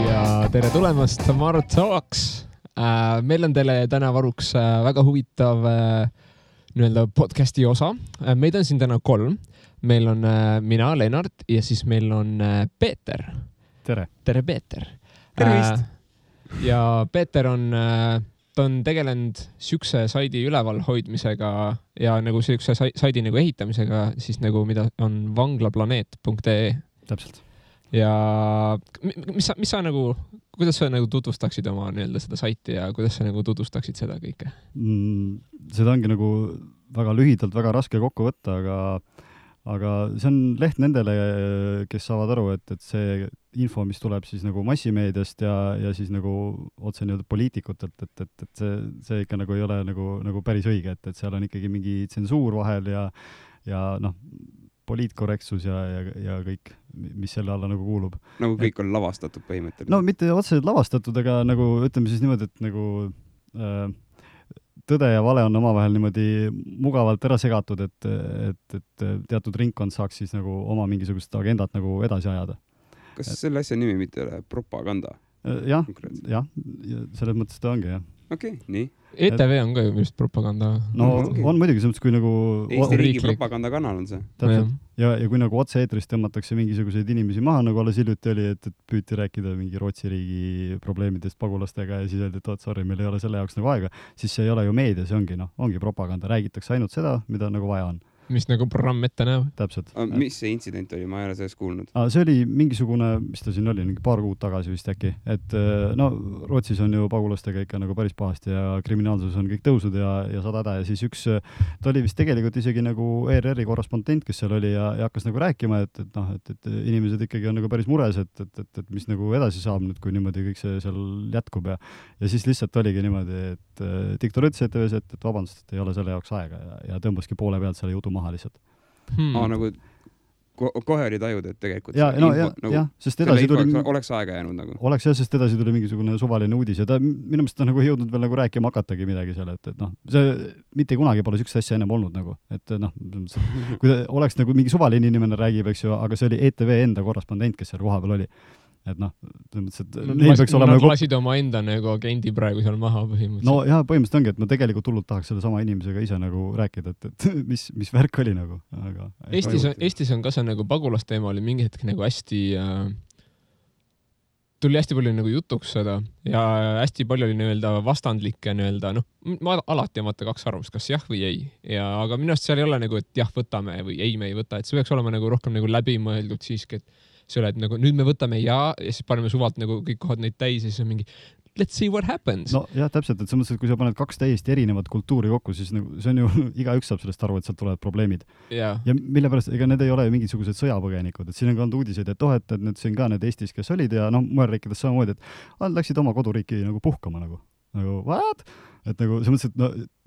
ja tere tulemast Tomorrow Talks. Meil on teile täna varuks väga huvitav nii-öelda podcasti osa. Meid on siin täna 3. Meil on mina, Lennart, ja siis meil on Peeter. Tere. Tere, Peeter. Tervist. Ja Peeter on, ta on tegelenud siukse saidi üleval hoidmisega ja nagu siukse saidi nagu ehitamisega, siis nagu mida on vanglaplaneet.ee. Täpselt. Ja mis sa nagu, kuidas sa nagu tutvustaksid oma nii-öelda seda saiti ja kuidas sa nagu tutvustaksid seda kõike? Seda ongi nagu väga lühidalt, väga raske kokku võtta, aga see on leht nendele, kes saavad aru, et see info, mis tuleb siis nagu massimeediast ja siis nagu otse nii-öelda poliitikutelt, et see ikka nagu ei ole nagu päris õige, et seal on ikkagi mingi tsensuur vahel ja noh, poliitkorrektsus ja kõik, mis selle alla nagu kuulub. Nagu kõik on lavastatud põhimõtteliselt. No mitte otseselt lavastatud, aga nagu ütleme siis niimoodi, et nagu tõde ja vale on omavahel niimoodi mugavalt ära segatud, et teatud ringkond saaks siis nagu oma mingisugust agendat nagu edasi ajada. Kas selle asja nimi mitte ole propaganda? Jah, selles mõttes ta ongi, jah. Okei, nii. ETV on ka ju just propaganda. No on muidugi selles, kui nagu Eesti riigi propagandakanal on see. Täpselt. Ja kui nagu otse-eetrist tõmmatakse mingisuguseid inimesi maha, nagu alles hiljuti oli, et püüti rääkida mingi Rootsi riigi probleemidest pagulastega ja siis öeldi, et sorry, meil ei ole selle jaoks nagu aega, siis see ei ole ju meedia, see ongi propaganda. Räägitakse ainult seda, mida nagu vaja on. Mis nagu programm ette näeb. Täpselt. Mis see intsident oli? Ma ei ole sellest kuulnud. See oli mingisugune, mis ta siin oli, paar kuud tagasi vist äkki, et no Rootsis on ju pagulastega ikka nagu päris pahasti ja kriminaalsus on kõik tõusud ja sada häda ja siis ta oli vist tegelikult isegi nagu ERR-i korrespondent, kes seal oli ja hakkas nagu rääkima, et inimesed ikkagi on nagu päris mures, et mis nagu edasi saab nüüd, kui niimoodi kõik see seal jätkub ja siis lihtsalt oligi niimoodi, et diktor ütles ETV-s, et vabandust, et ei ole selle jaoks aega ja tõmbaski poole pealt selle jutu maha lihtsalt. Nagu kohe oli tajud, et tegelikult sest edasi tuli oleks aega jäänud nagu. Oleks jah, sest edasi tuli mingisugune suvaline uudis ja ta minu meelest on nagu jõudnud veel nagu rääkima hakatagi midagi seal, et see mitte kunagi pole sükse asja ennem olnud nagu, et kui ta oleks nagu mingi suvaline inimene räägib, eks ju, aga see oli ETV enda korrespondent, kes seal koha peal oli. Et neil peaks olema nad lasid oma enda nagu agendi praegu seal maha põhimõtteliselt. No jah, põhimõtteliselt ongi, et ma tegelikult hullult tahaks selle sama inimesega ise nagu rääkida, et mis värk oli nagu. Aga Eestis on ka see nagu pagulasteema oli mingi hetk nagu hästi tuli hästi palju nagu jutuks seda ja hästi palju oli nii-öelda vastandlikke nii-öelda, ma alati vaata 2 arvamust, kas jah või ei. Aga minu arust seal ei ole nagu, et jah, võtame või ei, me ei võta, et see peaks olema nagu rohkem nagu läbimõeldud siiski, et see ole, et nagu nüüd me võtame ja siis paneme suvalt nagu kõik kohad neid täis ja siis on mingi let's see what happens. No jah, täpselt, et selles mõttes, et kui sa paned 2 täiesti erinevat kultuuri kokku, siis nagu, see on ju, igaüks saab sellest aru, et sealt tulevad probleemid. Ja mille pärast, ega need ei ole mingisugused sõjapõgenikud, et siin on ka olnud uudiseid, et need siin ka need Eestis, kes olid ja mujal riikides samamoodi, et nad läksid oma koduriiki nagu puhkama nagu what? Et nagu see mõttes, et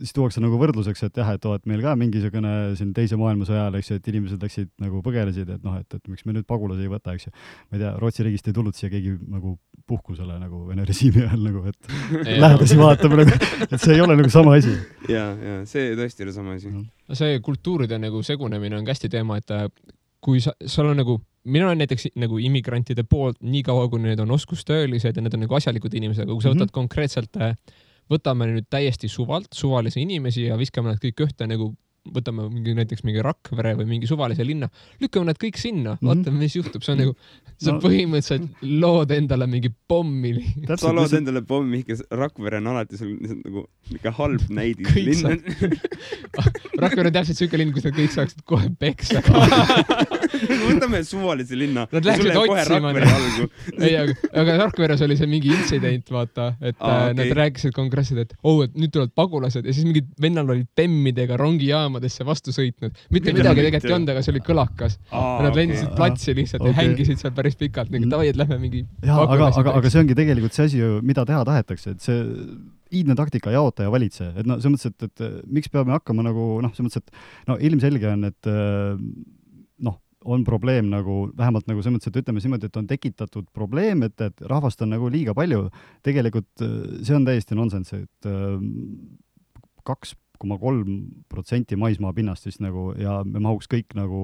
siis tuuakse nagu võrdluseks, et jah, et meil ka mingisugune siin teise maailmasõja ajal, eks ju, et inimesed läksid nagu põgelesid, et miks me nüüd pagulasi ei võta, eks ju. Ma ei tea, Rootsi riigist ei tulnud siia keegi nagu puhkusele nagu Vene režiimi ajal nagu, et lähedasi vaatame nagu, et see ei ole nagu sama asi. Ja, see tõesti oli sama asi. See kultuuride nagu segunemine on hästi teema, et kui seal on nagu, mina olen näiteks nagu immigrantide poolt nii kaua, kui need on oskustöölised ja need on nagu asjalikud inimesed, aga kui sa võtad konkreetselt võtame nüüd täiesti suvalisi inimesi ja viskame nad kõik ühte nagu võtame näiteks mingi Rakvere või mingi suvalise linna, lükkame nad kõik sinna, vaatame, mis juhtub. See on nagu, sa põhimõtteliselt lood endale mingi pommi. Sa lood endale pommi, kes Rakvere on alati sul nagu mingi halb näidis linn. Rakvere on täpselt siuke linn, kus nad kõik saaksid kohe peksa. Võtame suvalise linna. Nad läksid otsima. Aga Rakveres oli see mingi intsident, vaata, et nad rääkisid konkreetselt, et et nüüd tulevad pagulased ja siis mingid vennal olid bemmidega rongijaamadesse vastu sõitnud. Mitte midagi tegelikult ei olnud, aga see oli kõlakas. Nad lendisid platsi lihtsalt ja hängisid seal päris pikalt. Tavai, et lähme mingi aga see ongi tegelikult see asi, mida teha tahetakse, et see iidne taktika jaota ja valitse. Et see mõttes, et miks peame hakkama nagu, see mõttes, et ilmselge on, et on probleem nagu, vähemalt nagu see mõttes, et ütleme niimoodi, et on tekitatud probleem, et rahvast on nagu liiga palju. Tegelikult see on täiesti nonsense, et 2,3% maismaa pinnast siis nagu, ja me mahuks kõik nagu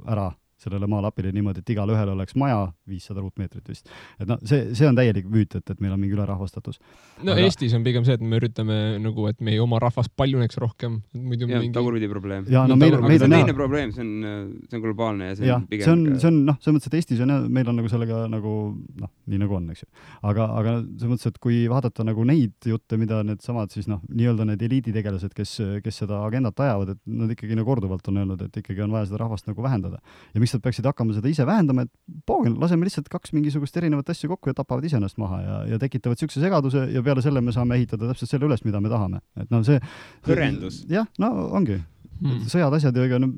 ära sellele maalapile niimoodi, et igal ühel oleks maja 500 ruutmeetrit vist. Et no see on täielik müüt, et meil on mingi ülerahvastatus. No aga... Eestis on pigem see, et me üritame nagu, et meie oma rahvas paljuneks rohkem. Muidu ja, mingi... tagurpidi probleem. Ja, no meil on teine probleem, see on globaalne ja see on pigem... See on noh, selles mõttes, et Eestis on meil on nagu sellega nagu, noh, nii nagu on, eks ju. Aga selles mõttes, et kui vaadata nagu neid jutte, mida need samad siis noh, nii-öelda need eliiditegelased, kes seda agendat ajavad, et nad ikkagi nagu korduvalt on öelnud, et ikkagi on vaja seda rahvast nagu vähendada. Ja miks nad peaksid hakkama seda ise vähendama, et poogen, laseme lihtsalt 2 mingisugust erinevat asju kokku ja tapavad ise ennast maha ja tekitavad sükse segaduse ja peale selle me saame ehitada täpselt selle üles, mida me tahame. Et no see... Hõrendus. Jah, no ongi. Sõjad asjad ja ega no,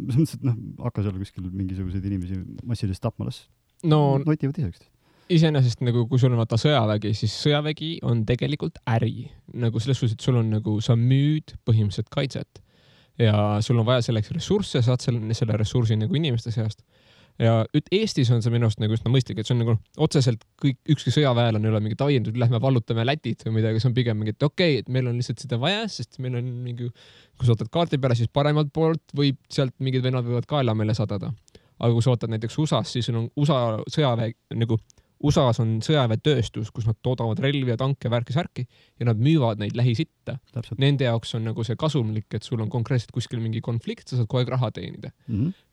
hakka seal kuskil mingisuguseid inimesi massilist tapma, las notivad iseks. Iseenesest nagu, kui sul on vaata sõjavägi, siis sõjavägi on tegelikult äri. Nagu selles suhtes, et sul on nagu, sa müüd põhimõtteliselt kaitset ja sul on vaja selleks ressursse, saad selle ressursi nagu inimeste seast. Ja Eestis on see minu arust nagu üsna mõistlik, et see on nagu otseselt ükski sõjaväel on üle mingi taiendud, lähme vallutame Lätit või midagi, see on pigem mingi, et okei, et meil on lihtsalt seda vaja, sest meil on mingi, kui sa ootad kaarti peale, siis paremalt poolt võib sealt mingid vennad võivad kaela meile sadada. Aga kui sa ootad näiteks USAs, siis on USA sõjaväe nagu USAs on sõjaväetööstus, kus nad toodavad relvi ja tanke, värki ja nad müüvad neid lähisitta. Nende jaoks on nagu see kasumlik, et sul on konkreetselt kuskil mingi konflikt, sa saad kogu aeg raha teenida.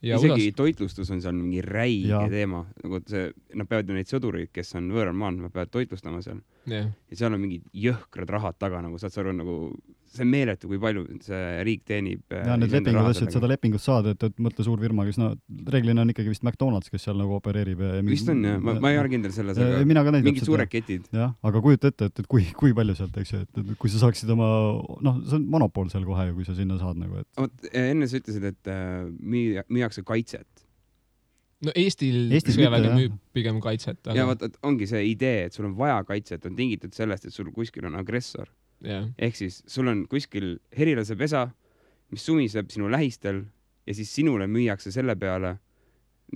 Ja isegi toitlustus on seal mingi räige teema. Nagu see, nad peavad ju neid sõdureid, kes on võõral maal, nad peavad toitlustama seal. Ja seal on mingid jõhkrad rahad taga, nagu saad sa aru, nagu see on meeletu, kui palju see riik teenib. Ja need lepingud, et seda lepingut saada, et mõtle suur firma, kes reeglina on ikkagi vist McDonald's, kes seal nagu opereerib. Vist on, jah. Ma ei ole kindel selles, aga mingid suured ketid. Jah, aga kujuta ette, et kui palju sealt, eks ju, et kui sa saaksid oma, noh, see on monopool seal kohe, kui sa sinna saad nagu, et... Enne sa ütlesid, et müüakse kaitset. No Eestil sõjavägi müüb pigem kaitset. Aga... Ja vaat, ongi see idee, et sul on vaja kaitset, on tingitud sellest, et sul kuskil on agressor. Yeah. Ehk siis sul on kuskil herilase pesa, mis sumiseb sinu lähistel ja siis sinule müüakse selle peale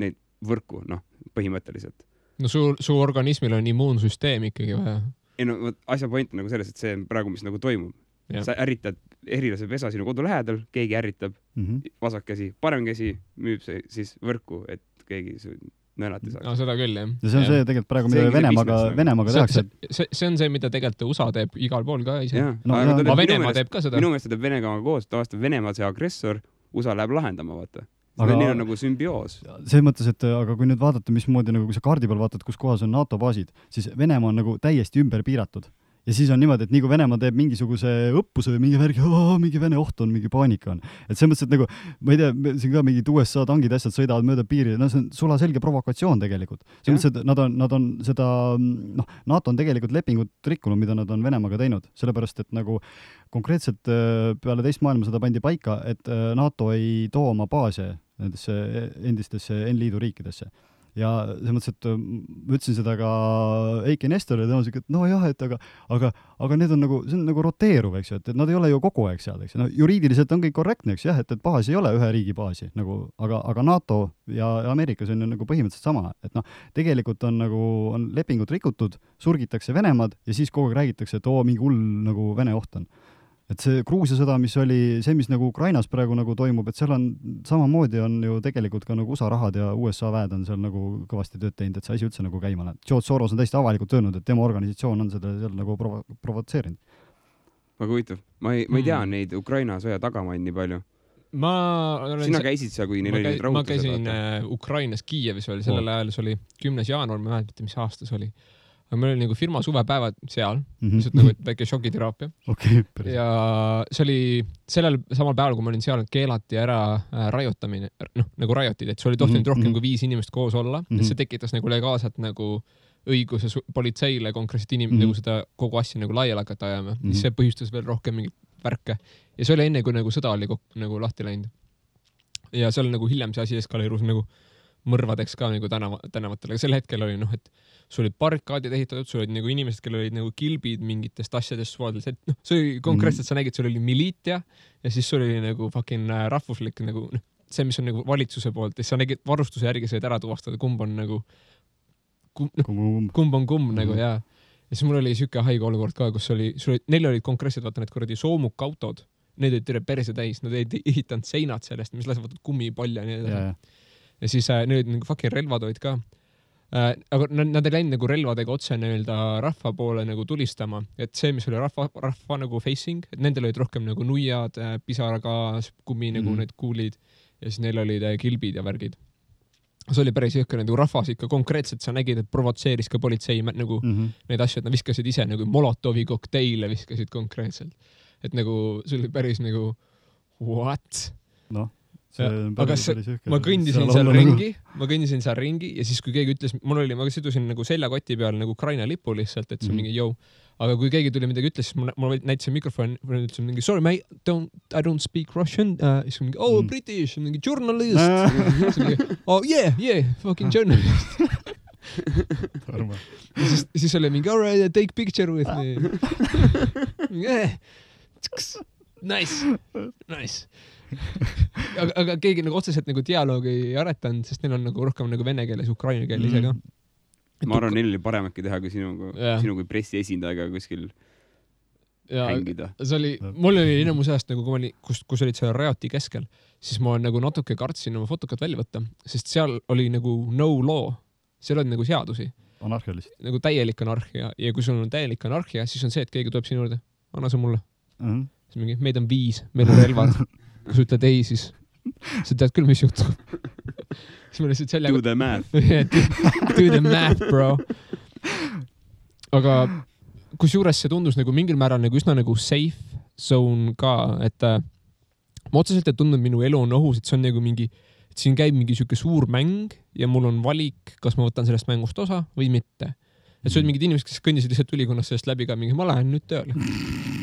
neid võrku, noh, põhimõtteliselt. No su organismil on immuunsüsteem ikkagi vaja. Ei no, asja point on nagu selles, et see on praegu, mis nagu toimub. Yeah. Sa ärritad herilase pesa sinu kodu lähedal, keegi ärritab, vasak käsi, parem käsi müüb see siis võrku, et keegi nõelati saaks. No seda küll, jah. Ja see on see tegelikult praegu, mida Venemaaga tehakse. See on see, mida tegelikult USA teeb igal pool ka ise. Aga Venemaa teeb ka seda. Minu meelest teeb Venemaaga koos, tavaliselt Venemaa see agressor, USA läheb lahendama, vaata. Neil on nagu sümbioos. See mõttes, et aga kui nüüd vaadata, mismoodi, nagu kui sa kaardi peal vaatad, kus kohas on NATO baasid, siis Venemaa on nagu täiesti ümber piiratud. Ja siis on niimoodi, et nii kui Venemaa teeb mingisuguse õppuse või mingi värgi, mingi Vene oht on, mingi paanika on. Et see mõttes, et nagu, ma ei tea, siin ka mingid USA tangid asjad sõidavad mööda piiri, no see on sulaselge provokatsioon tegelikult. See mõttes, et nad on seda, noh, NATO on tegelikult lepingut rikkunud, mida nad on Venemaaga teinud, sellepärast, et nagu konkreetselt peale teist maailmasõda pandi paika, et NATO ei too oma baase nendesse endistesse N-liidu riikidesse. Ja see mõttes, et ma ütlesin seda ka Eiki Nestorile, tõenäoliselt, et no jah, et aga need on nagu, see on nagu roteeruv, eks ju, et nad ei ole ju kogu aeg seal, eks ju. No, juriidiliselt on kõik korrektne, eks jah, et baas ei ole ühe riigi baasi, nagu, aga NATO ja Ameerikas on ju nagu põhimõtteliselt sama, et noh, tegelikult on nagu, on lepingut rikutud, surgitakse Venemaad ja siis kogu aeg räägitakse, et mingi hull nagu Vene oht on. Et see Gruusia sõda, mis oli see, mis nagu Ukrainas praegu nagu toimub, et seal on samamoodi on ju tegelikult ka nagu USA rahad ja USA väed on seal nagu kõvasti tööd teinud, et see asi üldse nagu käima läheb. George Soros on täiesti avalikult öelnud, et tema organisatsioon on seda seal nagu provotseerinud. Väga huvitav. Ma ei tea neid Ukraina sõja tagamaid nii palju. Sina käisid seal, kui neil oli neid rahutused? Ma käisin Ukrainas Kiievis oli, sellel ajal see oli 10. jaanuar, ma mäletan, mis aastas oli. Aga meil oli nagu firma suvepäevad seal, lihtsalt nagu väike šokiteraapia. Ja see oli sellel samal päeval, kui ma olin seal, keelati ära rajotamine, noh, nagu rajotid, et see oli tohtinud rohkem kui 5 inimest koos olla. See tekitas nagu legaalselt nagu õiguse politseile konkreetselt nagu seda kogu asja nagu laiali hakata ajama. See põhjustas veel rohkem mingit värke. Ja see oli enne, kui nagu sõda oli nagu lahti läinud. Ja seal nagu hiljem see asi eskaleerus nagu mõrvadeks ka nagu tänavatel. Aga sel hetkel oli, noh, et sul olid barrikaadid ehitatud, sul olid nagu inimesed, kellel olid nagu kilbid mingitest asjadest suvadeldes, et noh, see oli konkreetselt, sa nägid, sul oli miliitia ja siis sul oli nagu fucking rahvuslik nagu, noh, see, mis on nagu valitsuse poolt, ja sa nägid varustuse järgi said ära tuvastada, kumb on nagu kumb on kumb nagu, jaa. Ja siis mul oli siuke haige olukord ka, kus neil olid konkreetselt, vaata need kuradi soomukautod, need olid terve perse täis, nad olid ehitanud seinad sellest, mis lasevad kummipalja ja nii edasi. ja siis neil olid nagu fucking relvatoid ka. Aga nad ei läinud nagu relvadega otse nii-öelda rahva poole nagu tulistama, et see, mis oli rahva nagu facing, et nendel olid rohkem nagu nuiad, pisaragaas, kummi nagu need kuulid ja siis neil olid kilbid ja värgid. See oli päris jõhker, nagu rahvas ikka konkreetselt sa nägid, et provotseeris ka politsei nagu neid asju, et nad viskasid ise nagu Molotovi kokteile viskasid konkreetselt. Et nagu see oli päris nagu what? Noh. Aga ma kõndisin seal ringi ja siis kui keegi ütles, ma sidusin nagu seljakoti peal nagu Ukraina lipu lihtsalt, et see mingi jõu. Aga kui keegi tuli midagi ütles, siis ma näitasin mikrofon, ütlesin mingi sorry mate, I don't speak Russian. Siis mingi British, mingi journalist. Oh yeah, fucking journalist. siis oli mingi alright, take picture with me. Yeah. Nice. aga keegi nagu otseselt nagu dialoogi ei aretanud, sest neil on nagu rohkem nagu vene keeles, ukraina keel ise ka. Ma arvan, neil oli parem äkki teha kui sinu kui pressiesindajaga kuskil hängida. Mul oli enamus ajast nagu, kus olid seal Rajati keskel, siis ma nagu natuke kartsin oma fotokat välja võtta, sest seal oli nagu no law, seal oli nagu seadusi. Anarhia lihtsalt. Nagu täielik anarhia ja kui sul on täielik anarhia, siis on see, et keegi tuleb sinu juurde, anna see mulle. Siis mingi, meid on 5, meil on relvad. Kui sa ütled ei, siis sa tead küll, mis juhtub. Siis ma lihtsalt sellega... Do the math. Do the math, bro. Aga kusjuures see tundus nagu mingil määral nagu üsna nagu safe zone ka, et ma otseselt ei tundnud minu elu on ohus, et see on nagu mingi, et siin käib mingi siuke suur mäng ja mul on valik, kas ma võtan sellest mängust osa või mitte. Et see olid mingid inimesed, kes kõndisid lihtsalt ülikonnast sellest läbi ka mingi, ma lähen nüüd tööle.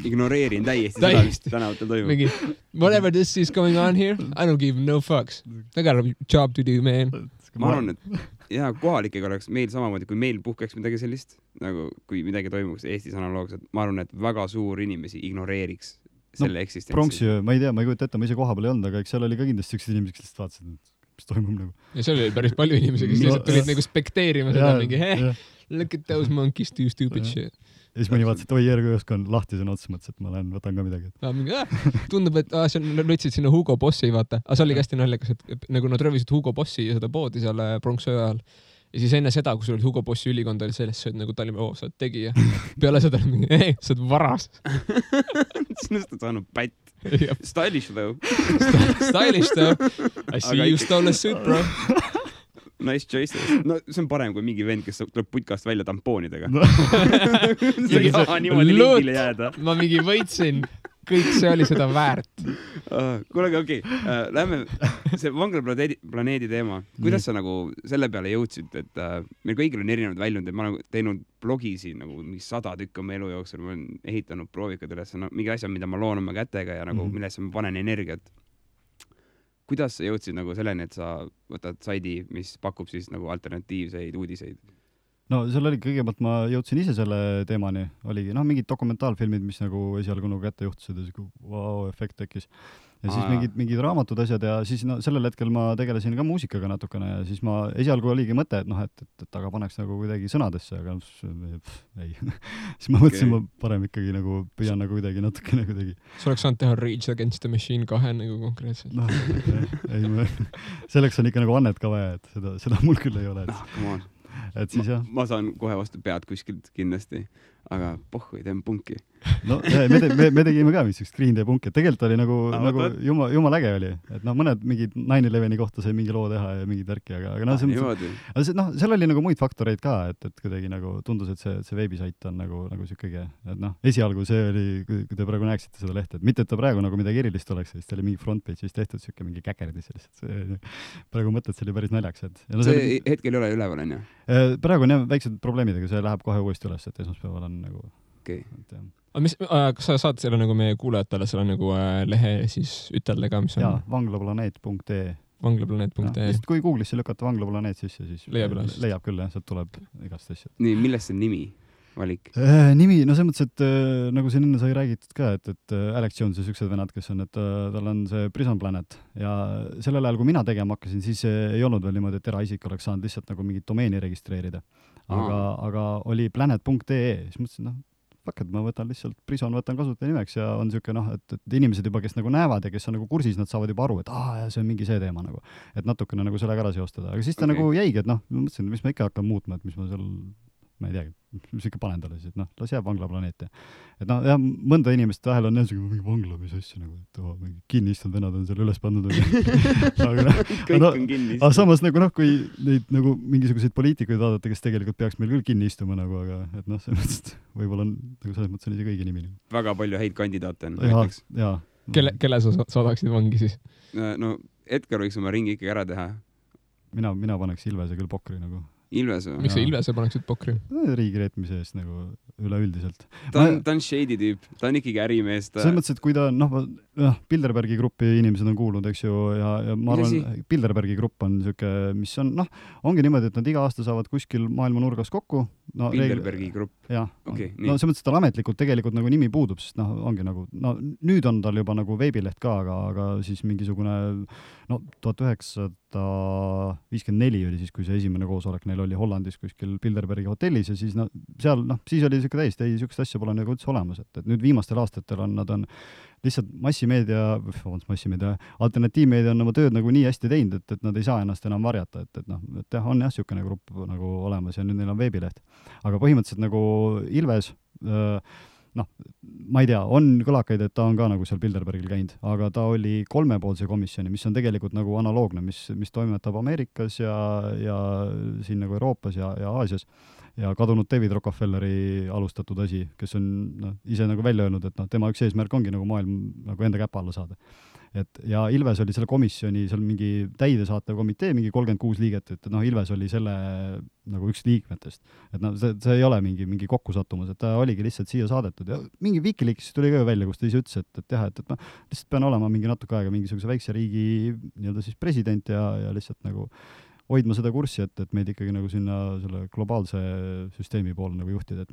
Ignoreerin täiesti seda, mis tänavatel toimub. Mingi, whatever this is going on here, I don't give no fucks. I got a job to do, man. Ma arvan, et kohalikega oleks meil samamoodi, kui meil puhkeks midagi sellist, nagu kui midagi toimuks Eestis analoogselt, ma arvan, et väga suur inimesi ignoreeriks selle eksistentsi. Pronksi, ma ei tea, ma ei kujuta ette, ma ise koha peal ei olnud, aga eks seal oli ka kindlasti sellised inimesed, kes vaatasid, mis toimub nagu. Ja seal oli päris palju inimesi, kes lihtsalt tulid nagu spekteerima seda mingi, look at those monkeys do stupid shit. Ja siis mõni vaatas, et oi, järgõusk on lahti sõna otsa, mõttes, et ma võtan ka midagi. Tundub, et see lõtsid sinna Hugo Bossi, vaata. Aga see oli hästi naljakas, et nagu nad röövisid Hugo Bossi ja seda poodi seal pronksöö ajal. Ja siis enne seda, kui sul oli Hugo Bossi ülikond, oli sellest, et nagu Tallinna, sa oled tegija. Peale seda mingi, ei, sa oled varas. Sinust on saanud pätt. Stylish though. Stylish though. I see you stole a suit, bro. Nice choices. No see on parem kui mingi vend, kes tuleb putkast välja tampoonidega. See ei saa niimoodi lingile jääda. Ma mingi võitsin. Kõik see oli seda väärt. Kuule, okei. Lähme see vanglaplaneedi teema. Kuidas sa nagu selle peale jõudsid, et meil kõigil on erinevad väljund, et ma olen teinud blogisi nagu 100 tükki oma elu jooksul, ma olen ehitanud proovikad üles, mingi asja, mida ma loon oma kätega ja nagu millesse ma panen energiat. Kuidas sa jõudsid nagu selleni, et sa võtad saidi, mis pakub siis nagu alternatiivseid uudiseid? No seal oli kõigepealt ma jõudsin ise selle teemani, oligi mingid dokumentaalfilmid, mis nagu esialgu nagu kätte juhtusid ja wow-efekt tekkis. Ja siis mingid raamatud asjad ja siis sellel hetkel ma tegelesin ka muusikaga natukene ja siis ma esialgu oligi mõte, et aga paneks nagu kuidagi sõnadesse, aga ei. Siis ma mõtlesin, ma parem ikkagi nagu püüan nagu kuidagi natukene kuidagi. Sa oleks saanud teha Rage Against the Machine 2 nagu konkreetselt. Selleks on ikka nagu annet ka vaja, et seda mul küll ei ole. Come on. Et siis ma saan kohe vastu pead kuskilt kindlasti, aga pohhu ei teen punki. No me tegime ka vist üks Green Day punki, et tegelikult oli nagu jumal äge oli, et mõned mingid 9/11 kohta sai mingi loo teha ja mingid värki, aga seal oli nagu muid faktoreid ka, et kuidagi nagu tundus, et see veebisait on nagu siukegi, et esialgu see oli, kui te praegu näeksite seda lehte, et mitte, et ta praegu nagu midagi erilist oleks, siis ta oli mingi frontpage'is tehtud siuke mingi käkerdis lihtsalt. Praegu mõtled, see oli päris naljakas, et see hetkel ei ole üleval, on ju? Praegu on jah väiksed probleemidega, see läheb kohe uuesti üles, et esmaspäeval on nagu kas sa saad selle nagu meie kuulajatele selle nagu lehe siis ütelda ka, mis on? Jaa, vanglaplaneet.ee vanglaplaneet.ee Sest kui Google'isse lükata vanglaplaneet sisse, siis leiab küll, sealt tuleb igast asjad. Nii, millest see nimi valik? Nimi, no selles mõttes, et nagu siin enne sai räägitud ka, et Alex Jones ja süksed venad, kes on, et tal on see Prison Planet ja sellel ajal, kui mina tegema hakkasin, siis ei olnud veel niimoodi, et eraisik oleks saanud lihtsalt nagu mingit domeeni registreerida. Aga oli planet.ee, siis mõtlesin, fuck, et ma võtan lihtsalt Prison, võtan kasutaja nimeks ja on siuke et inimesed juba, kes nagu näevad ja kes on nagu kursis, nad saavad juba aru, et ja see on mingi see teema nagu, et natukene nagu sellega ära seostada, aga siis ta nagu jäigi, et ma mõtlesin, et mis ma ikka hakkan muutma, et mis ma seal, ma ei teagi, mis ikka panen talle siis, et las jääb vanglaplaneet ja et jah, mõnda inimest vahel on mingi vangla, mis asja nagu, et mingi kinni istunud venad on seal üles pandud aga samas nagu kui neid nagu mingisuguseid poliitikuid vaadata, kes tegelikult peaks meil küll kinni istuma nagu, aga et selles mõttes, et võib-olla on nagu selles mõttes on ise kõigi nimi. Väga palju häid kandidaate on. Kelle sa saadaksid vangi siis? No Edgar võiks oma ringi ikkagi ära teha. Mina paneks Ilvese küll pokri nagu. Ilvese? Miks sa Ilvese paneksid pokri? Riigi reetmise eest nagu üleüldiselt. Ta on shady tüüp, ta on ikkagi ärimees. Selles mõttes, et kui ta Bilderbergi gruppi inimesed on kuulnud, eks ju, ja ma arvan, Bilderbergi grupp on siuke, mis on, ongi niimoodi, et nad iga aasta saavad kuskil maailma nurgas kokku. Bilderbergi grupp? Jah. Selles mõttes, et tal ametlikult tegelikult nagu nimi puudub, sest ongi nagu, nüüd on tal juba nagu veebileht ka, aga siis mingisugune, 1954 oli siis, kui see esimene koosolek neil oli Hollandis kuskil Bilderbergi hotellis ja siis seal, siis oli siuke täiesti, siukest asja pole nagu üldse olemas, et nüüd viimastel aastatel nad on lihtsalt massimeedia, alternatiivmeedia on oma tööd nagu nii hästi teinud, et nad ei saa ennast enam varjata, et on jah, siukene grupp nagu olemas ja nüüd neil on veebileht. Aga põhimõtteliselt nagu Ilves, ma ei tea, on kõlakaid, et ta on ka nagu seal Bilderbergil käinud, aga ta oli 3-poolse komisjoni, mis on tegelikult nagu analoogne, mis toimetab Ameerikas ja siin nagu Euroopas ja Aasias ja kadunud David Rockefelleri alustatud asi, kes on ise nagu välja öelnud, et tema üks eesmärk ongi nagu maailm nagu enda käpa alla saada. Ja Ilves oli selle komisjoni, seal mingi täidesaatev komitee, mingi 36 liiget, et Ilves oli selle nagu üks liikmetest. Et see ei ole mingi kokkusattumus, et ta oligi lihtsalt siia saadetud ja mingi Wikileaksis tuli ka välja, kus ta ise ütles, et jah, et ma lihtsalt pean olema mingi natuke aega mingisuguse väikse riigi nii-öelda siis president ja lihtsalt nagu hoidma seda kurssi, et meid ikkagi nagu sinna selle globaalse süsteemi poole nagu juhtida.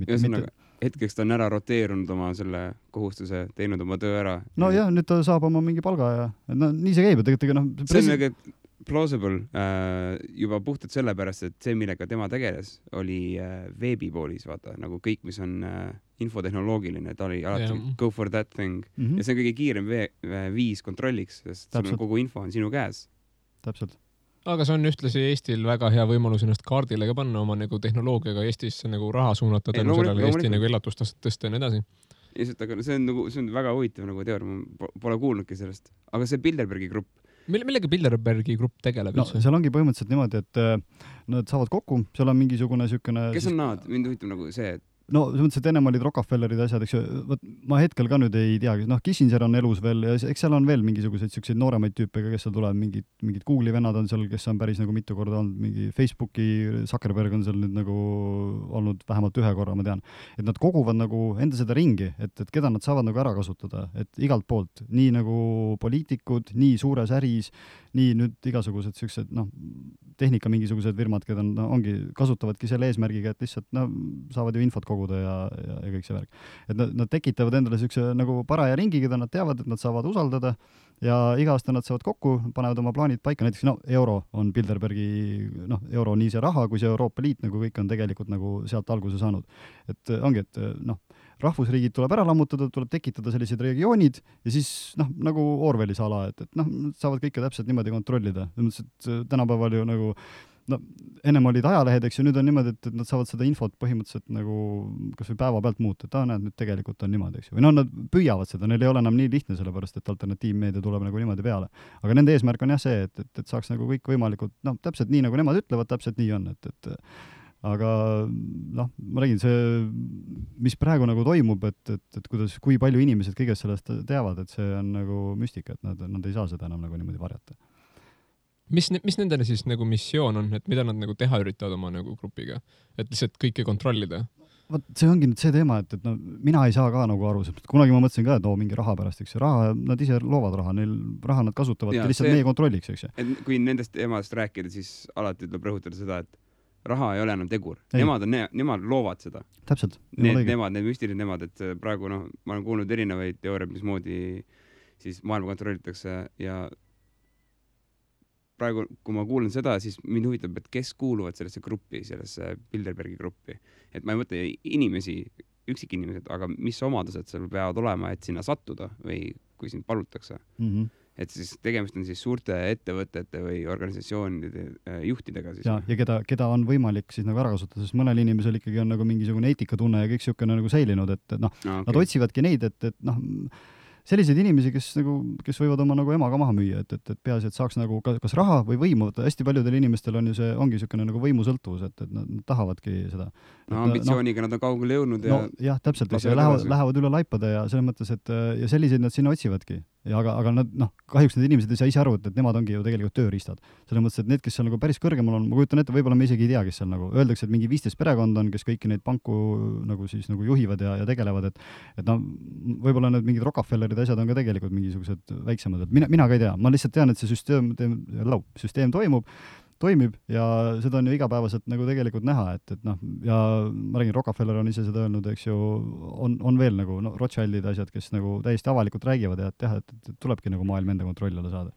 Hetkeks ta on ära roteerunud oma selle kohustuse, teinud oma töö ära. Jah, nüüd ta saab oma mingi palga ja nii see käib, et tegelikult see on nagu plausible juba puhtalt sellepärast, et see, millega tema tegeles, oli veebipoolis, vaata, nagu kõik, mis on infotehnoloogiline, ta oli alati go for that thing ja see on kõige kiirem viis kontrolliks, sest kogu info on sinu käes. Täpselt. Aga see on ühtlasi Eestil väga hea võimalus ennast kaardile ka panna oma nagu tehnoloogiaga Eestisse nagu raha suunata tänu sellele Eesti nagu elatustastet tõsta ja nii edasi. Aga see on väga huvitav nagu teooria, ma pole kuulnudki sellest. Aga see Bilderbergi grupp. Millega Bilderbergi grupp tegeleb üldse? Seal ongi põhimõtteliselt niimoodi, et nad saavad kokku, seal on mingisugune sükene... Kes on nad? Mind huvitab nagu see, et selles mõttes, et ennem olid Rockefellerid asjad, eks ju, ma hetkel ka nüüd ei teagi, Kissinger on elus veel ja eks seal on veel mingisuguseid selliseid nooremaid tüüpe, kes seal tulevad, mingid Google'i vennad on seal, kes on päris nagu mitu korda olnud, mingi Facebooki, Zuckerberg on seal nüüd nagu olnud vähemalt ühe korra, ma tean. Et nad koguvad nagu enda seda ringi, et keda nad saavad nagu ära kasutada, et igalt poolt, nii nagu poliitikud, nii suures äris, nii nüüd igasugused sellised, tehnika mingisugused firmad, keda kasutavadki selle eesmärgiga, et lihtsalt saavad ju infot koguda ja kõik see värk. Et nad tekitavad endale sellise nagu paraja ringi, keda nad teavad, et nad saavad usaldada ja iga aasta nad saavad kokku, panevad oma plaanid paika, näiteks euro on Bilderbergi, euro nii see raha, kui see Euroopa Liit, nagu kõik on tegelikult nagu sealt alguse saanud. Et ongi, et rahvusriigid tuleb ära lammutada, tuleb tekitada sellised regioonid ja siis nagu Orwellis ala, et saavad kõike täpselt niimoodi kontrollida. Tänapäeval ju nagu ennem olid ajalehed, eks ju, nüüd on niimoodi, et nad saavad seda infot põhimõtteliselt nagu kas või päeva pealt muuta, et näed, nüüd tegelikult on niimoodi, eks ju. Või nad püüavad seda, neil ei ole enam nii lihtne, sellepärast et alternatiivmeedia tuleb nagu niimoodi peale. Aga nende eesmärk on jah see, et saaks nagu kõik võimalikult, täpselt nii, nagu nemad ütlevad, täpselt nii on, aga ma räägin, see, mis praegu nagu toimub, et kui palju inimesed kõigest sellest teavad, et see on nagu müstika, et nad ei saa seda enam nagu niimoodi varjata. Mis nendele siis nagu missioon on, et mida nad nagu teha üritavad oma nagu grupiga, et lihtsalt kõike kontrollida? See ongi nüüd see teema, et mina ei saa ka nagu aru, kunagi ma mõtlesin ka, et mingi raha pärast, eks ju, raha, nad ise loovad raha, neil raha nad kasutavad ja lihtsalt meie kontrolliks, eks ju. Et kui nendest teemadest rääkida, siis alati tuleb rõhutada seda, et raha ei ole enam tegur. Nemad loovad seda. Täpselt. Need müstilised nemad, et praegu ma olen kuulnud erinevaid teooriaid, mismoodi siis maailma kontrollitakse ja praegu, kui ma kuulen seda, siis mind huvitab, et kes kuuluvad sellesse gruppi, sellesse Bilderbergi gruppi. Et ma ei mõtle inimesi, üksikinimesed, aga mis omadused seal peavad olema, et sinna sattuda või kui sind palutakse. Et siis tegemist on siis suurte ettevõtete või organisatsioonide juhtidega siis. Ja keda on võimalik siis nagu ära kasutada, sest mõnel inimesel ikkagi on nagu mingisugune eetikatunne ja kõik siukene nagu säilinud, et noh, nad otsivadki neid, et noh, selliseid inimesi, kes võivad oma nagu emaga maha müüa, et peaasi, et saaks nagu kas raha või võimu, hästi paljudel inimestel on ju see, ongi niisugune nagu võimusõltuvus, et nad tahavadki seda. Ambitsiooniga nad on kaugele jõudnud ja jah, täpselt, lähevad üle laipade ja selles mõttes, et ja selliseid nad sinna otsivadki. Ja aga nad, kahjuks need inimesed ei saa ise aru, et nemad ongi ju tegelikult tööriistad. Selles mõttes, et need, kes seal nagu päris kõrgemal on, ma kujutan ette, võib-olla me isegi ei tea, kes seal nagu öeldakse, et mingi 15 perekond on, kes kõiki neid panku nagu siis nagu juhivad ja tegelevad, et võib-olla need mingid Rockefellerid asjad on ka tegelikult mingisugused väiksemad, et mina ka ei tea, ma lihtsalt tean, et see süsteem toimib ja seda on ju igapäevaselt nagu tegelikult näha, et ja ma räägin, Rockefeller on ise seda öelnud, eks ju, on veel nagu Rothschildid asjad, kes nagu täiesti avalikult räägivad ja et tulebki nagu maailm enda kontrolli alla saada.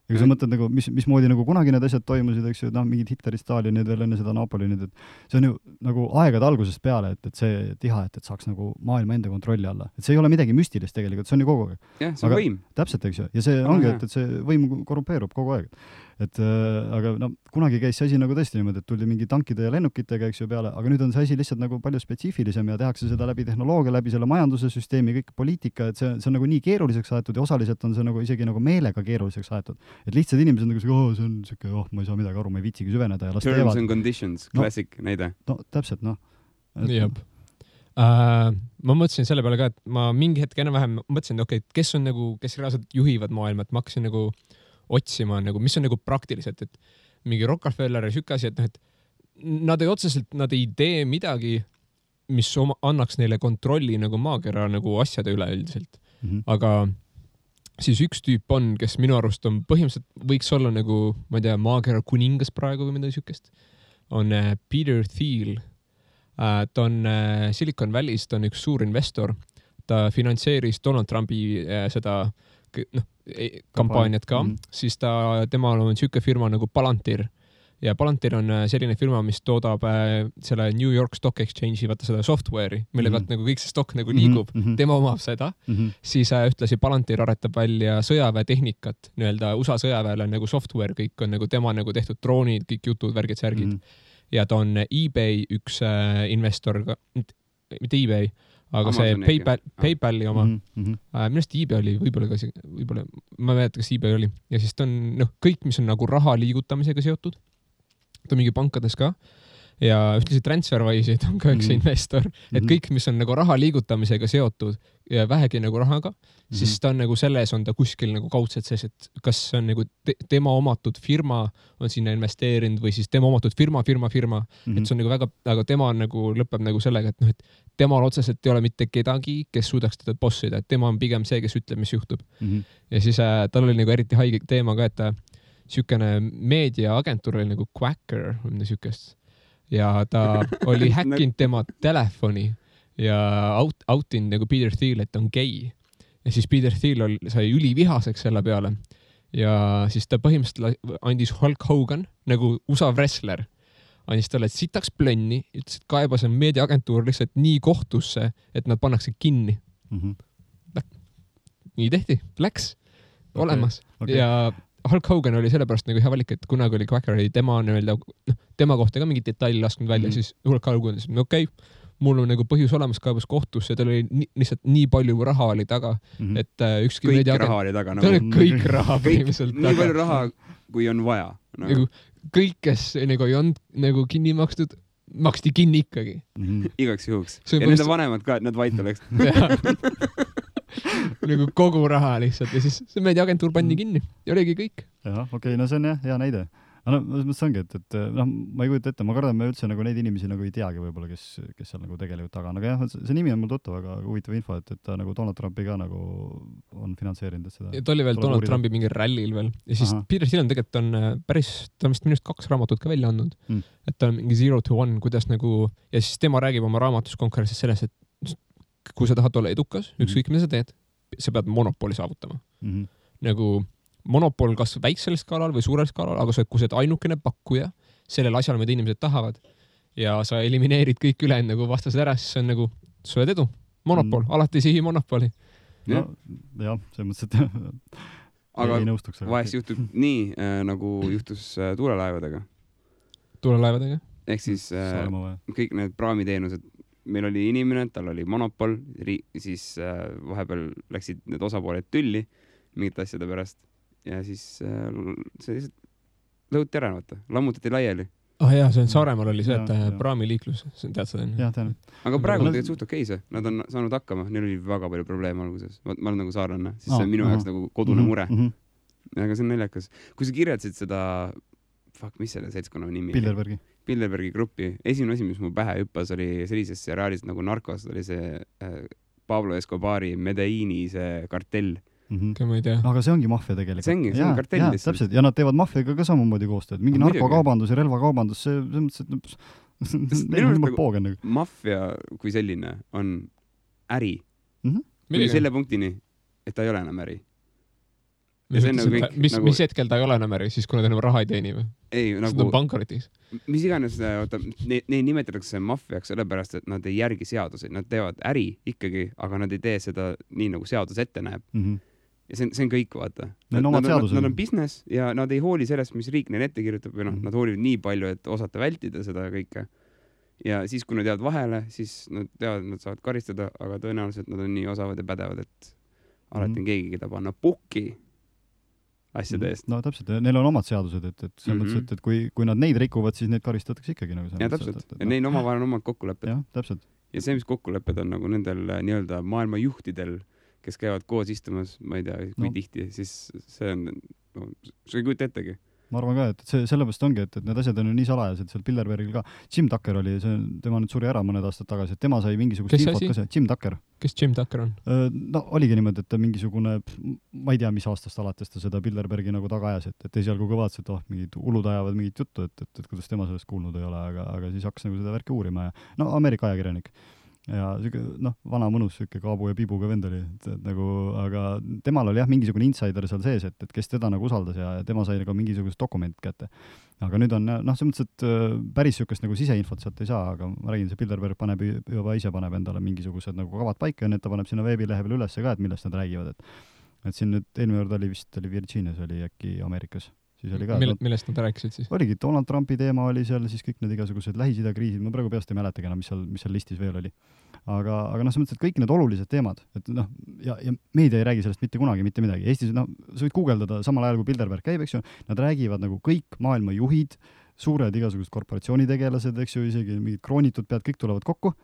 Ja kui sa mõtled nagu, mismoodi nagu kunagi need asjad toimusid, eks ju, mingid Hitlerid, Stalinid veel enne seda Napoleonid, et see on ju nagu aegade algusest peale, et see tiha, et saaks nagu maailma enda kontrolli alla. Et see ei ole midagi müstilist tegelikult, see on ju kogu aeg. Jah, see on võim. Täpselt, eks ju. Ja see ongi, et see võim korrumpeerub kogu aeg. Aga kunagi käis see asi nagu tõesti niimoodi, et tuldi mingi tankide ja lennukitega, eks ju, peale, aga nüüd on see asi lihtsalt nagu palju spetsiifilisem ja tehakse seda läbi tehnoloogia, läbi selle majanduse süsteemi, kõik poliitika, et see on nagu nii keeruliseks aetud ja osaliselt on see nagu isegi nagu meelega keeruliseks aetud. Et lihtsad inimesed nagu see on siuke, ma ei saa midagi aru, ma ei viitsigi süveneda ja las teevad. Terms and conditions, classic näide. Täpselt, Jab. Ma mõtlesin selle peale ka, et ma mingi hetk enam-vähem mõtlesin, et kes on nagu, kes reaalselt juhivad maailma, et ma hakkasin nagu otsima, nagu, mis on nagu praktiliselt, et mingi Rockefeller ja siuke asi, et nad ei tee midagi, mis annaks neile kontrolli nagu maakera nagu asjade üle üldiselt. Aga siis üks tüüp on, kes minu arust on põhimõtteliselt võiks olla nagu, ma ei tea, maakera kuningas praegu või midagi siukest, on Peter Thiel. Ta on Silicon Valley's, ta on üks suur investor. Ta finantseeris Donald Trumpi seda kampaaniat ka, siis temal on siuke firma nagu Palantir ja Palantir on selline firma, mis toodab selle New York Stock Exchange'i, vaata seda software'i, mille pealt nagu kõik see stock nagu liigub, tema omab seda, siis ühtlasi Palantir aretab välja sõjaväetehnikat, nii-öelda USA sõjaväele nagu software, kõik on nagu tema nagu tehtud droonid, kõik jutud, värgid, särgid ja ta on eBay üks investor, mitte eBay, aga Amazon see PayPali oma, millest eBay oli, võib-olla, ma ei mäleta, kas eBay oli. Ja siis ta on, kõik, mis on nagu raha liigutamisega seotud, ta on mingi pankades ka, ja ühtlasi TransferWise'id on ka üks investor, et kõik, mis on nagu raha liigutamisega seotud ja vähegi nagu rahaga, siis ta on nagu selles on ta kuskil nagu kaudselt sees, et kas on nagu tema omatud firma on sinna investeerinud või siis tema omatud firma, et see on nagu väga, aga tema on nagu lõpeb nagu sellega, et et temal otseselt ei ole mitte kedagi, kes suudaks teda bossida, et tema on pigem see, kes ütleb, mis juhtub. Ja siis tal oli nagu eriti haige teema ka, et siukene meediaagentuur oli nagu Quacker või mida siukest. Ja ta oli häkkinud tema telefoni ja autinud nagu Peter Thiel, et on gei. Ja siis Peter Thiel sai ülivihaseks selle peale. Ja siis ta põhimõtteliselt andis Hulk Hogan, nagu USA wrestler, andis talle sitaks plönni, ütles, et kaebas on meediaagentuur lihtsalt nii kohtusse, et nad pannakse kinni. Nii tehti, läks olemas. Ja Hulk Hogan oli sellepärast nagu hea valik, et kunagi oli Quacker, tema nii-öelda, tema kohta ka mingi detail lasknud välja, siis Hulk Hogan ütles, okei, mul on nagu põhjus olemas kaebas kohtusse, tal oli lihtsalt nii palju raha oli taga, et ükski kõik raha oli taga. Tal oli kõik raha põhimõtteliselt taga. Nii palju raha, kui on vaja. Nagu kõik, kes nagu ei olnud nagu kinni makstud, maksti kinni ikkagi. Igaks juhuks. Ja nende vanemad ka, et nad vait oleks. Nagu kogu raha lihtsalt ja siis see meediaagentuur pandi kinni ja oligi kõik. Jah, okei, no see on hea näide. See ongi, et ma ei kujuta ette, ma kardan, me üldse nagu neid inimesi nagu ei teagi võib-olla, kes seal nagu tegelikult taga on. Aga jah, see nimi on mul tuttav, aga huvitav info, et ta nagu Donald Trumpi ka nagu on finantseerinud seda. Ja ta oli veel Donald Trumpi mingi rallil veel. Ja siis Peter Thiel on tegelikult on päris, ta on minust 2 raamatut ka välja andnud. Et ta on mingi 0 to 1, kuidas nagu, ja siis tema räägib oma raamatus konkurentsis selles, et kui sa tahad olla edukas, ükskõik mida sa teed, sa pead monopoli saavutama. Nagu monopol kas väiksel skaalal või suurel skaalal, aga kui sa oled ainukene pakkuja sellel asjal, mida inimesed tahavad ja sa elimineerid kõik üle nagu vastased ära, siis see on nagu sööd edu. Monopol, alati sihi monopoli. No, jah, see mõttes, et aga vahest juhtub nii, nagu juhtus tuulelaevadega. Tuulelaevadega? Ehk siis kõik need praamiteenused, meil oli inimene, tal oli monopol, siis vahepeal läksid need osapooled tülli mingite asjade pärast ja siis see lihtsalt lõhuti ära, lammutati laiali. Jaa, see on Saaremaal oli see, et praamiliiklus, tead seda? Jah, tean. Aga praegu on tegelikult suht okei see, nad on saanud hakkama, neil oli väga palju probleeme alguses. Ma olen nagu saarlanna, siis see on minu jaoks nagu kodune mure. Aga see on naljakas. Kui sa kirjatasid seda, mis selle seltskonna nimi? Bilderbergi gruppi. Esimene asi, mis mu pähe hüppas, oli sellises seriaalis nagu Narcos, oli see Pablo Escobari Medelliini see kartell. Ma ei tea. Aga see ongi maffia tegelikult. See on kartell lihtsalt. Täpselt. Ja nad teevad maffiaga ka samamoodi koostööd. Mingi narkokaubandus ja relvakaubandus, see mõttes, et neil on juba poogen. Maffia kui selline on äri. Selle punktini, et ta ei ole enam äri. Mis hetkel ta ei ole enam äri, siis kui nad enam raha ei teeni või? Ei, nagu pankrotis. Mis iganes, neid nimetatakse maffiaks sellepärast, et nad ei järgi seaduseid. Nad teevad äri ikkagi, aga nad ei tee seda nii, nagu seadus ette näeb. Ja see on kõik, vaata. Nad on business ja nad ei hooli sellest, mis riik neil ette kirjutab või nad hoolivad nii palju, et osata vältida seda kõike. Ja siis, kui nad jäävad vahele, siis nad teavad, et nad saavad karistada, aga tõenäoliselt nad on nii osavad ja pädevad, et alati on keegi, keda panna pukki asjade eest. No täpselt, neil on omad seadused, et selles mõttes, et kui nad neid rikuvad, siis neid karistatakse ikkagi. Ja täpselt, ja neil omavahel on omad kokkulepped. Ja, täpselt. Ja see, mis kokkulepped on nagu nendel nii-öelda maailma juhtidel, kes käivad koos istumas, ma ei tea, kui tihti, siis see on, see ei kujuta ettegi. Ma arvan ka, et see sellepärast ongi, et need asjad on ju nii salajased seal Bilderbergil ka. Jim Tucker oli, tema nüüd suri ära mõned aastad tagasi, et tema sai mingisugust infot ka see. Jim Tucker. Kes Jim Tucker on? No oligi niimoodi, et ta mingisugune, ma ei tea, mis aastast alates ta seda Bilderbergi nagu taga ajas, et esialgu ka vaatas, et mingid ulud ajavad mingit juttu, et kuidas tema sellest kuulnud ei ole, aga siis hakkas nagu seda värki uurima ja Ameerika ajakirjanik. Ja vana mõnus süke Kaabu ja Pibuga vend oli, nagu, aga temal oli mingisugune insider seal sees, et kes teda nagu usaldas ja tema sai nagu mingisugust dokument kätte. Aga nüüd on, see mõttes, et päris sükest nagu siseinfot sealt ei saa, aga ma räägin, see Bilderberg juba ise paneb endale mingisugused nagu kavad paika ja need ta paneb sinna veebilehe peale üles ka, et millest nad räägivad, et siin nüüd eelmine kord oli Virginias, oli äkki Amerikas. Millest nad rääkisid siis? Oligi, Donald Trumpi teema oli seal, siis kõik need igasugused Lähis-Ida kriisid, ma praegu peast ei mäletagi enam, mis seal listis veel oli. Aga see mõttes, et kõik need olulised teemad, et ja meedia ei räägi sellest mitte kunagi, mitte midagi. Eestis, sa võid guugeldada samal ajal, kui Bilderberg käib, eks ju, nad räägivad nagu kõik maailma juhid, suured igasugused korporatsioonitegelased, eks ju, isegi mingid kroonitud pead, kõik tulevad kokku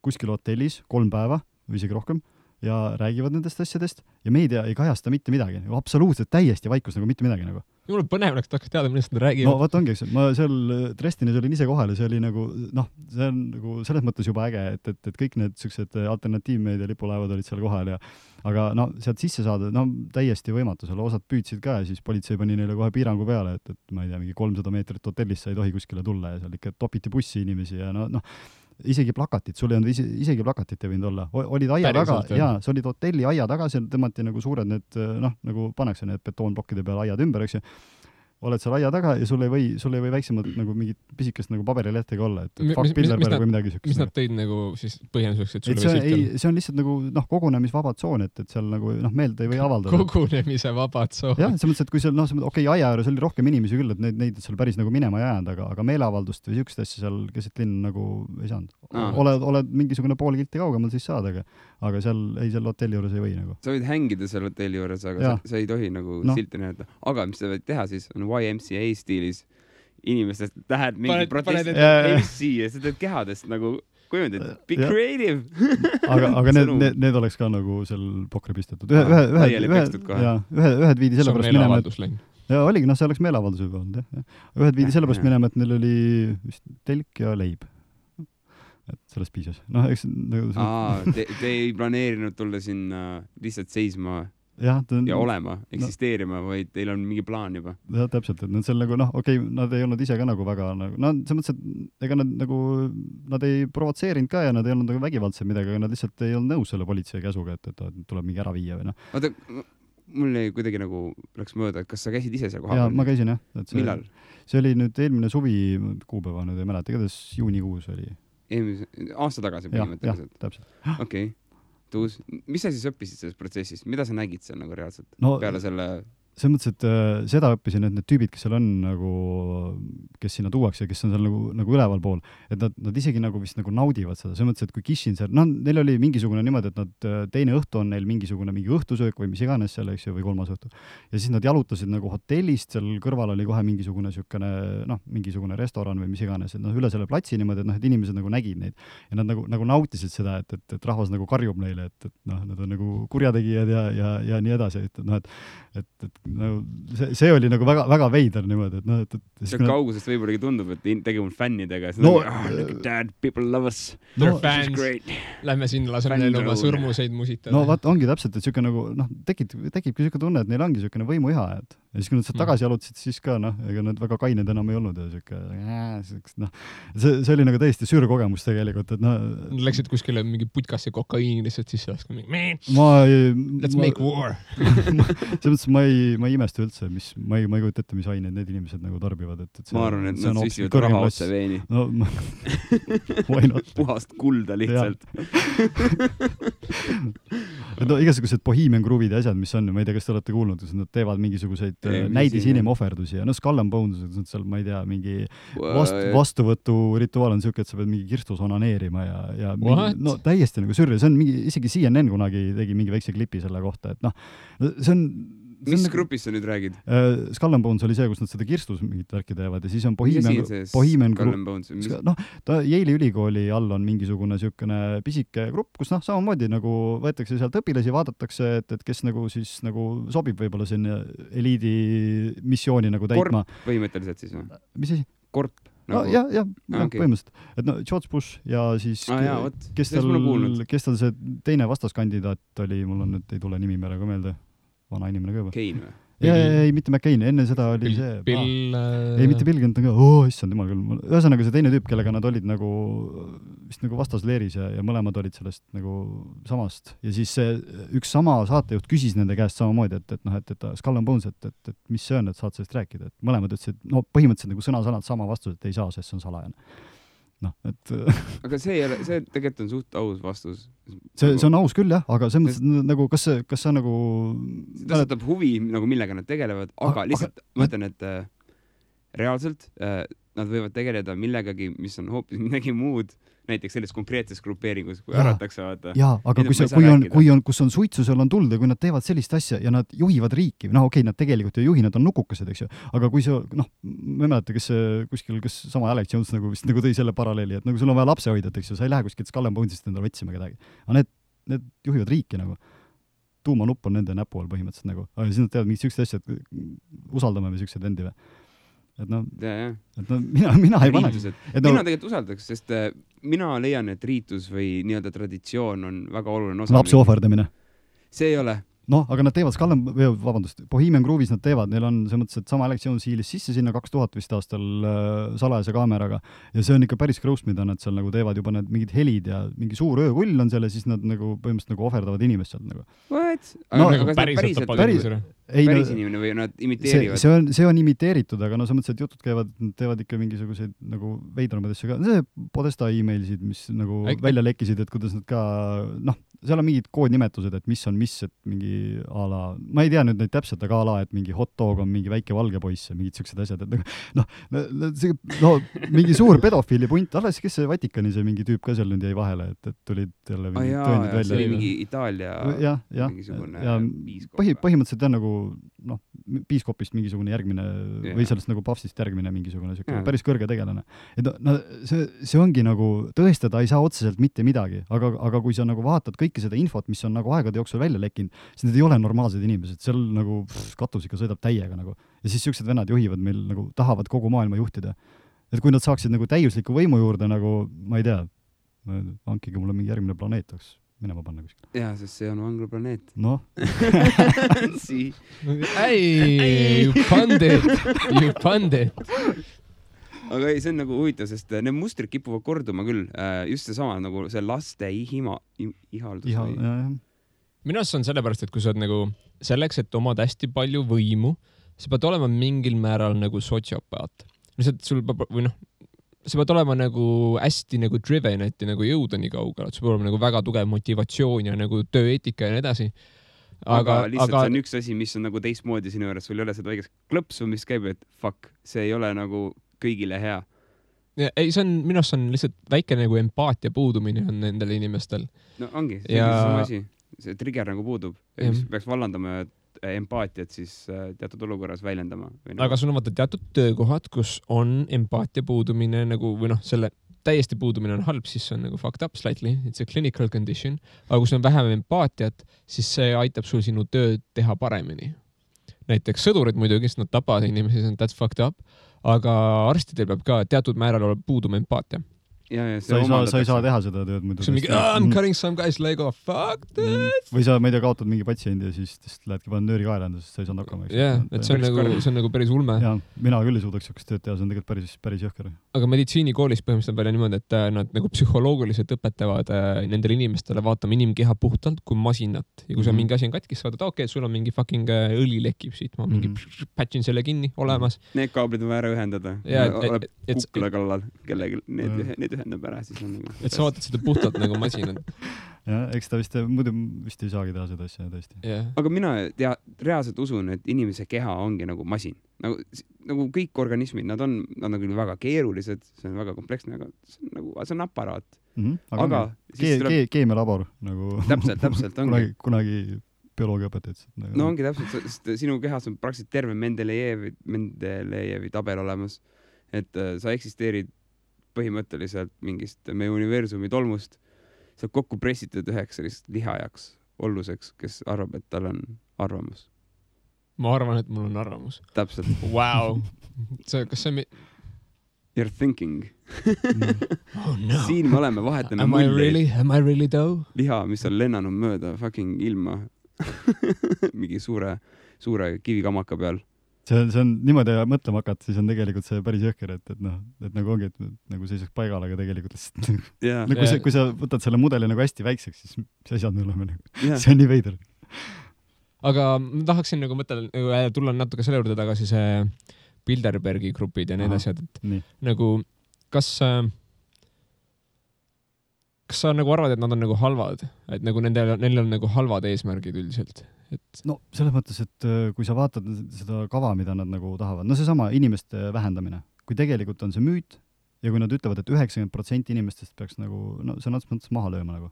kuskil hotellis 3 päeva või isegi rohkem ja räägivad nendest asjadest ja meedia ei kajasta mitte midagi. Absoluutselt täiesti vaikus nagu mitte midagi nagu. Jumala põnev oleks tahaks teada, millest nad räägivad. No vaat ongi, eks, ma seal Dresdenis olin ise kohal ja see oli nagu, see on nagu selles mõttes juba äge, et kõik need sellised alternatiivmeedia lipulaevad olid seal kohal ja aga sealt sisse saada, täiesti võimatu, seal osad püüdsid ka ja siis politsei pani neile kohe piirangu peale, et ma ei tea, mingi 300 meetrit hotellisse ei tohi kuskile tulla ja seal ikka topiti bussi inimesi ja isegi plakatid, sul ei olnud isegi plakatit ei võinud olla. Olid aia taga, jaa, see olid hotelli aia taga, seal tõmmati nagu suured need, nagu pannakse need betoonplokkide peale aiad ümber, eks ju. Oled seal aia taga ja sul ei või väiksemad nagu mingid pisikest nagu paberilehtega olla, et fuck Bilderberg või midagi sükest. Mis nad tõid nagu siis põhjenduseks, et sul see on lihtsalt nagu kogunemisvaba tsoon, et seal nagu meelde ei või avaldada. Kogunemise vaba tsoon. Jah, see mõttes, et kui seal, aia ääres oli rohkem inimesi küll, et neid seal päris nagu minema ei jäänud, aga meeleavaldust või sükest asja seal keset linn nagu ei saanud. Oled mingisugune pool kilti kaugemal siis saada, aga seal hotelli juures ei või nagu. Sa võid hängida seal hotelli juures, aga sa ei tohi nagu silti näidata. Aga mis sa võid teha siis, on YMCA stiilis inimestest tähed mingi protestid MC ja sa teed kehadest nagu kujundid, be creative. aga need oleks ka nagu seal pokri pistetud. Ühed viidi sellepärast minema, ja oligi, see oleks meeleavaldus juba olnud, jah. Ühed viidi sellepärast minema, et neil oli vist telk ja leib. Et sellest piisas. Eks te ei planeerinud tulla sinna lihtsalt seisma ja olema, eksisteerima, vaid teil on mingi plaan juba. Jah, täpselt, et nad seal nagu, nad ei olnud ise ka nagu väga, see mõttes, et ega nad ei provotseerinud ka ja nad ei olnud nagu vägivaldsed midagi, aga nad lihtsalt ei olnud nõus selle politsei käsuga, et tuleb mingi ära viia või Oota, mul ei kuidagi nagu läks mööda, et kas sa käisid ise seal kohal? Jaa, ma käisin jah. Millal? See oli nüüd eelmine suvi kuupäeva, nüüd ei mäleta, igatahes juunikuus oli. aasta tagasi põhimõtteliselt. Täpselt. Okei. Tuus, mis sa siis õppisid selles protsessis? Mida sa nägid seal nagu reaalselt peale selle? See mõttes, et seda õppisin, et need tüübid, kes seal on nagu, kes sinna tuuakse ja kes on seal nagu üleval pool, et nad isegi nagu vist nagu naudivad seda. See mõttes, et kui Kishin seal, neil oli mingisugune niimoodi, et nad teine õhtu on neil mingi õhtusöök või mis iganes seal, eks ju, või kolmas õhtu. Ja siis nad jalutasid nagu hotellist, seal kõrval oli kohe mingisugune restoran või mis iganes, et üle selle platsi niimoodi, et inimesed nagu nägid neid. Ja nad nagu nautisid seda, et rahvas nagu karjub neile, et nad on nagu kurjategijad ja nii edasi, et see oli nagu väga veider niimoodi, et see kaugusest võib-olla tundub, et tegema fännidega, look at that, people love us. They're fans. Lähme sinna, laseme neile oma sõrmuseid musitada. No vaat ongi täpselt, et siuke nagu, tekibki siuke tunne, et neil ongi siukene võimuiha, et ja siis kui nad sealt tagasi jalutasid, siis ka ega nad väga kained enam ei olnud ja siuke, see oli nagu täiesti sürkogemus tegelikult, et Nad läksid kuskile mingi putkasse kokaiini lihtsalt sisse laskma. Let's make war. Selles mõttes ma ei imesta üldse, ma ei kujuta ette, mis aineid need inimesed nagu tarbivad. Ma arvan, et nad süsivad raha otse veeni. Puhast kulda lihtsalt. Igasugused Bohemian Groove'id ja asjad, mis on, ma ei tea, kas te olete kuulnud, kus nad teevad mingisuguseid näidis inimohverdusi ja Skull and Bones, seal, ma ei tea, mingi vastuvõtu rituaal on siuke, et sa pead mingi kirstus onaneerima ja mingi, täiesti nagu sürri, see on mingi, isegi CNN kunagi tegi mingi väikse klipi selle kohta, et see on mis grupis sa nüüd räägid? Skull and Bones oli see, kus nad seda kirstus mingit värki teevad ja siis on Bohemian Yale'i ülikooli all on mingisugune siukene pisike grupp, kus samamoodi nagu võetakse sealt õpilasi, vaadatakse, et kes nagu siis nagu sobib võib-olla sinna eliidi missiooni nagu täitma. Korp põhimõtteliselt siis või? Mis asi? Korp? Nagu... Ja, põhimõtteliselt. Et George Bush ja siis kes tal see teine vastaskandidaat oli, mul on nüüd ei tule nimi praegu meelde. Vana inimene ka juba. Kane või? Ei, mitte McCain, enne seda oli ei, mitte Bill Clinton ka, issand jumal küll. Ühesõnaga see teine tüüp, kellega nad olid nagu vist nagu vastasleeris ja mõlemad olid sellest nagu samast. Ja siis see üks sama saatejuht küsis nende käest samamoodi, et Skull and Bones, et mis see on, et saad sellest rääkida. Et mõlemad ütlesid, põhimõtteliselt nagu sõna-sõnad sama vastus, et ei saa, sest see on salajane. Aga see tegelikult on suht aus vastus. See on aus küll, jah, aga see mõttes, nagu, kas sa nagu... See tõstatab huvi, nagu millega nad tegelevad, aga lihtsalt mõtlen, et reaalselt nad võivad tegeleda millegagi, mis on hoopis midagi muud, näiteks selles konkreetses grupeeringus, kui äratakse vaata. Jaa, aga kus on suitsu, seal on tuld ja kui nad teevad sellist asja ja nad juhivad riiki, okei, nad tegelikult ei juhi, nad on nukukesed, eks ju, aga kui see, ma mäleta, kes sama Alex Jones nagu vist nagu tõi selle paralleeli, et nagu sul on vaja lapse hoida, eks ju, sa ei lähe kuskilt Skull and Bonesist endale otsima kedagi. Aga need juhivad riiki nagu. Tuumanupp on nende näpu all põhimõtteliselt nagu. Aga siis nad teevad mingid siuksed asjad, usaldame või siuksed vendi või. Et mina ei pane. Mina tegelikult usaldaks, sest mina leian, et riitus või nii-öelda traditsioon on väga oluline osa. Lapsi ohverdamine. See ei ole. Aga nad teevad Bohemian Groove'is nad teevad, neil on see mõttes, et sama Alex Jones hiilis sisse sinna 2000 vist aastal salajase kaameraga ja see on ikka päris gross, mida nad seal nagu teevad juba need mingid helid ja mingi suur öökull on seal ja siis nad nagu põhimõtteliselt nagu ohverdavad inimest sealt nagu. What? Päris inimene või nad imiteerivad? See on imiteeritud, aga see mõttes, et jutud teevad ikka mingisuguseid nagu veidramaid asju ka. See Podesta emailsid, mis nagu välja lekkisid, et kuidas nad ka, seal on mingid koodnimetused, et mis on mis, et mingi ala, ma ei tea nüüd neid täpselt, aga ala, et mingi hot dog on mingi väike valge poiss ja mingid siuksed asjad, et mingi suur pedofiili punt, alles kes see Vatikani see mingi tüüp ka seal nüüd jäi vahele, et tulid jälle mingid tõendid välja. See oli mingi Itaalia mingisugune piiskop. Põhimõtteliselt on nagu piiskopist mingisugune järgmine või sellest nagu papstist järgmine mingisugune päris kõrge tegelane. Et see ongi nagu, tõestada ei saa otseselt mitte midagi, aga kui sa nagu vaatad kõike seda infot, mis on nagu aegade jooksul välja lekkinud, siis need ei ole normaalsed inimesed, seal nagu katus ikka sõidab täiega nagu. Ja siis siuksed vennad juhivad meil nagu, tahavad kogu maailma juhtida. Et kui nad saaksid nagu täiusliku võimu juurde nagu, ma ei tea, hankige mulle mingi järgmine planeet oleks minema panna kuskil. Jaa, sest see on vanglaplaneet. Noh. You pandit. Aga ei, see on nagu huvitav, sest need mustrid kipuvad korduma küll. Just see sama nagu see laste ihaldus. Minu arust on sellepärast, et kui sa oled nagu selleks, et omad hästi palju võimu, sa pead olema mingil määral nagu sotsiopaat. Lihtsalt sul või sa pead olema nagu hästi nagu driven, et nagu jõuda nii kaugele, et sul peab olema nagu väga tugev motivatsioon ja nagu tööeetika ja nii edasi. Aga lihtsalt see on üks asi, mis on nagu teistmoodi sinu juures, sul ei ole seda õigest klõpsu, mis käib, et fuck, see ei ole nagu kõigile hea. Ja, ei, see on, minu arust on lihtsalt väike nagu empaatia puudumine on nendel inimestel. No ongi, see on sama asi. See trigger nagu puudub. Mis peaks vallandama empaatiat siis teatud olukorras väljendama. Aga sul on vaata teatud töökohad, kus on empaatia puudumine nagu, või noh, selle täiesti puudumine on halb, siis see on nagu fucked up slightly, it's a clinical condition, aga kui sul on vähem empaatiat, siis see aitab sul sinu tööd teha paremini. Näiteks sõdurid muidugi, sest nad tapavad inimesi, that's fucked up, aga arstidel peab ka teatud määral olla puuduma empaatia. Sa ei saa teha seda tööd muidu. I'm cutting some guy's leg off, fuck that! Või sa, ma ei tea, kaotad mingi patsiendi ja siis lähedki panna nööri kaelanda, sest sa ei saanud hakkama. Et see on nagu päris ulme. Ja, mina küll ei suudaks sellist tööd teha, see on tegelikult päris jõhker. Aga meditsiinikoolis põhimõtteliselt välja niimoodi, et nad nagu psühholoogiliselt õpetavad nendele inimestele vaatama inimkeha puhtalt kui masinat. Ja kui see mingi asi on katkis, saada, okei, sul on mingi fucking õli lekib siit, ma mingi patchin selle kinni olemas. Need kaablid on vaja ühendada. Oleb kukla kallal, kellegi need ühendab ära, siis on nagu... Et sa vaatad seda puhtalt nagu masinad. Ja, eks ta muidu vist ei saagi teha seda asja tõesti. Yeah. Aga mina reaalselt usun, et inimese keha ongi nagu masin. Nagu kõik organismid, nad on küll väga keerulised, see on väga kompleksne, aga see on aparaat. Aga keemialabor nagu... Täpselt ongi. Kunagi bioloogiaõpetajad. No ongi täpselt, sest sinu kehas on praktiliselt terve Mendelejevi tabel olemas, et sa eksisteerid põhimõtteliselt mingist meie universumi tolmust, sa kokku pressitud üheks sellist lihajaks olluseks, kes arvab, et tal on arvamus. Ma arvan, et mul on arvamus. Täpselt. Wow. Kas see You're thinking. Oh no. Siin me oleme, vahetame Am I really though? Liha, mis on lennanud mööda fucking ilma mingi suure kivikamaka peal. See on niimoodi mõtlema hakata, siis on tegelikult see päris jõhker, et nagu ongi, et nagu seisaks paigal, aga tegelikult kui sa võtad selle mudeli nagu hästi väikseks, siis mis asjad me oleme nagu, see on nii veider. Aga ma tahaksin nagu tulla natuke selle juurde tagasi see Bilderbergi grupid ja need asjad, et nagu kas sa nagu arvad, et nad on nagu halvad, et nagu neil on nagu halvad eesmärgid üldiselt? No selles mõttes, et kui sa vaatad seda kava, mida nad nagu tahavad, no seesama inimeste vähendamine, kui tegelikult on see müüt ja kui nad ütlevad, et 90% inimestest peaks nagu, no see on mõttes maha lööma nagu.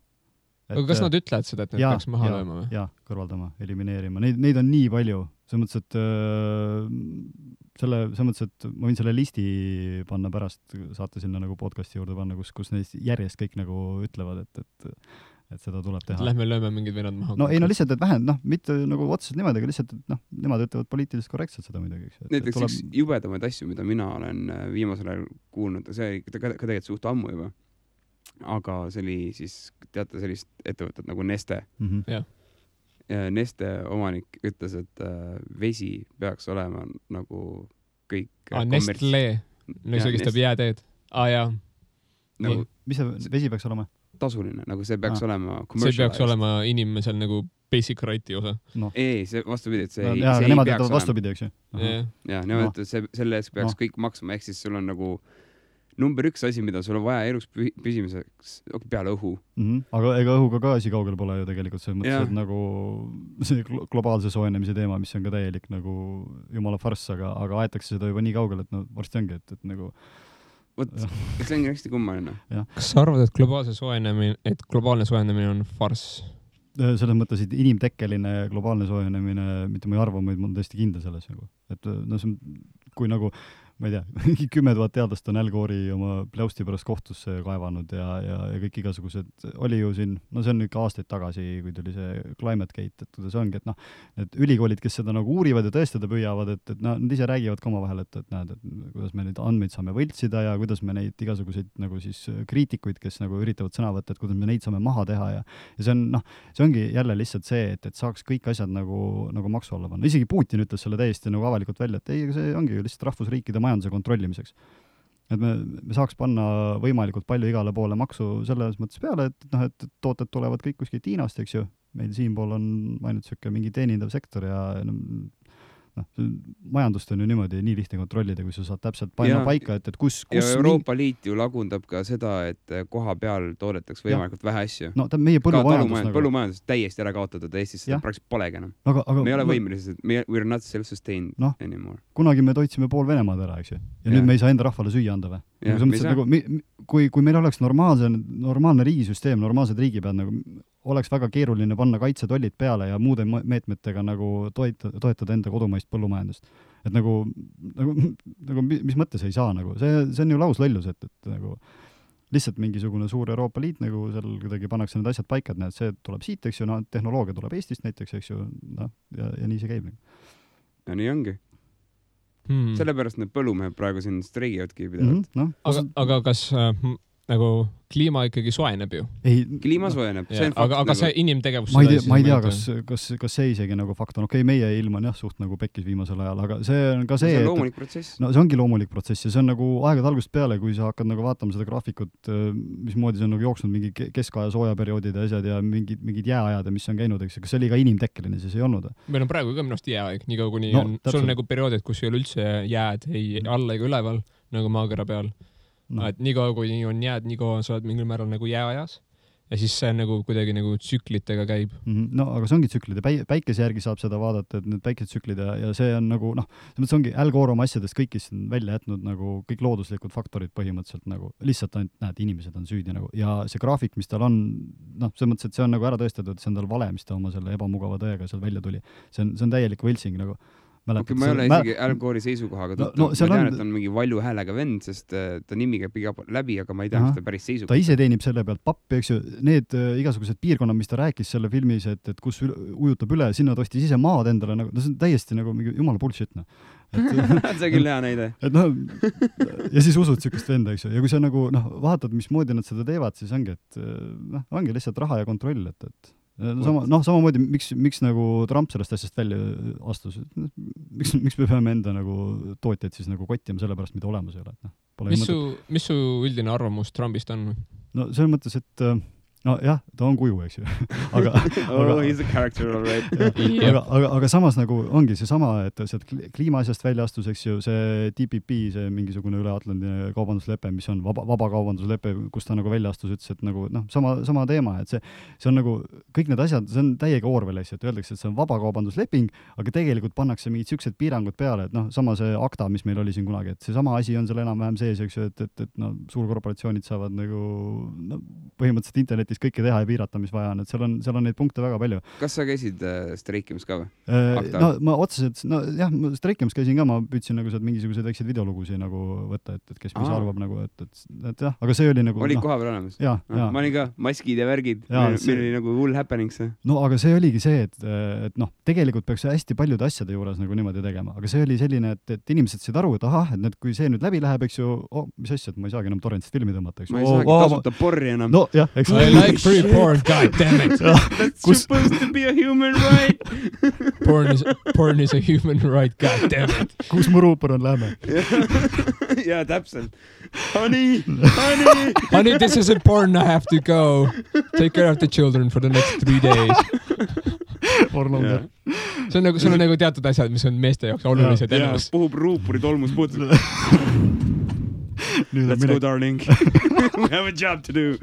Aga kas nad ütlevad seda, et need peaks maha lööma või? Jaa, kõrvaldama, elimineerima. Neid on nii palju. Selles mõttes, et ma võin selle listi panna pärast, saate sinna nagu podcasti juurde panna, kus neist järjest kõik nagu ütlevad, et seda tuleb teha. Lähme lööme mingid vennad maha. No ei, no lihtsalt, et mitte nagu otseselt niimoodi, aga lihtsalt, et nemad ütlevad poliitiliselt korrektselt seda midagi. Näiteks üks jubedamaid asju, mida mina olen viimasel ajal kuulnud, see ka tegelikult suht ammu juba. Aga see oli siis, teate, sellist ettevõtet nagu Neste. Ja Neste omanik ütles, et vesi peaks olema nagu kõik Nestle, no see kestab jääteed. Jaa. Nagu, mis see vesi peaks olema? Tasuline, nagu see peaks olema see peaks olema inimesel nagu basic right'i osa. No. Ei, see vastupidi, et see ei nemad peaks olema. Vastupidi, eks ju? Ja, nemad ütlevad, selle eest peaks kõik maksma, ehk siis sul on nagu number 1 asi, mida sul on vaja elus püsimiseks peale õhu. Aga ega õhuga ka asi kaugel pole ju tegelikult see mõttes, et nagu see globaalse soojenemise teema, mis on ka täielik nagu jumala farss, aga aetakse seda juba nii kaugel, et no varsti ongi, et nagu see on hästi kummaline. Kas sa arvad, et globaalne soojenemine on farss? Selles mõttes, et inimtekkeline globaalne soojenemine, mitte ma ei arva, ma olen tõesti kindel selles nagu. Et no see on, kui nagu ma ei tea, 10 000 teadlast on Al Gore'i oma pläusti pärast kohtusse kaevanud ja kõik igasugused, oli ju siin, no see on ikka aastaid tagasi, kui tuli see Climate Gate, et kuidas ongi, et need ülikoolid, kes seda nagu uurivad ja tõestada püüavad, et nad ise räägivad ka oma vahel, et näed, et kuidas me neid andmeid saame võltsida ja kuidas me neid igasuguseid nagu siis kriitikuid, kes nagu üritavad sõna võtta, et kuidas me neid saame maha teha ja see on, see ongi jälle lihtsalt see, et saaks kõik asjad nagu maksu alla panna. Isegi Putin ütles selle täiesti nagu avalikult välja, et ei, see ongi ju lihtsalt rahvusriikide majanduse kontrollimiseks. Et me saaks panna võimalikult palju igale poole maksu selles mõttes peale, et tooted tulevad kõik kuskilt Hiinast, eks ju. Meil siinpool on ainult mingi teenindav sektor ja majandust on ju niimoodi nii lihtne kontrollida, kui sa saad täpselt panna paika, et kus ja Euroopa Liit ju lagundab ka seda, et koha peal toodetakse võimalikult vähe asju. No meie põllumajandus täiesti ära kaotatud, Eestis seda praktiliselt polegi enam. Me ei ole võimelised, we're not self-sustained anymore. Kunagi me toitsime pool Venemaad ära, eks ju. Ja nüüd me ei saa enda rahvale süüa anda või? Kui meil oleks normaalne riigisüsteem, normaalsed riigipead, nagu oleks väga keeruline panna kaitsetollid peale ja muude meetmetega nagu toetada enda kodumaist põllumajandust. Et nagu mis mõttes ei saa nagu, see on ju lauslollus, et nagu lihtsalt mingisugune suur Euroopa Liit nagu seal kuidagi pannakse need asjad paika, et see tuleb siit, eks ju, tehnoloogia tuleb Eestist näiteks, eks ju, ja nii see käib. Ja nii ongi. Sellepärast need põllumehed praegu siin streigivadki pidevalt. Aga kas nagu kliima ikkagi soeneb ju? Kliima soeneb. Aga see inimtegevus... Ma ei tea, kas see isegi nagu fakt on. Okei, meie ilm on suht nagu pekkis viimasel ajal, aga see on ka see, see on loomulik protsess. No see ongi loomulik protsess ja see on nagu aegade algusest peale, kui sa hakkad nagu vaatama seda graafikut, mismoodi see on nagu jooksnud mingi keskaja soojaperioodid ja asjad ja mingid jääajad, mis on käinud, eks, kas see oli ka inimtekkeline, siis ei olnud? Meil on praegu ka minust jääaeg, nii kaua kuni sul on nagu perioodid, kus ei ole üldse jääd ei alla ega üleval, nagu maakera peal. Et nii kaua, kui on jääd, nii kaua sa oled mingil määral nagu jääajas ja siis see nagu kuidagi nagu tsüklitega käib. No, aga see ongi tsüklid ja päikese järgi saab seda vaadata, et need päikesetsüklid ja see on nagu, see ongi Al Gore oma asjadest kõikist välja jätnud nagu kõik looduslikud faktorid põhimõtteliselt nagu lihtsalt näed, inimesed on süüdi nagu ja see graafik, mis tal on, see mõttes, et see on nagu ära tõestatud, et see on tal vale, mis ta oma selle ebamugava tõega seal välja tuli. See on täielik võltsing nagu. Okay, ma ei ole isegi Al Gore'i seisukohaga ma tean, et on mingi valju häälega vend, sest ta nimi käib läbi, aga ma ei tea, mis ta päris seisukoha. Ta ise teenib selle pealt pappi, eks ju, need igasugused piirkonnad, mis ta rääkis selle filmis, et kus ujutab üle, sinna tostis ise maad endale, nagu, see on täiesti nagu mingi jumala bullshit. See on küll hea näide. Ja siis usud sükest venda, eks ju, ja kui sa nagu vaatad, mismoodi nad seda teevad, siis ongi, et ongi lihtsalt raha ja kontroll, et samamoodi, miks nagu Trump sellest asjast välja astus, miks me peame enda nagu tootjaid siis nagu kottima selle pärast, mida olemas ei ole. Mis su üldine arvamus Trumpist on? No selles mõttes, et jah, ta on kuju, eks ju. He's a character, all right. aga samas nagu ongi see sama, et sealt kliimaasjast välja astus, eks ju, see TPP, see mingisugune üle-Atlandi kaubanduslepe, mis on vaba kaubanduslepe, kus ta nagu välja astus, ütles, et nagu sama teema, et see on nagu kõik need asjad, see on täiega Orwellis, et öeldakse, et see on vaba kaubandusleping, aga tegelikult pannakse mingid siuksed piirangud peale, et sama see ACTA, mis meil oli siin kunagi, et see sama asi on seal enam-vähem sees, eks ju, et suurkorporatsioonid saavad nagu põhimõtteliselt internetis kõike teha ja piirata, mis vaja on, et seal on neid punkte väga palju. Kas sa käisid streikimas ka või? Ma otseselt, streikimas käisin ka, ma püüdsin nagu sealt mingisuguseid väikseid videolugusid nagu võtta, et kes mis arvab nagu, et jah, aga see oli nagu... Oli koha peal olemas? Ma olin ka, maskid ja värgid, meil oli nagu hull happening see. No aga see oligi see, et tegelikult peaks hästi paljude asjade juures nagu niimoodi tegema, aga see oli selline, et inimesed said aru, et ahah, et kui see nüüd läbi läheb, eks ju, mis asja, et ma ei saagi enam torrentist filmi tõmmata, eks ju. Ma ei saagi tasuta porri enam. No jah, eks like free porn, god damn it. That's supposed to be a human right. Porn is a human right, god damn it. Kus mu ruupor on, lähme. Jaa, täpselt. Honey, this is important, I have to go. Take care of the children for the next 3 days. Orlander. See on nagu teatud asjad, mis on meeste jaoks olulised elus. Puhub ruupuri tolmus puutud. Let's go, darling. We have a job to do.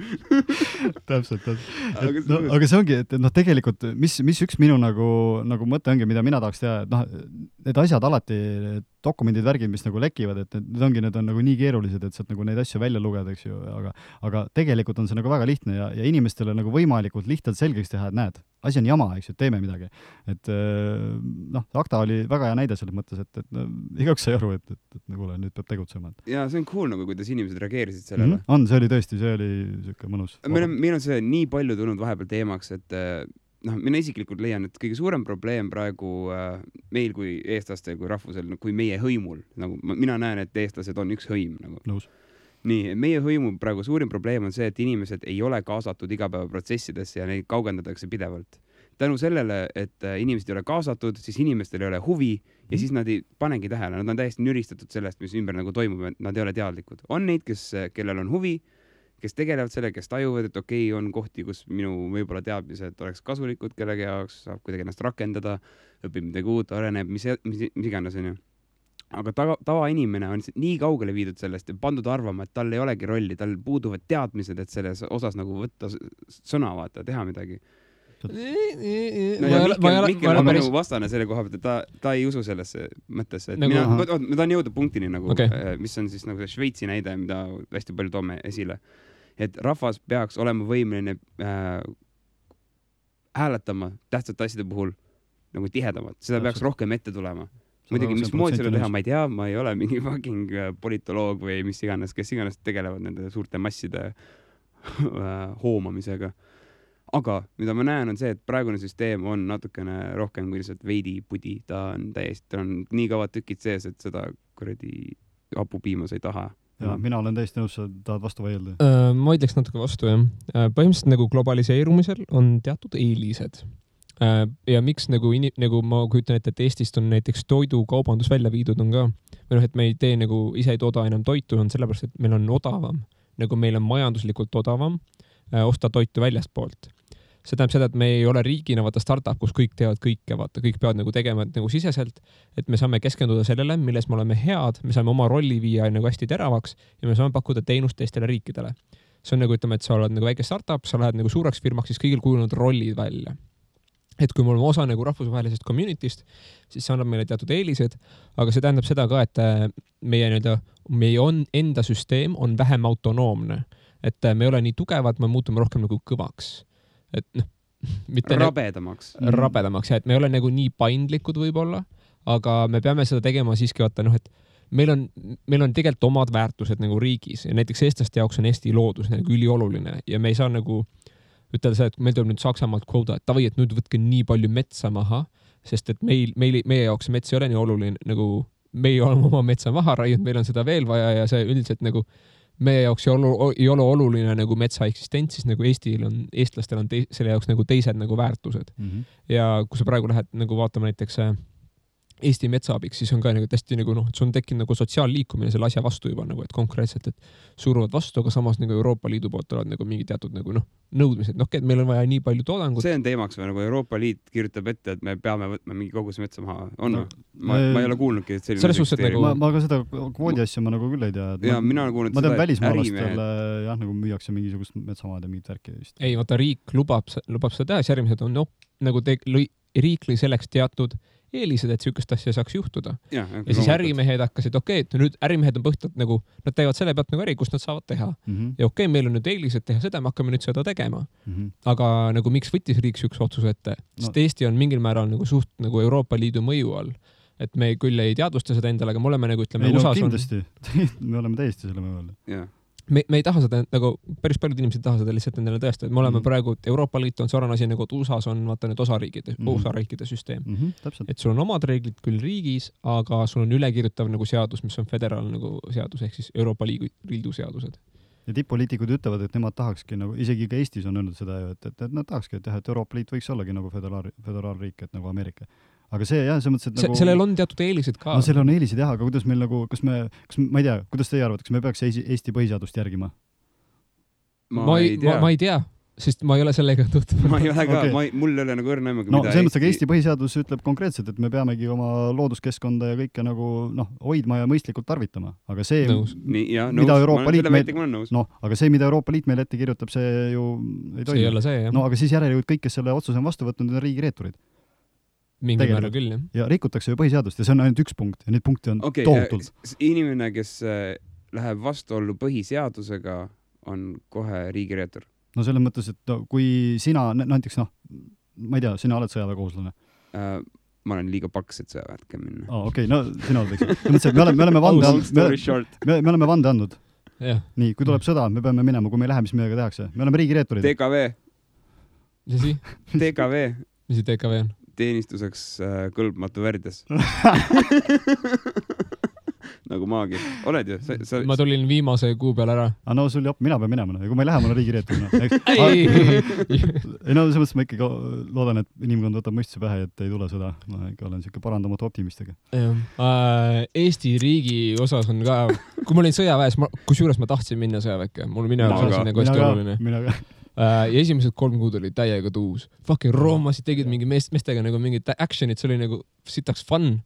Täpselt. Aga see ongi, et tegelikult, mis üks minu nagu mõte ongi, mida mina tahaks teha, et need asjad alati, dokumendid, värgid, mis nagu lekivad, et need on nagu nii keerulised, et sealt nagu neid asju välja lugeda, eks ju, aga tegelikult on see nagu väga lihtne ja inimestele nagu võimalikult lihtsalt selgeks teha, et näed, asi on jama, eks ju, teeme midagi. Et ACTA oli väga hea näide selles mõttes, et igaüks sai aru, et nagu nüüd peab tegutsema. Ja see on cool nagu, kuidas inimesed reageerisid sellele. See oli tõesti, see oli siuke mõnus. Meil on see nii palju tulnud vahepeal teemaks, et mina isiklikult leian, et kõige suurem probleem praegu meil kui eestlastel, kui rahvusel, kui meie hõimul, nagu mina näen, et eestlased on üks hõim. Nagu. Nõus. Nii, meie hõimu praegu suurim probleem on see, et inimesed ei ole kaasatud igapäevaprotsessidesse ja neid kaugendatakse pidevalt. Tänu sellele, et inimesed ei ole kaasatud, siis inimestel ei ole huvi ja siis nad ei panegi tähele. Nad on täiesti nüristatud sellest, mis ümber nagu toimub, et nad ei ole teadlikud. On neid, kellel on huvi, kes tegelevad selle, kes tajuvad, et okei, on kohti, kus minu võib-olla teadmised oleks kasulikud kellegi jaoks, saab kuidagi ennast rakendada, õpib midagi uut, areneb, mis iganes, on ju. Aga tavainimene on nii kaugele viidud sellest ja pandud arvama, et tal ei olegi rolli, tal puuduvad teadmised, et selles osas nagu võtta sõna, vaata, teha midagi. Mikkel on minu vastane selle koha pealt, et ta ei usu sellesse mõttesse. Ma tahan jõuda punktini, nagu, mis on siis nagu see Šveitsi näide, mida hästi palju toome esile. Et rahvas peaks olema võimeline hääletama tähtsate asjade puhul nagu tihedamalt. Seda peaks rohkem ette tulema. Muidugi, mis moodi seda teha, ma ei tea, ma ei ole mingi fucking politoloog või mis iganes, kes iganes tegelevad nende suurte masside hoomamisega. Aga mida ma näen on see, et praegune süsteem on natukene rohkem kui lihtsalt veidi pudi. Ta on nii kaua tükid sees, et seda kuradi hapupiimas ei taha. Ja, mina olen täiesti nõus, sa tahad vastu vaielda. Ma ütleks natuke vastu, jah. Põhimõtteliselt nagu globaliseerumisel on teatud eelised. Ja miks nagu ma kujutan ette, et Eestist on näiteks toidukaubandus välja viidud on ka. Et me ei tee nagu ise ei tooda enam toitu, on sellepärast, et meil on odavam. Nagu meil on majanduslikult odavam osta toitu väljastpoolt. See tähendab seda, et me ei ole riigina vaata startup, kus kõik teevad kõike, vaata, kõik peavad nagu tegema nagu siseselt, et me saame keskenduda sellele, milles me oleme head, me saame oma rolli viia nagu hästi teravaks ja me saame pakkuda teenust teistele riikidele. See on nagu, ütleme, et sa oled nagu väike startup, sa lähed nagu suureks firmaks, siis kõigil kujunenud rollid välja. Et kui me oleme osa nagu rahvusvahelisest community'st, siis see annab meile teatud eelised, aga see tähendab seda ka, et meie enda süsteem on vähem autonoomne, et me ei ole nii tugevad, me muutume rohkem nagu kõvaks. Et mitte rabedamaks, ja et me ei ole nagu nii paindlikud võib-olla, aga me peame seda tegema siiski vaata, et meil on tegelikult omad väärtused nagu riigis ja näiteks eestlaste jaoks on Eesti loodus nagu ülioluline ja me ei saa nagu ütelda seda, et meil tuleb nüüd Saksamaalt kvota, et tavai, et nüüd võtke nii palju metsa maha, sest et meie jaoks mets ei ole nii oluline, nagu meie oleme oma metsa maha raiud, meil on seda veel vaja ja see üldiselt nagu meie jaoks ei ole oluline nagu metsa eksistents, siis nagu eestlastel on selle jaoks nagu teised nagu väärtused. Ja kui sa praegu lähed nagu vaatama näiteks Eesti metsaabiks, siis on ka nagu tästi nagu et see on tekkinud nagu sotsiaalliikumine selle asja vastu juba nagu, et konkreetselt, et suruvad vastu, aga samas nagu Euroopa Liidu poolt tulevad nagu mingi teatud nagu nõudmised, et meil on vaja nii palju toodangut. See on teemaks või nagu Euroopa Liit kirjutab ette, et me peame võtma mingi kogus metsa maha. Ma ei ole kuulnudki, et selline nagu... ma ka seda kvoodi asja ma nagu küll ei tea. Ja mina olen kuulnud seda välismaalastele nagu müüakse mingisugust metsamaad ja mingit värki vist. Ei, vaata riik lubab seda teha, siis järgmised on nagu riik lõi selleks teatud eelised, et sükest asja saaks juhtuda. Ja siis ärimehed hakkasid, et nüüd ärimehed on põhjalt nagu, nad teevad selle pealt nagu äri, kus nad saavad teha. Ja meil on nüüd eelised teha seda, me hakkame nüüd seda tegema. Aga nagu miks võttis riik üks otsuse ette? Sest Eesti on mingil määral nagu suht nagu Euroopa Liidu mõju all. Et me küll ei teadvusta seda endale, aga me oleme nagu, ütleme, USAs kindlasti. Me oleme täiesti selle mõju all. Jah. Me ei taha seda, nagu päris paljud inimesed taha seda lihtsalt endale tõestada, et me oleme praegu, Euroopa Liit on sarnane asi nagu USAs on vaata need osariikide süsteem. Et sul on omad reeglid küll riigis, aga sul on ülekirjutav nagu seadus, mis on föderaal nagu seadus, ehk siis Euroopa Liidu seadused. Ja tipp-poliitikud ütlevad, et nemad tahakski nagu, isegi ka Eestis on öelnud seda, et nad tahakski teha, et Euroopa Liit võiks ollagi nagu föderaalriik, et nagu Ameerika. Aga see jah, see mõttes, et nagu... Sellel on teatud eelised ka. No sellel on eelised jah, aga kuidas meil nagu, ma ei tea, kuidas teie arvate, kas me peaks Eesti põhiseadust järgima? Ma ei tea, sest ma ei ole sellega tutvunud. Ma ei ole ka, mul ei ole nagu õrna aimugi, mida see mõttes, aga Eesti põhiseadus ütleb konkreetselt, et me peamegi oma looduskeskkonda ja kõike nagu hoidma ja mõistlikult tarvitama. Aga see, mida Euroopa Liit aga see, mida Euroopa Liit meil ette kirjutab, see ju ei toimi. See ei ole see, jah. No aga siis järelikult kõik, kes selle otsuse on vastu võtnud, on riigireeturid. Mingi määra küll, jah. Ja rikutakse ju põhiseadust ja see on ainult üks punkt ja neid punkte on tohutult. Inimene, kes läheb vastuollu põhiseadusega, on kohe riigireetur. No selles mõttes, et kui sina, näiteks ma ei tea, sina oled sõjaväekohuslane. Ma olen liiga paks, et sõjaväärtke minna. Okei, no sina oled, eks. Me oleme vande andnud. Nii, kui tuleb sõda, me peame minema, kui me ei lähe, mis meiega tehakse. Me oleme riigireeturid. TKV. Mis asi? TKV. Mis TKV on? Teenistuseks kõlbmatu värdes. nagu maagi. Oled ju? Ma tulin viimase kuu peal ära. No sul jopp, mina pean minema. Kui ma ei lähe, mul on riigireetur. Ei, no selles mõttes ma ikkagi loodan, et inimkond võtab mõistuse pähe, et ei tule seda. Ma ikka olen siuke parandamatu optimistiga. Eesti riigi osas on ka, kui ma olin sõjaväes, kusjuures ma tahtsin minna sõjaväkke. Mul minu jaoks on nagu hästi oluline. Ja esimesed 3 kuud oli täiega tuus. Fucking roomasid tegid mingi meestega nagu mingid actionid, see oli nagu sitaks fun.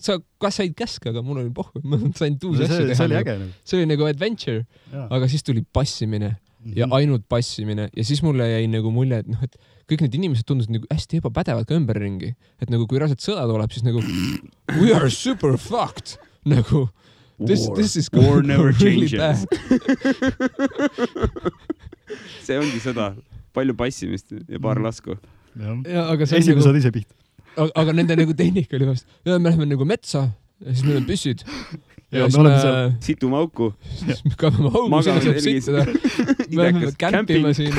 Sa kas said käske, aga mul oli pohv. Ma sain tuus asju teha. See oli äge. See oli nagu adventure. Aga siis tuli passimine ja ainult passimine. Ja siis mulle jäi nagu mulje, et kõik need inimesed tundusid nagu hästi ebapädevad ka ümberringi. Et nagu kui raselt sõda tuleb, siis nagu we are super fucked. Nagu this is war never changes. See ongi sõda. Palju passimist ja paar lasku. Esimene saad ise piht. Aga nende nagu tehnika oli vast. Ja me läheme nagu metsa ja siis meil on püssid. Ja me oleme seal. Situme auku. Siis me kaevame auku, sinna saab sittada. Me läheme kämpima siin.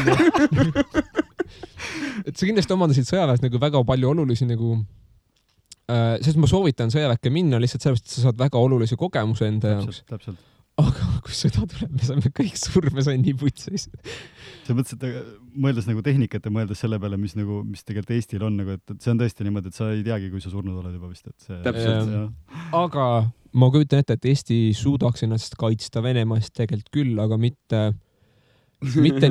Et sa kindlasti omandasid sõjaväes nagu väga palju olulisi nagu sest ma soovitan sõjaväkke minna lihtsalt sellepärast, et sa saad väga olulisi kogemuse enda jaoks. Täpselt. Aga kui sõda tuleb, me saame kõik surma, see on nii putsis. See mõttes, et mõeldes nagu tehnikat ja mõeldes selle peale, mis tegelikult Eestil on, nagu, et see on tõesti niimoodi, et sa ei teagi, kui sa surnud oled juba vist. Et see, täpselt. Aga ma kujutan ette, et Eesti suudaks ennast kaitsta Venemaast tegelikult küll, aga mitte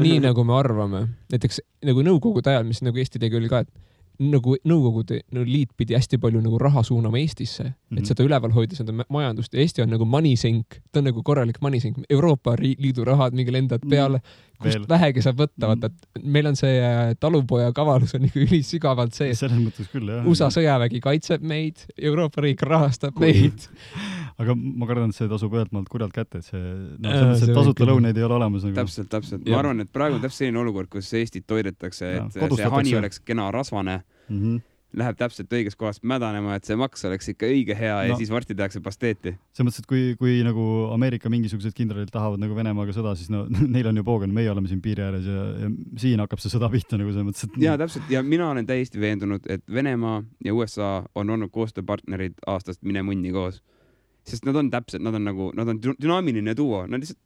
nii, nagu me arvame. Näiteks nagu Nõukogude ajal, mis nagu Eesti tegi oli ka, et nagu Nõukogude liit pidi hästi palju nagu raha suunama Eestisse, et seda üleval hoida seda majandust. Eesti on nagu manisink, ta on nagu korralik manisink. Euroopa Liidu rahad mingi lendad peale, kust vähegi saab võtta. Vaata, et meil on see talupoja kavalus on nagu ülisügavalt sees. Selles mõttes küll, jah. USA sõjavägi kaitseb meid, Euroopa riik rahastab meid. Aga ma kardan, et see tasub ühelt maalt kurjalt kätte, et see tasuta lõuneid ei ole olemas. Nagu. Täpselt. Ma arvan, et praegu on täpselt selline olukord, kus Eestit toidetakse, et see hani oleks kena rasvane, läheb täpselt õiges kohast mädanema, et see maks oleks ikka õige hea ja siis varsti tehakse pasteeti. See mõttes, et kui nagu Ameerika mingisugused kindralid tahavad nagu Venemaaga sõda, siis neil on ju poogen, meie oleme siin piiri ääres ja siin hakkab see sõda pihta nagu see mõttes, et... Ja täpselt, ja mina olen täiesti veendunud, et Venemaa ja USA on olnud koostööpartnerid aastast mine munni koos. Sest nad on täpselt, nad on dünaamiline duo, nad lihtsalt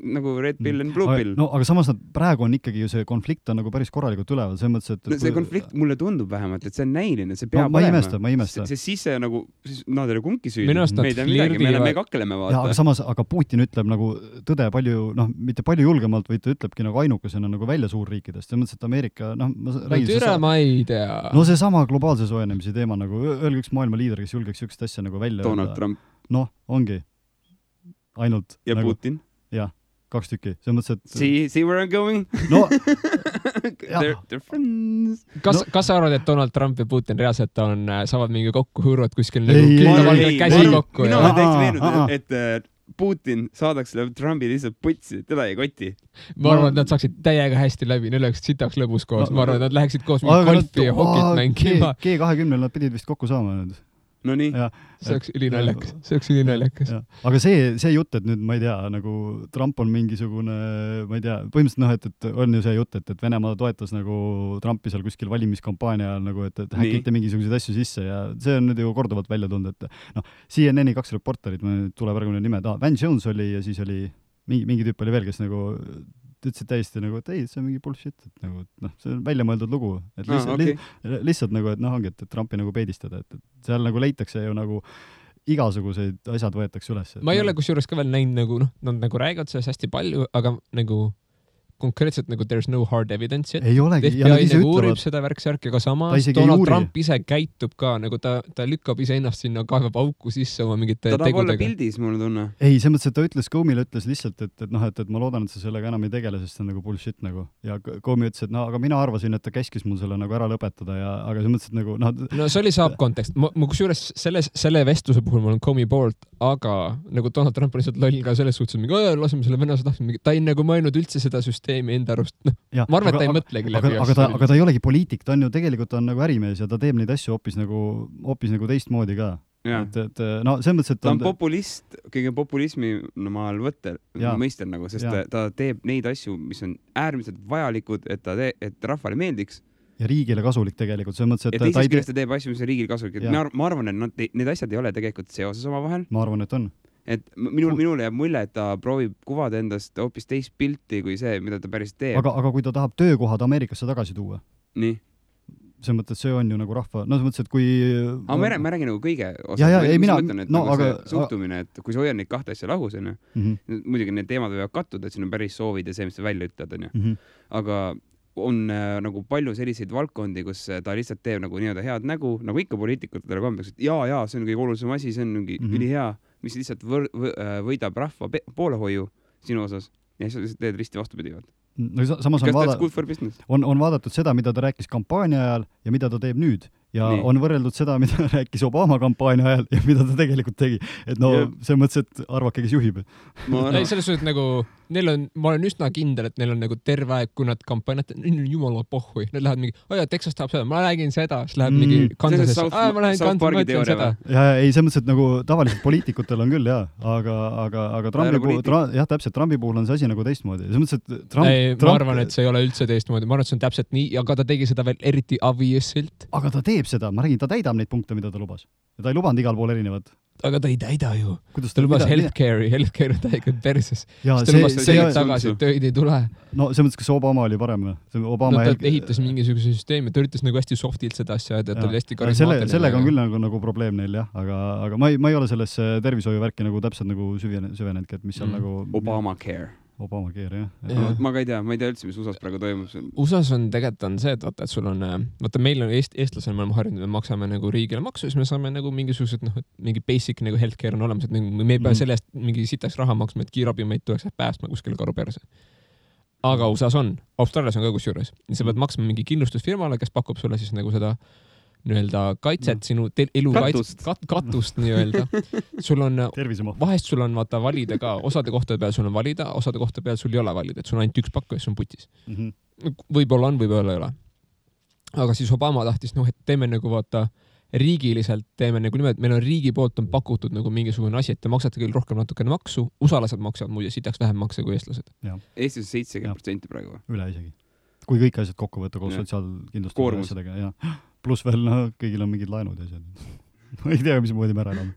nagu Red Pill and Blue Pill. No, aga samas praegu on ikkagi ju see konflikt on nagu päris korralikult üleval, see mõttes, et... See konflikt mulle tundub vähemalt, et see on näiline, see peab olema. Ma imesta. See sisse nagu, nad ei ole kumbki süüdi. Me kakleme vaata. Ja, aga samas, aga Putin ütleb nagu tõde palju, mitte palju julgemalt, vaid ta ütlebki nagu ainukesena nagu välja suurriikidest. See mõttes, et Ameerika, ma ei tea. No see sama globaalse soojenemise teema nagu, öelge üks maailma liider, kes julgeks üks asja nagu välja. Donald Trump. Noh, ongi. Ainult. Ja nagu, Putin. Jah, 2 tükki. See mõttes, et... See where I'm going? No, they're friends. Kas sa arvad, et Donald Trump ja Putin reaalselt saavad mingi kokku hõõruvad kuskil nagu käsi kokku? Mina olen täitsa veenud, et Putin saadaks Trumpi lihtsalt putsi, teda ei koti. Ma arvan, et nad saaksid täiega hästi läbi, neil oleks sitaks lõbus koos. Ma arvan, et nad läheksid koos mingi golfi ja hokit mängima. G20 nad pidid vist kokku saama nüüd. No nii. See oleks ülinaljakas. Aga see jutt, et nüüd, ma ei tea, nagu Trump on mingisugune, ma ei tea, põhimõtteliselt et on ju see jutt, et Venemaa toetas nagu Trumpi seal kuskil valimiskampaania nagu, et häkite mingisuguseid asju sisse ja see on nüüd ju korduvalt välja tulnud, et CNN-i 2 reporterid, ma tuleb praegu nimed, Van Jones oli ja siis oli mingi tüüp oli veel, kes nagu ütlesid täiesti nagu, et ei, see on mingi bullshit, et nagu, see on välja mõeldud lugu, et lihtsalt nagu, et ongi, et Trumpi nagu peedistada, et seal nagu leitakse ju nagu igasuguseid asjad võetakse üles. Ma ei ole kusjuures ka veel näinud nagu, nad nagu räägivad sellest hästi palju, aga nagu konkreetselt nagu there's no hard evidence yet. Ei olegi. FBI nagu uurib seda värksärki, aga samas Donald Trump ise käitub ka, nagu ta lükkab ise ennast sinna, kaevab auku sisse oma mingite tegudega. Ta tahab olla pildis, mulle tunne. Ei, see mõttes, et ta ütles, Comey'le ütles lihtsalt, et ma loodan, et sa sellega enam ei tegele, sest see on nagu bullshit nagu. Ja Comey ütles, et aga mina arvasin, et ta käskis mul selle nagu ära lõpetada ja aga see mõttes, et nagu... No see oli saab kontekst. Ma kusjuures selle vestluse puhul ma olen Comey poolt, aga nagu Donald Trump on lihtsalt loll ka selles suhtes, et laseme selle venelase tahtma. Ta ei nagu mõelnud üldse seda süsteemi enda arust. Ma arvan, et ta ei mõtlegi läbi. Aga ta ei olegi poliitik, ta on ju tegelikult on nagu ärimees ja ta teeb neid asju hoopis nagu teistmoodi ka. Et see mõttes, et ta on populist, kõige populismi maal mõistel nagu, sest ta teeb neid asju, mis on äärmiselt vajalikud, et rahvale meeldiks. Ja riigile kasulik tegelikult, see mõttes, et ja teisest küljest ta teeb asju, mis on riigile kasulik. Ma arvan, et need asjad ei ole tegelikult seoses oma vahel. Ma arvan, et on. et minule jääb mulje, et ta proovib kuvada endast hoopis teist pilti kui see, mida ta päris teeb. Aga kui ta tahab töökohad Ameerikasse tagasi tuua? Nii? See mõttes, see on ju nagu rahva... No see mõttes, et kui... Aga ma räägin nagu kõige osas. Suhtumine, et kui sa hoiad neid kahte asja lahus, on ju, muidugi need teemad võivad kattuda, et siin on päris soovid ja see, mis sa välja ütled, on ju. Aga on nagu palju selliseid valdkondi, kus ta lihtsalt teeb nagu nii-öelda head nägu, nagu ikka poliitikutele kombeks, et jaa, see on kõige olulisem asi, see on mingi ülihea, mis lihtsalt võidab rahva poolehoiu sinu osas ja siis lihtsalt teed risti vastupidivad. No, samas on vaadatud seda, mida ta rääkis kampaania ajal ja mida ta teeb nüüd. Ja on võrreldud seda, mida rääkis Obama kampaania ajal ja mida ta tegelikult tegi. Et no see mõttes, et arvake, kes juhib. Selles suhtes nagu, ma olen üsna kindel, et neil on nagu terve aeg, kui nad kampaaniat, jumala pohhui. Nad lähevad mingi, Texas tahab seda, ma räägin seda, siis läheb mingi Kansasesse. Ma lähen Kansas, ma ütlen seda. Ja ei, see mõttes, et nagu tavaliselt poliitikutel on küll, aga Trumpi puhul on see asi nagu teistmoodi. See mõttes, et ma arvan, et see ei ole üldse teistmoodi. Ma arvan, et see on täpselt nii, aga ta tegi seda veel eriti obviouslilt. Aga ta teeb seda, ma räägin, ta täidab neid punkte, mida ta lubas. Ja ta ei lubanud igal pool erinevad. Aga ta ei täida ju. Ta lubas healthcare on täiega perses. Ta lubas selle tagasi, et tööid ei tule. No see mõttes, kas Obama oli parem? Ta ehitas mingisuguse süsteemi, ta üritas nagu hästi softilt seda asja, et ta oli hästi karismaatiline. Sellega on küll nagu probleem neil, jah. Aga ma ei ole sellesse tervishoiuvärki nagu täpselt nagu süvenedki, et mis on nagu... Obamacare, jah. Ma ei tea üldse, mis USAs praegu toimub. USAs on tegelikult on see, et sul on, meil on eestlasel, me oleme harjunud, me maksame nagu riigile maksu, siis me saame nagu mingisugused, mingi basic nagu healthcare on olemas, et me ei pea sellest mingi sitaks raha maksma, et kiirabimeid tuleks päästma kuskil karu perse. Aga USAs on, Austraalias on ka kusjuures. Sa pead maksma mingi kindlustusfirmale, kes pakub sulle siis nagu seda nii-öelda kaitset, sinu elu katust nii-öelda. Sul on, vahest sul on vaata valida ka, osade kohtade peal sul on valida, osade kohtade peal sul ei ole valida, et sul on ainult üks pakku ja sul on putis. Võib-olla on, võib-olla ei ole. Aga siis Obama tahtis, et teeme nagu vaata riigiliselt, teeme nagu niimoodi, et meil on riigi poolt on pakutud nagu mingisugune asi, et te maksate küll rohkem natukene maksu, usalased maksavad muide sitaks vähem makse kui eestlased. Eestis 70% praegu. Üle isegi. Kui kõik asjad kokku võtta koos sotsiaalkindlustuse asjadega, ja pluss veel, kõigil on mingid laenud ja asjad. Ma ei tea, mis moodi me ära elame.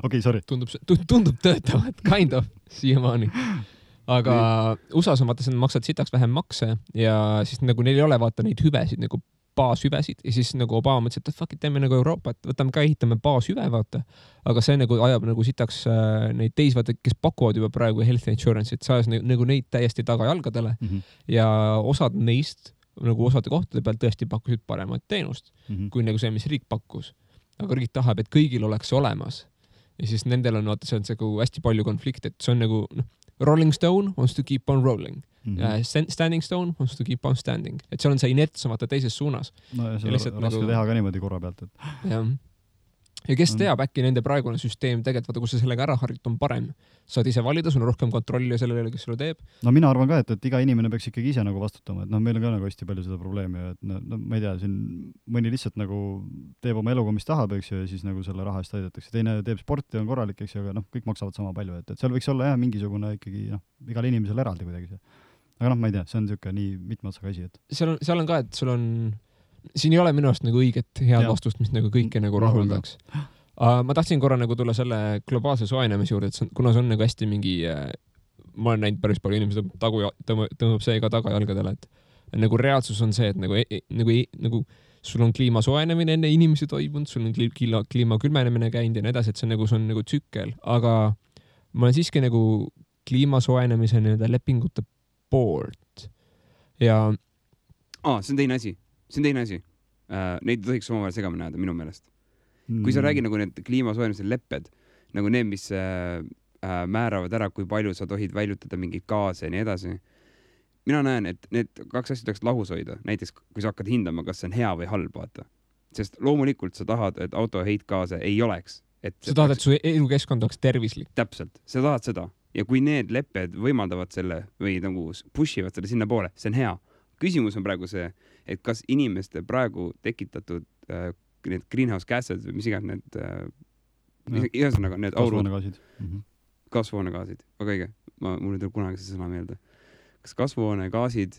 Okei, sorry. Tundub töötavat, kind of, siiamaani. Aga USAs on vaata, maksad sitaks vähem makse ja siis nagu neil ei ole vaata neid hüvesid, nagu baashüvesid ja siis nagu Obama mõtles, et fuck it, teeme nagu Euroopa, et võtame ka ehitame baashüve, vaata. Aga see nagu ajab nagu sitaks neid teis, vaata, kes pakuvad juba praegu health insurance, et saas nagu neid täiesti tagajalgadele ja osad neist nagu osade kohtade peal tõesti pakkusid paremat teenust kui nagu see, mis riik pakkus. Aga riik tahab, et kõigil oleks olemas. Ja siis nendel on, vaata, see on nagu hästi palju konflikte, et see on nagu Rolling Stone wants to keep on rolling. Standing Stone wants to keep on standing. Et seal on see inerts vaata teises suunas. No ja see on raske teha ka niimoodi korra pealt. Jah. Ja kes teab, äkki nende praegune süsteem tegelikult, vaata, kus sa sellega ära harjut on parem. Saad ise valida, sul on rohkem kontrolli sellele, kes sulle teeb. No mina arvan ka, et iga inimene peaks ikkagi ise nagu vastutama, et meil on ka nagu hästi palju seda probleemi, et ma ei tea, siin mõni lihtsalt nagu teeb oma eluga, mis tahab, eks ju, ja siis nagu selle raha eest aidatakse. Teine teeb sporti, on korralik, eks ju, aga kõik maksavad sama palju, et seal võiks olla mingisugune ikkagi igal inimesel eraldi kuidagi see. Aga ma ei tea, see on niisugune nii mitme otsaga asi, et seal on ka, et sul on siin ei ole minu arust nagu õiget head vastust, mis nagu kõike nagu rahuldaks. Ma tahtsin korra nagu tulla selle globaalse soojenemise juurde, et kuna see on nagu hästi mingi, ma olen näinud päris palju inimesed tõmbab see ka tagajalgadele, et nagu reaalsus on see, et nagu sul on kliima soojenemine enne inimesi toimunud, sul on kliima külmenemine käinud ja nii edasi, et see on nagu tsükkel, aga ma olen siiski nagu kliima soojenemise lepingute poolt ja see on teine asi. Neid tohiks omavahel segamini ajada minu meelest. Kui sa räägid nagu need kliimasoojenemise lepped, nagu need, mis määravad ära, kui palju sa tohid väljutada mingeid gaase ja nii edasi. Mina näen, et need kaks asja tuleks lahus hoida. Näiteks, kui sa hakkad hindama, kas see on hea või halb, vaata. Sest loomulikult sa tahad, et auto heitgaase ei oleks. Sa tahad, et su elukeskkond oleks tervislik. Täpselt, sa tahad seda. Ja kui need lepped võimaldavad selle või nagu pushivad selle sinna poole, see on hea. Küsimus on praegu see, et kas inimeste praegu tekitatud need greenhouse gases või mis iganes need igasõnaga need kasvuhoonegaasid. Väga õige. Mul ei tule kunagi see sõna meelde. Kas kasvuhoonegaasid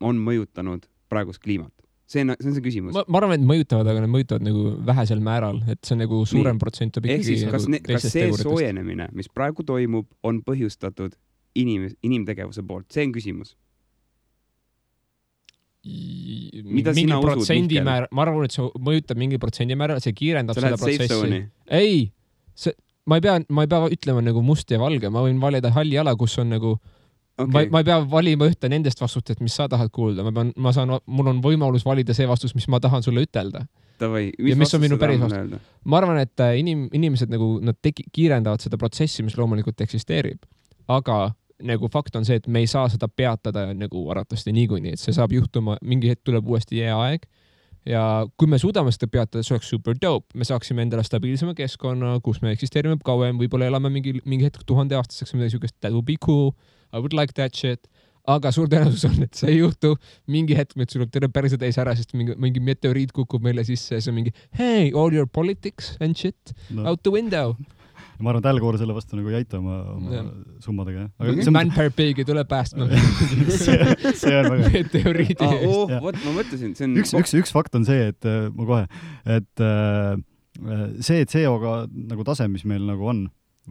on mõjutanud praegust kliimat? see on see küsimus. Ma arvan, et mõjutavad, aga need mõjutavad nagu vähesel määral, et see on nagu suurem protsent ehk siis, kas see soojenemine, mis praegu toimub, on põhjustatud inimtegevuse poolt? See on küsimus. Mingi protsendimäär, ma arvan, et see mõjutab mingi protsendimääral, see kiirendab seda protsessi. Ei, ma ei pea ütlema nagu must ja valge, ma võin valida halli ala, kus on nagu ma ei pea valima ühte nendest vastustest, mis sa tahad kuulda. Mul on võimalus valida see vastus, mis ma tahan sulle ütelda. Ja mis on minu päris vastus. Ma arvan, et inimesed nagu, nad kiirendavad seda protsessi, mis loomulikult eksisteerib. Aga nagu fakt on see, et me ei saa seda peatada nagu arvatavasti niikuinii, et see saab juhtuma, mingi hetk tuleb uuesti aeg. Ja kui me suudame seda peatada, see oleks super dope. Me saaksime endale stabiilsema keskkonna, kus me eksisteerime kauem, võib-olla elame mingi hetk 1000 aastaseks, midagi sugust, that would be cool. I would like that shit. Aga suur tõenäosus on, et see ei juhtu. Mingi hetk meil tuleb terve päriselt ees ära, sest mingi meteoriit kukub meile sisse ja see on mingi hey, all your politics and shit out the window. Ma arvan, et Al Gore selle vastu nagu ei aita oma summadega. Man-per-pigi tuleb päästma. see on väga meteoriidi eest. Ma mõtlesin, see on... Üks fakt on see, et ma kohe, et see CO2 nagu tase, mis meil nagu on,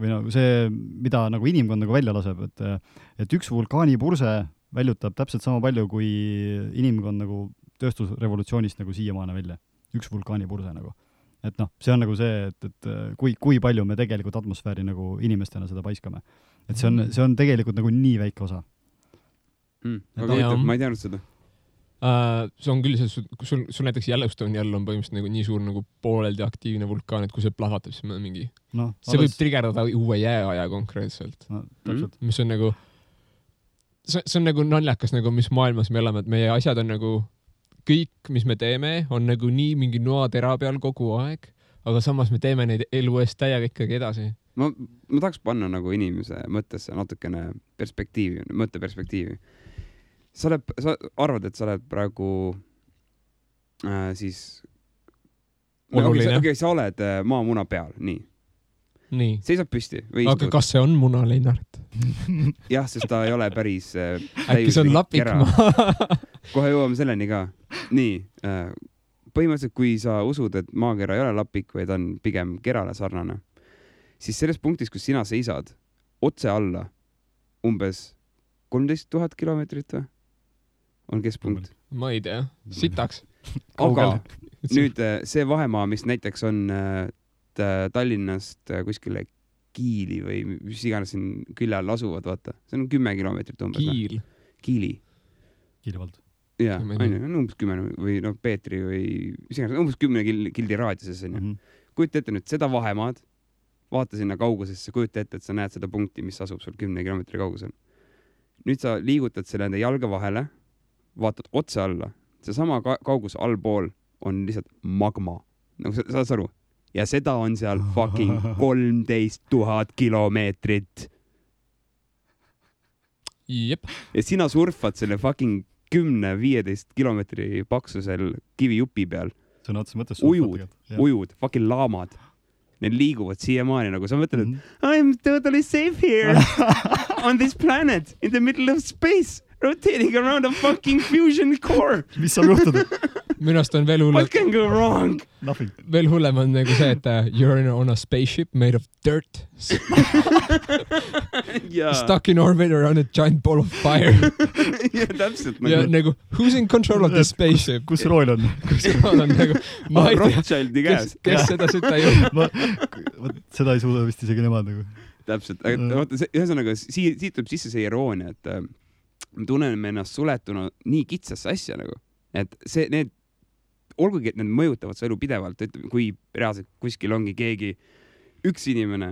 või nagu see, mida nagu inimkond nagu välja laseb, et üks vulkaanipurse väljutab täpselt sama palju, kui inimkond nagu tööstusrevolutsioonist nagu siiamaane välja. Üks vulkaanipurse nagu. Et see on nagu see, et kui palju me tegelikult atmosfääri nagu inimestena seda paiskame. Et see on tegelikult nagu nii väike osa. Ma ei teadnud seda. See on küll, sul näiteks Yellowstone'i all on põhimõtteliselt nagu nii suur nagu pooleldi aktiivne vulkaan, et kui see plahvatab, siis on mingi... see võib trigerdada uue jääaja konkreetselt. Mis on nagu... See on nagu naljakas, nagu mis maailmas me elame, et meie asjad on nagu... Kõik, mis me teeme, on nagu nii mingi noatera peal kogu aeg, aga samas me teeme neid elu eest täiega ikkagi edasi. Ma tahaks panna nagu inimese mõttesse natukene mõtteperspektiivi. Sa arvad, et sa oled praegu siis... sa oled maamuna peal, nii. Seisab püsti. Aga kas see on muna, Lennart? Jah, sest ta ei ole päris... Äkki see on lapikmaa? Kohe jõuame selleni ka. Nii, põhimõtteliselt kui sa usud, et maakera ei ole lapik, vaid on pigem kerale sarnane, siis selles punktis, kus sina seisad otse alla umbes 13 000 kilomeetrit või? On keskpunkt? Ma ei tea, sitaks. Aga nüüd see vahemaa, mis näiteks on Tallinnast kuskile Kiili või mis iganes siin külje all asuvad, vaata. See on 10 kilomeetrit umbes. Kiili vald. Jaa, umbes 10 või Peetri või umbes 10 kildi raadiuses. Kujuta ette nüüd seda vahemaad, vaata sinna kaugusesse, kujuta ette, et sa näed seda punkti, mis asub sul 10 kilomeetri kaugusel. Nüüd sa liigutad selle enda jalga vahele, vaatad otse alla. See sama kaugus allpool on lihtsalt magma. Nagu sa saad aru? Ja seda on seal fucking 13 000 kilomeetrit. Jep. Ja sina surfad selle fucking 10-15 kilomeetri paksusel kivijupi peal. See on otse mõttes ujud, fucking laamad. Need liiguvad siiamaani nagu sa mõtled, et I'm totally safe here on this planet in the middle of space rotating around a fucking fusion core. Mis saab juhtuda? Minust on veel hullem. What can go wrong? Nothing. Veel hullem on nagu see, et you're on a spaceship made of dirt. Stuck in orbit around a giant ball of fire. Ja, täpselt. Ja nagu, who's in control of the spaceship? Kus rool on? Kus rool on nagu... Rothschildi käes. Kes seda süta ei ole? Seda ei suuda vist isegi nemad nagu. Täpselt. Ühesõnaga, siit tuleb sisse see iroonia, et me tunneme ennast suletuna nii kitsasse asja nagu. Et need olgugi, et need mõjutavad su elu pidevalt, kui reaalselt kuskil ongi keegi üks inimene,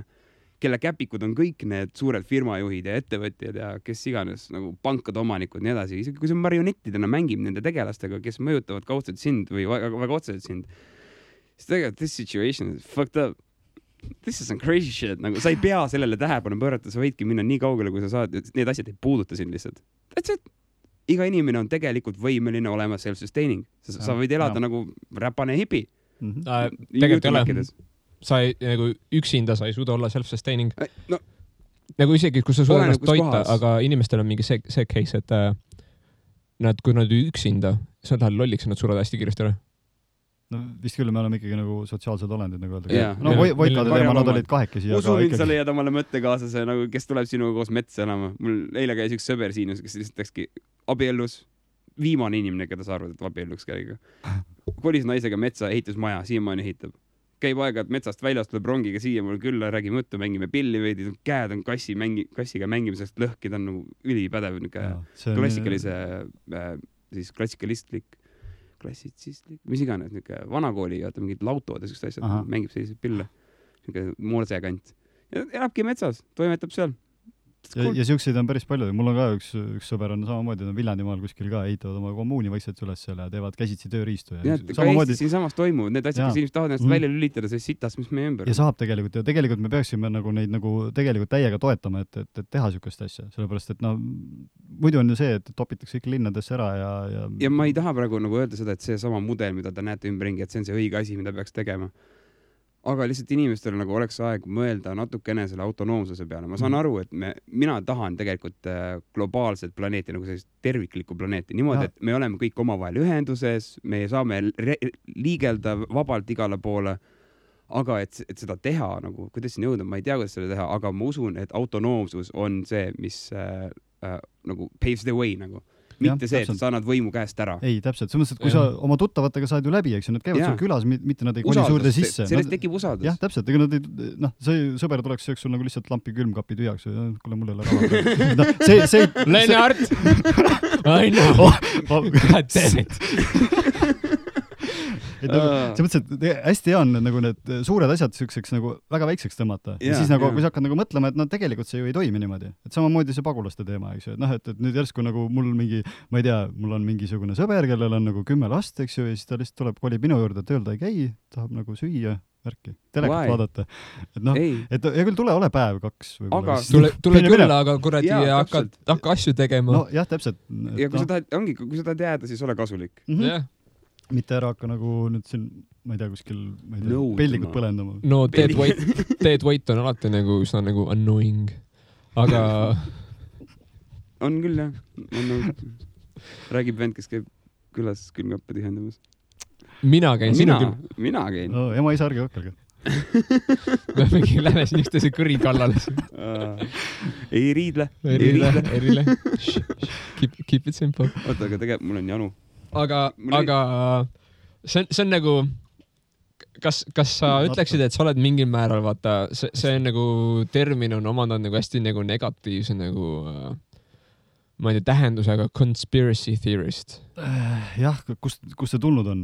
kelle käpikud on kõik need suured firmajuhid ja ettevõtjad ja kes iganes nagu pankade omanikud ja nii edasi, isegi kui see marionettidena mängib nende tegelastega, kes mõjutavad kaudselt sind või väga otseselt sind, siis tegelikult this situation is fucked up. This is some crazy shit. Nagu, sa ei pea sellele tähelepanu pöörata, sa võidki minna nii kaugele, kui sa saad, need asjad ei puuduta sind lihtsalt. That's it. Iga inimene on tegelikult võimeline olema self-sustaining. Sa võid elada nagu räpane hipi. Tegelikult ei ole. Sa ei, nagu üksinda sa ei suuda olla self-sustaining. No, nagu isegi, kui sa suudad ennast toita, aga inimestel on mingi see case, et kui nad üksinda, sa tahad lolliks, nad surevad hästi kiiresti ära. No vist küll, me oleme ikkagi nagu sotsiaalsed olendid, nagu öelda. No Voikade teema, nad olid kahekesi. Usu mind, sa leiad omale mõttekaaslase, nagu, kes tuleb sinuga koos metsa elama. Mul eile käis üks sõber siin, kes lihtsalt läkski abiellus. Viimane inimene, keda sa arvad, et abielluks käiga. Kolis naisega metsa, ehitas maja, siiamaani ehitab. Käib aega, et metsast väljast tuleb rongiga siia mul külla, räägime mõttu, mängime pilli veidi, käed on kassiga mängimisest lõhki, ta on nagu ülipädev, klassikalistlik, mis iganes, vanakooli, mingid lautod ja sellised asjad, mängib selliseid pille, moorsekant. Ja elabki metsas, toimetab seal. Ja siukseid on päris palju. Mul on ka üks sõber on samamoodi, Viljandimaal kuskil ka ehitavad oma kommuuni vaikselt üles seal ja teevad käsitsi tööriistu. Ja samamoodi siin samas toimuvad need asjad, kes inimesed tahavad ennast välja lülitada, see sitas, mis meie ümber. Ja saab tegelikult. Ja tegelikult me peaksime neid tegelikult täiega toetama, et teha siukest asja. Sellepärast, et muidu on ju see, et topitakse kõik linnadesse ära ja ma ei taha praegu öelda seda, et see sama mudel, mida te näete ümberringi, et see on see õige asi, mida peaks tegema. Aga lihtsalt inimestel oleks aeg mõelda natukene selle autonoomsuse peale. Ma saan aru, et mina tahan tegelikult globaalset planeeti, nagu sellist terviklikku planeeti. Niimoodi, et me oleme kõik omavahel ühenduses, me saame liigelda vabalt igale poole, aga et seda teha, nagu, kuidas siin jõuda, ma ei tea, kuidas seda teha, aga ma usun, et autonoomsus on see, mis nagu paves the way, nagu. Mitte see, et sa annad võimu käest ära. Ei, täpselt. See mõttes, et kui sa oma tuttavatega saad ju läbi, eks nad käivad sul külas, mitte nad ei koni suurde sisse. Sellest tekib usaldus. Jah, täpselt. Ega nad ei, see sõber tuleks sul nagu lihtsalt lampi külmkapi tühjaks. Kuule, mul ei ole raha. Lennart! I know! God damn it! See mõttes, et hästi hea on nagu need suured asjad selliseks nagu väga väikseks tõmmata. Ja siis nagu, kui sa hakkad nagu mõtlema, et tegelikult see ju ei toimi niimoodi. Et samamoodi see pagulaste teema, eks ju. Et nüüd järsku nagu mul mingi, ma ei tea, mul on mingisugune sõber, kellel on nagu 10 last, eks ju, ja siis ta lihtsalt tuleb, kolib minu juurde, et öelda ei käi, tahab nagu süüa, värki, telekat vaadata. Et ja küll ole päev 2 võib-olla. Tule küll, aga kuradi hakka asju tegema. No jah, täpselt. Ja kui sa tahad jääda, siis ole kasulik. Jah. Mitte ära hakka nagu nüüd siin, ma ei tea, kuskil pellikud põlendama. No dead weight on alati nagu üsna nagu annoying, aga on küll, jah. Räägib vend, kes käib külas külmkappe tühjendamas. Mina käin. Mina käin. No, ema isa ärge hakkelge. Me mingi lähe siin üksteise kõri kallale. Ei riidle. Keep it simple. Oota, aga tegelikult mul on janu. Aga see on nagu, kas sa ütleksid, et sa oled mingil määral, vaata, see on nagu termin on omandanud nagu hästi nagu negatiivse nagu, ma ei tea, tähendusega conspiracy theorist. Jah, kust see tulnud on?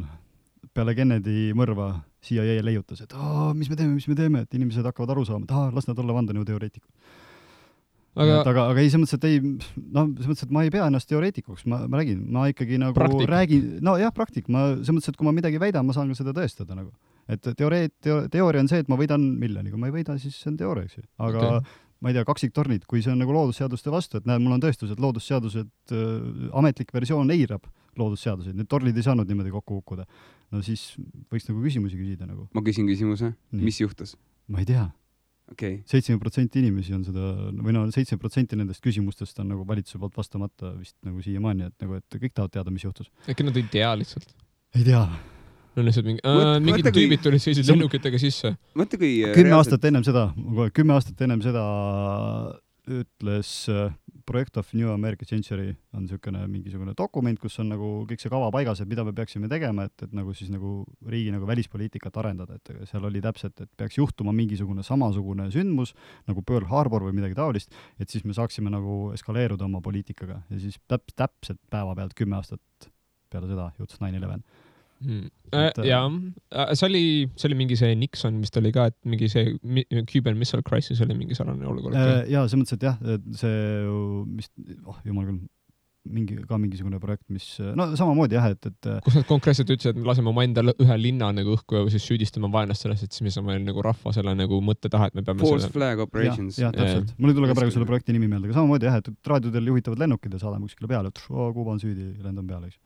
Peale Kennedy mõrva CIA leiutas, et mis me teeme, et inimesed hakkavad aru saama, et las nad olla vandenõuteoreetikud. Aga ei, see mõttes, et ma ei pea ennast teoreetikuks, ma räägin, ma ikkagi nagu räägin, no jah, praktik, see mõttes, et kui ma midagi väidan, ma saan ka seda tõestada nagu. Et teooria on see, et ma võidan miljoni, kui ma ei võida, siis see on teooria, eks ju. Aga ma ei tea, kaksiktornid, kui see on nagu loodusseaduste vastu, et näed, mul on tõestus, et loodusseadused, ametlik versioon eirab loodusseaduseid, need torlid ei saanud niimoodi kokku hukkuda. No siis võiks nagu küsimusi küsida nagu. Ma küsin küsimuse, mis juhtus? Ma ei tea. Okay. 7% inimesi on seda, või 7% nendest küsimustest on nagu valitsuse poolt vastamata vist nagu siiamaani, et kõik tahavad teada, mis juhtus. Äkki nad ei tea lihtsalt? Ei tea. No lihtsalt mingid tüübid tulid sellised lennukitega sisse. 10 aastat ennem seda ütles Project of New American Century on mingisugune dokument, kus on nagu kõik see kava paigas, et mida me peaksime tegema, et nagu siis nagu riigi nagu välispoliitikat arendada, et seal oli täpselt, et peaks juhtuma mingisugune samasugune sündmus nagu Pearl Harbor või midagi taolist, et siis me saaksime nagu eskaleeruda oma poliitikaga ja siis täpselt päeva pealt 10 aastat peale seda juhtus 9/11. Jaa, see oli mingi see Nixon, mis ta oli ka, et mingi see Cuban Missile Crisis oli mingi sarnane olukord. Jaa, see mõttes, et jah, see, jumal küll, mingisugune projekt, mis, no samamoodi jah, et kus nad konkreetselt ütlesid, et me laseme oma enda ühe linna nagu õhku ja siis süüdistame vaenlast sellest, et siis me saame nagu rahva selle nagu mõtte taha, et me peame False Flag Operations. Jah, täpselt. Mul ei tule ka praegu selle projekti nimi meelde, aga samamoodi jah, et raadiodel juhitavad lennukid ja saadame kuskile peale, et Kuuba on süüdi, lendan peale, eks.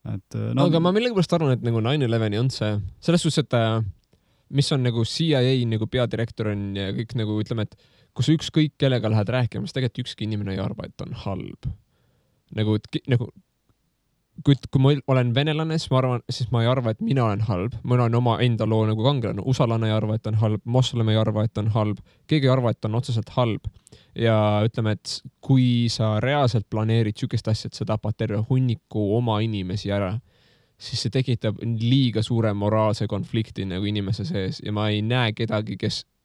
Aga ma millegipärast arvan, et nagu 9/11 on see, selles suhtes, et mis on nagu CIA nagu peadirektor on ja kõik nagu ütleme, et kui sa ükskõik kellega lähed rääkima, siis tegelikult ükski inimene ei arva, et on halb. Nagu kui ma olen venelane, siis ma ei arva, et mina olen halb. Ma olen oma enda loo nagu kangelane. Usalane ei arva, et on halb. Moslem ei arva, et on halb. Keegi ei arva, et on otseselt halb. Ja ütleme, et kui sa reaalselt planeerid sükest asja, et sa tapad terve hunniku oma inimesi ära, siis see tekitab liiga suure moraalse konflikti nagu inimese sees. Ja ma ei näe kedagi,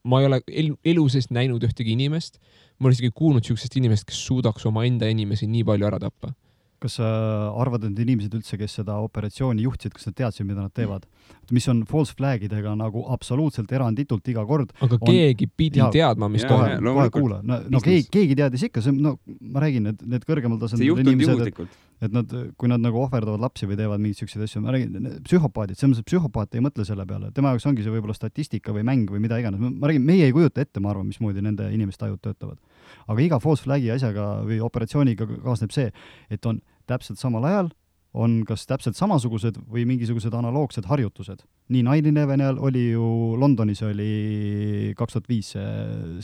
ma ei ole elu sees näinud ühtegi inimest. Ma olen isegi kuulnud sükest inimest, kes suudaks oma enda inimesi nii palju ära tappa. Kas sa arvad, et inimesed üldse, kes seda operatsiooni juhtsid, kas nad teadsid, mida nad teevad? Mis on false flagidega nagu absoluutselt eranditult iga kord. Aga keegi pidi teadma, mis kohe kuula. No keegi teadis ikka, ma räägin, et need kõrgemal tasandil inimesed, et nad, kui nad nagu ohverdavad lapsi või teevad mingid sellised asju, ma räägin, psühhopaadid, psühhopaat ei mõtle selle peale. Tema jaoks ongi see võib-olla statistika või mäng või mida iganes. Ma räägin, meie ei kujuta ette, ma arvan, mismoodi nende inimeste ajud töötavad. Aga iga false flagi asjaga või operatsiooniga kaasneb see, et on täpselt samal ajal on kas täpselt samasugused või mingisugused analoogsed harjutused. Nii 9/11 oli ju Londonis oli 2005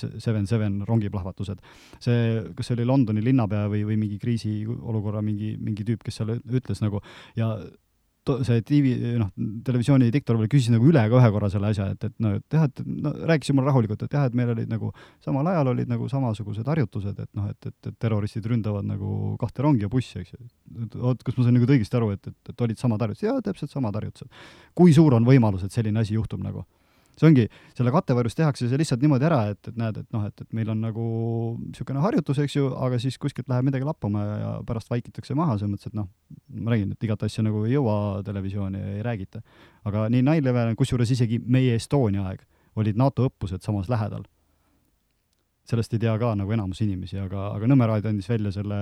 7/7 rongiplahvatused. Kas see oli Londoni linnapea või mingi kriisiolukorra mingi tüüp, kes seal ütles nagu ja see televisiooni diktor küsis nagu üle ka ühe korra selle asja, et rääkisin mulle rahulikult, et jah, et meil olid nagu samal ajal olid nagu samasugused harjutused, et terroristid ründavad nagu 2 rongi ja bussi, eks ju. Kas ma sain nagu õigesti aru, et olid samad harjutused? Jaa, täpselt samad harjutused. Kui suur on võimalus, et selline asi juhtub nagu? See ongi, selle kattevarjus tehakse see lihtsalt niimoodi ära, et näed, et meil on nagu niisugune harjutus, eks ju, aga siis kuskilt läheb midagi lappama ja pärast vaikitakse maha, see mõttes, et ma räägin, et igat asja nagu ei jõua televisiooni ja ei räägita. Aga nii 9/11, kusjuures isegi meie Estonia aeg olid NATO õppused samas lähedal. Sellest ei tea ka nagu enamus inimesi, aga Nõmmeraad andis välja selle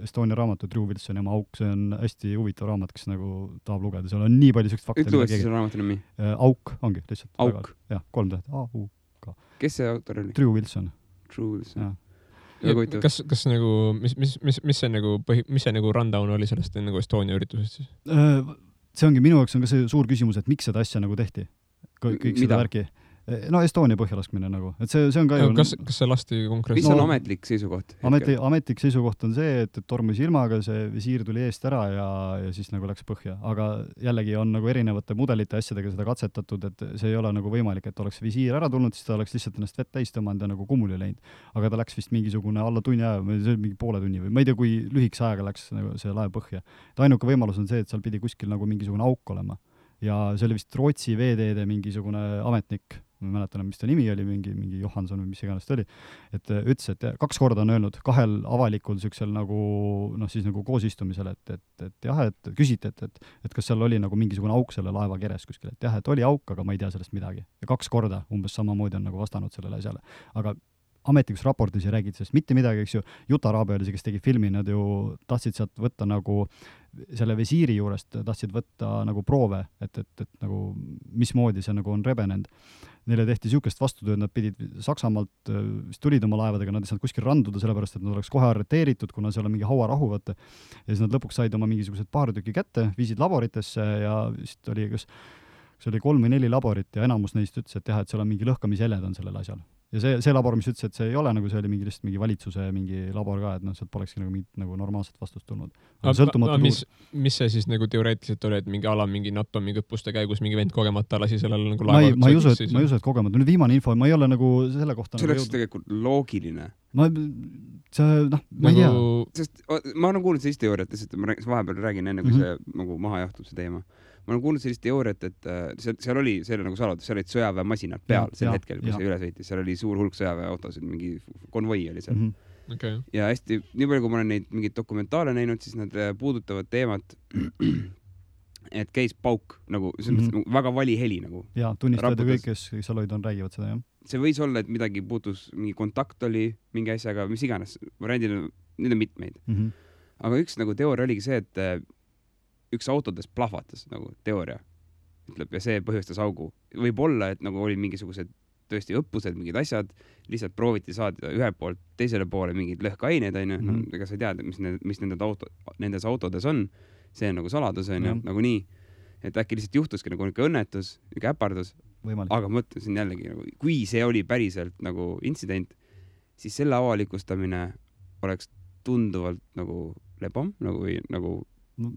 Estonia raamatu Drew Wilsoni oma Auk, see on hästi huvitav raamat, kes nagu tahab lugeda, seal on nii palju sellist fakte. Ütle uuesti selle raamatu nimi? Auk ongi lihtsalt. Auk? Jah, 3 täht. A-U-K. Kes see autor oli? Drew Wilson. Kas nagu, mis see nagu rundown oli sellest nagu Estonia üritusest siis? See ongi minu jaoks on ka see suur küsimus, et miks seda asja nagu tehti? Kõik seda värki. No Estonia põhjalaskmine nagu, et see on ka ju... Kas see lasti konkreetselt? Mis on ametlik seisukoht? Ametlik seisukoht on see, et tormus ilmaga, see visiir tuli eest ära ja siis nagu läks põhja. Aga jällegi on nagu erinevate mudelite asjadega seda katsetatud, et see ei ole nagu võimalik, et oleks visiir ära tulnud, siis ta oleks lihtsalt ennast vett täis tõmmanud ja nagu kummuli läinud. Aga ta läks vist mingisugune alla tunni aja, mingi poole tunni või ma ei tea, kui lühikese ajaga läks nagu see laev põhja. Ainuke võimalus on see, et seal pidi kuskil nagu mingisugune auk olema. Ja see oli vist Rootsi veeteede mingisugune ametnik, ma mäletan, mis ta nimi oli, mingi Johansson või mis iganes ta oli, et ütles, et 2 korda on öelnud 2 avalikul süksel nagu, siis nagu koosistumisel, et jah, et küsiti, et kas seal oli nagu mingisugune auk selle laeva keres kuskil, et jah, et oli auk, aga ma ei tea sellest midagi. Ja 2 korda umbes samamoodi on nagu vastanud sellele asjale. Aga ametlikus raportis ei räägid sellest mitte midagi, eks ju. Juta Raabe oli see, kes tegi filmi, nad ju tahtsid sealt võtta nagu selle visiiri juurest, tahtsid võtta nagu proove, et nagu mismoodi see nagu on rebenenud. Neile tehti siukest vastutööd, nad pidid Saksamaalt, tulid oma laevadega, nad ei saanud kuskil randuda, sellepärast, et nad oleks kohe arreteeritud, kuna seal on mingi hauarahu, võtta. Ja siis nad lõpuks said oma mingisugused paar tükki kätte, viisid laboritesse ja vist oli, kas oli 3 või 4 laborit ja enamus neist ütles, et jah, et seal on mingi lõhkamisjäled on sellel asjal. Ja see labor, mis ütles, et see ei ole nagu, see oli lihtsalt mingi valitsuse mingi labor ka, et sealt polekski nagu mingit nagu normaalset vastust tulnud. Mis see siis nagu teoreetiliselt oli, et mingi NATO mingi õppuste käigus mingi vend kogemata lasi sellele nagu laeva? Ma ei usu, et kogemata. Nüüd viimane info, ma ei ole nagu selle kohta... See oleks tegelikult loogiline. Ma ei tea. Sest ma olen kuulnud sellist teooriat, et ma vahepeal räägin enne, kui see nagu maha jahtub see teema. Ma olen kuulnud sellist teooriat, et seal oli nagu saladus, seal olid sõjaväemasinad peal sel hetkel, kui see üle sõitis. Seal oli suur hulk sõjaväeautosid, mingi konvoi oli seal. Okay. Ja hästi, nii palju, kui ma olen neid mingid dokumentaale näinud, siis nad puudutavad teemat, et käis pauk, nagu väga vali heli nagu. Ja, tunnistajad ja kõik, kes seal olid, räägivad seda, jah. See võis olla, et midagi puutus, mingi kontakt oli mingi asjaga, mis iganes. Variandil, need on mitmeid. Aga üks nagu teooria oligi see, et üks autodest plahvatas, nagu teooria ütleb, ja see põhjustas augu. Võib olla, et nagu oli mingisugused tõesti õppused, mingid asjad, lihtsalt prooviti saada ühe poolt teisele poole mingid lõhkaineid, ega sa ei tea, mis nendes autodes on, see on nagu saladus, nagu nii, et äkki lihtsalt juhtuski nagu õnnetus, äpardus, aga mõtlesin jällegi, nagu, kui see oli päriselt nagu intsident, siis selle avalikustamine oleks tunduvalt nagu lebam, nagu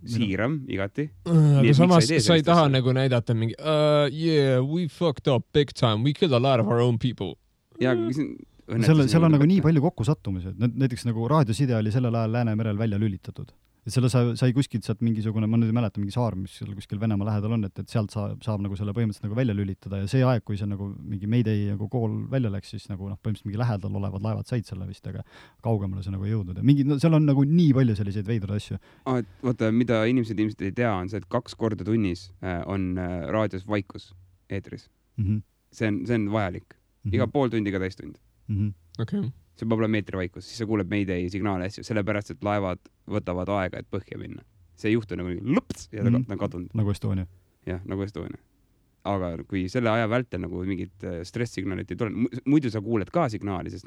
siiram, igati. Aga samas sa ei taha nagu näidata mingi yeah, we fucked up big time, we killed a lot of our own people. Ja, seal on nagu nii palju kokkusattumised. Näiteks nagu raadioside oli sellel ajal Läänemerel välja lülitatud. Et selle sai kuskilt sealt mingisugune, ma nüüd ei mäleta, mingi saar, mis seal kuskil Venemaa lähedal on, et sealt saab nagu selle põhimõtteliselt nagu välja lülitada ja see aeg, kui see nagu mingi Mayday nagu kool välja läks, siis nagu põhimõtteliselt mingi lähedal olevad laevad said selle vist, aga kaugemale see nagu ei jõudnud. Ja seal on nagu nii palju selliseid veidrad asju. Vaata, mida inimesed ilmselt ei tea, on see, et 2 korda tunnis on raadios vaikus eetris. See on vajalik. Iga pool tundi, iga täistund. Okay. See peab olema meetri vaikus, siis sa kuuleb Mayday signaale asju, sellepärast, et laevad võtavad aega, et põhja minna. See ei juhtu nagu lõps ja ta on kadunud. Nagu Estonia. Jah, nagu Estonia. Aga kui selle aja vältel nagu mingid stress-signaalit ei tule, muidu sa kuuled ka signaali, sest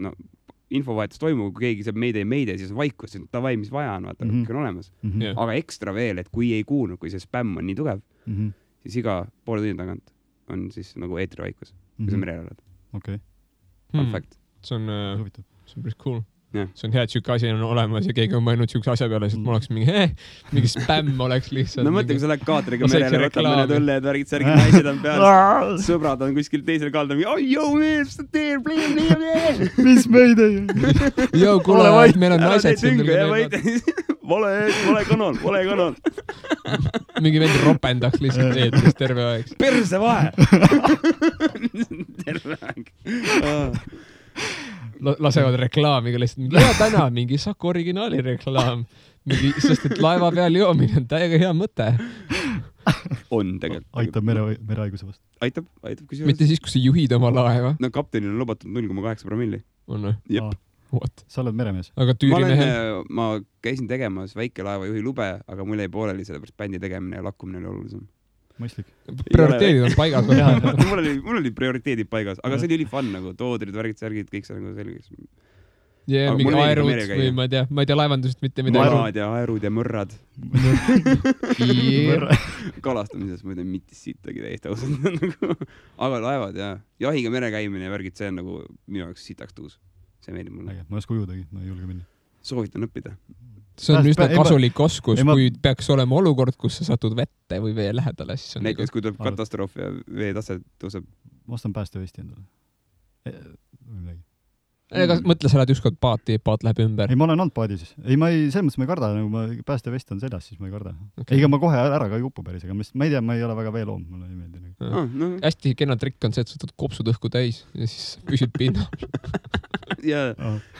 infovahetus toimub, kui keegi saab Mayday, siis on vaikus, siis tavai, mis vaja on, vaata, kõik on olemas. Aga ekstra veel, et kui ei kuulnud, kui see spämm on nii tugev, siis iga poole tunni tagant on siis nagu eetri vaikus, kui sa merel oled. Okay. Fun fact. See on päris cool. Yeah. See on hea, et siuke asi on olemas ja keegi on mõelnud siukse asja peale, et mul oleks mingi spämm oleks lihtsalt. No mõtle, kui sa lähed kaatriga merele, võtab mõned õlled, värgid, särgid, naised on peal, sõbrad on kuskil teisel kaldal, oh, yo, man, mis sa teed, please. Mis meid ei? Yo, kuule, meil on naised siin. Vale kanal. Mingi vend ropendaks lihtsalt eetris terve aeg. Perse vahe! Terve aeg. Lasevad reklaamiga lihtsalt. Ja täna mingi Saku originaali reklaam. Sest et laeva peal joomine on täiega hea mõte. On tegelikult. Aitab merehaiguse vastu. Aitab. Mitte siis, kui sa juhid oma laeva. No kaptenil on lubatud 0,8 promilli. On või? Jep. What? Sa oled meremees. Aga tüürimehe? Ma käisin tegemas väikelaeva juhi lube, aga mul jäi pooleli sellepärast bändi tegemine ja lakkumine oli olulisem. Mõistlik. Prioriteedid on paigas. mul oli prioriteedid paigas, aga see oli fun nagu, toodrid, värgid, särgid, kõik see nagu selgeks. Ja mingi aerud või ma ei tea laevandusest mitte midagi. Marad ja aerud ja mõrrad. Kalastamises ma ei tea mitis siitagi täiesti ausalt. Aga laevad ja jahiga mere käimine ja värgid, see on nagu minu jaoks sitaks tuus. See meeldib mulle. Ma ei oska ujudagi, ma ei julge minna. Soovitan õppida. See on üsna kasulik oskus, kui peaks olema olukord, kus sa satud vette või vee lähedale. Näiteks, kui tuleb katastroof ja vee tase tõuseb. Ma ostan päästevesti endale. Ega mõtle, sa lähed ükskord paati, paat läheb ümber. Ei, ma olen olnud paadis. Ei, selles mõttes ma ei karda, nagu ma päästevest on seljas, siis ma ei karda. Okay. Ega ma kohe ära ka ei upu päris, aga ma ei tea, ma ei ole väga veeloom, mulle ei meeldi. Hästi kena trikk on see, et sa võtad kopsud õhku täis ja siis püsid pinnal. Ja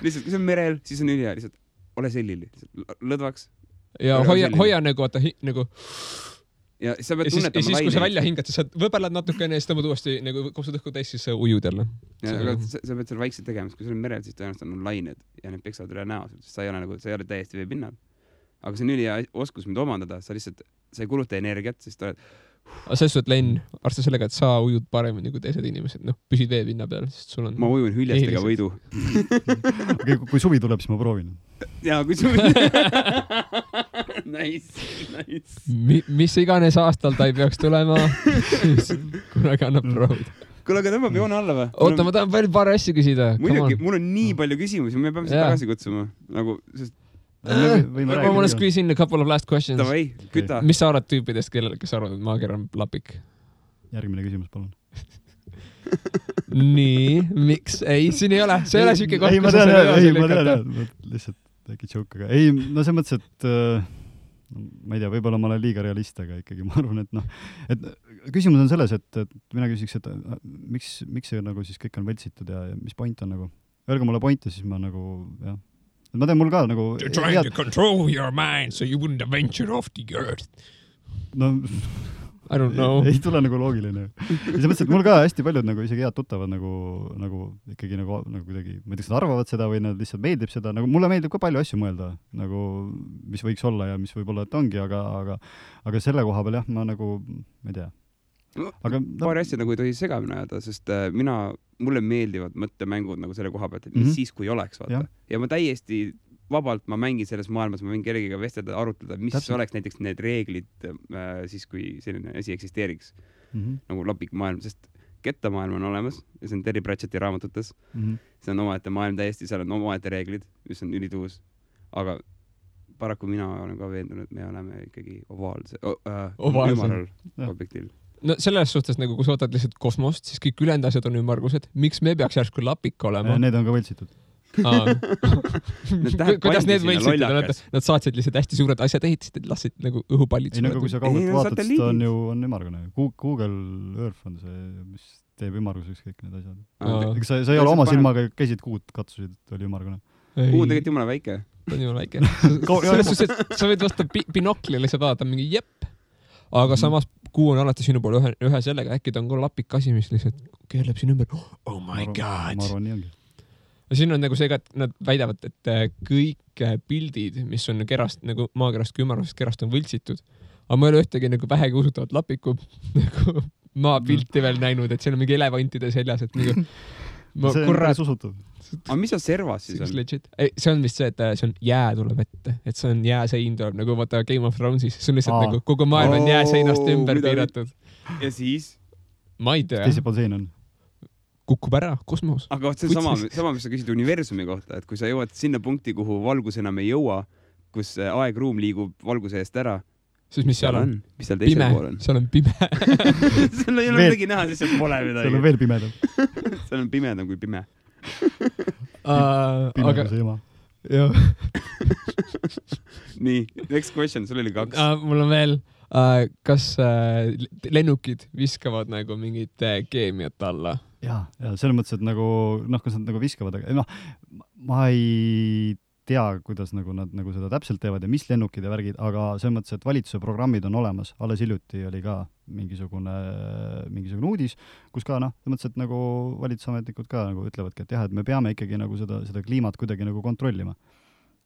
lihtsalt, kui see on merel, siis on ülihea, lihtsalt ole sellili, lõdvaks. Ja hoia nagu, vaata, nagu... Ja sa pead tunnetama siis, kui sa välja hingad, siis sa võbelad natukene ja siis tõmbad uuesti nagu kopsud õhku täis, siis sa ujud jälle. Aga sa pead seal vaikselt tegema, kui sul on merel, siis tõenäoliselt on lained ja need peksavad üle näo, sest sa ei ole täiesti vee pinnal. Aga see on ülihea oskus, mida omandada, sa ei kuluta energiat, siis ta oled... Aga selles suhtes, Len, arvesta sellega, et sa ujud paremini kui teised inimesed. Püsid vee pinna peal, sest sul on... Ma ujun hüljestega võidu. Kui suvi tuleb, siis ma proovin. Jaa, kui suvi... Nice. Mis iganes aastal ta ei peaks tulema, siis kunagi annab proovida. Kuule, aga tõmbab joone alla või? Oota, ma tahan veel paar asja küsida. Muidugi, mul on nii palju küsimusi, me peame seda tagasi kutsuma. Nagu, sest... Ma mõnes küsin a couple of last questions. Tavai, küta. Mis sa arvad tüüpidest, kes arvad, et maager on lapik? Järgmine küsimus, palun. Nii, miks? Ei, siin ei ole. See ei ole siuke koht, kus sa selle ma tean. Lihtsalt äkki joke, aga ei, no see mõttes, et ma ei tea, võib-olla ma olen liiga realist, aga ikkagi ma arvan, et küsimus on selles, et mina küsiks, et miks see nagu siis kõik on võltsitud ja mis point on nagu? Öelge mulle pointe, siis ma nagu, jah. Ma tean, mul ka nagu... You're trying to control your mind so you wouldn't venture off the earth. No, I don't know. Ei tule nagu loogiline. Ja see mõttes, et mul ka hästi paljud nagu isegi head tuttavad nagu ikkagi nagu kuidagi, ma ei tea, nad arvavad seda või nad lihtsalt meeldib seda, nagu mulle meeldib ka palju asju mõelda, nagu mis võiks olla ja mis võib-olla, et ongi, aga selle koha peal jah, ma nagu, ma ei tea. Aga, paari asja nagu ei tohi segamini ajada, sest mulle meeldivad mõttemängud nagu selle koha pealt, et mis siis, kui oleks, vaata. Ja ma täiesti vabalt, ma mängin selles maailmas, ma võin kellegiga vestelda, arutleda, mis oleks näiteks need reeglid siis, kui selline asi eksisteeriks. Nagu lapik maailm, sest kettamaailm on olemas ja see on Terry Pratchetti raamatutes. See on omaette maailm täiesti, seal on omaette reeglid, mis on ülituus. Aga paraku mina olen ka veendunud, et me oleme ikkagi ovaalse, Ovaalsel. objektil. No selles suhtes, nagu kui sa võtad lihtsalt kosmost, siis kõik ülejäänud asjad on ümmargused. Miks me peaks järsku lapik olema? Need on ka võltsitud. Kuidas need võltsitud? Nad saatsid lihtsalt hästi suured asjad, ehitasid, lasid nagu õhupallid. Ei, nagu kui sa kaugelt vaatad, siis ta on ju ümmargune. Google Earth on see, mis teeb ümmarguseks kõik need asjad. Sa ei ole oma silmaga, käisid kuud, katsusid, et oli ümmargune. Kuu on tegelikult jumala väike. Ta on jumala väike. Selles suhtes, et sa võid vasta binokli lihtsalt vaadata mingi jepp, aga samas kuu on alati sinu poole ühe sellega, äkki ta on ka lapik asi, mis lihtsalt keerleb siin ümber. Oh my god! Ma arvan, nii ongi. Siin on nagu see, et nad väidavad, et kõik pildid, mis on kerast, nagu maakerast kui ümarusest kerast on võltsitud, aga ma ei ole ühtegi nagu vähegi usutavat lapiku nagu maapilti veel näinud, et seal on mingi elevantide seljas, et nagu see on päris usutav. Aga mis on servas siis on? See on vist see, et see on jää tuleb ette, et see on jääsein tuleb, nagu vaata Game of Thronesis, see on lihtsalt nagu kogu maailm on jääseinast ümber piiratud. Ja siis? Ma ei tea. Teise pool sein on? Kukub ära, kosmos. Aga see on sama, mis sa küsid universumi kohta, et kui sa jõuad sinna punkti, kuhu valgus enam ei jõua, kus aeg-ruum liigub valguse eest ära, siis mis seal on? Mis seal teisel pool on? Seal on pime. Seal ei ole midagi näha, siis seal pole midagi. Seal on veel pimedam. Seal on pimedam kui pime. Pimeduse ema. Jah. Nii, next question, sul oli 2. Mul on veel, kas lennukid viskavad nagu mingit keemiat alla? Ja selles mõttes, et nagu, kas nad nagu viskavad, aga ma ei tea, kuidas nagu nad nagu seda täpselt teevad ja mis lennukid ja värgid, aga selles mõttes, et valitsuse programmid on olemas. Alles hiljuti oli ka mingisugune uudis, kus ka selles mõttes, et nagu valitsusametnikud ka nagu ütlevadki, et jah, et me peame ikkagi nagu seda kliimat kuidagi nagu kontrollima.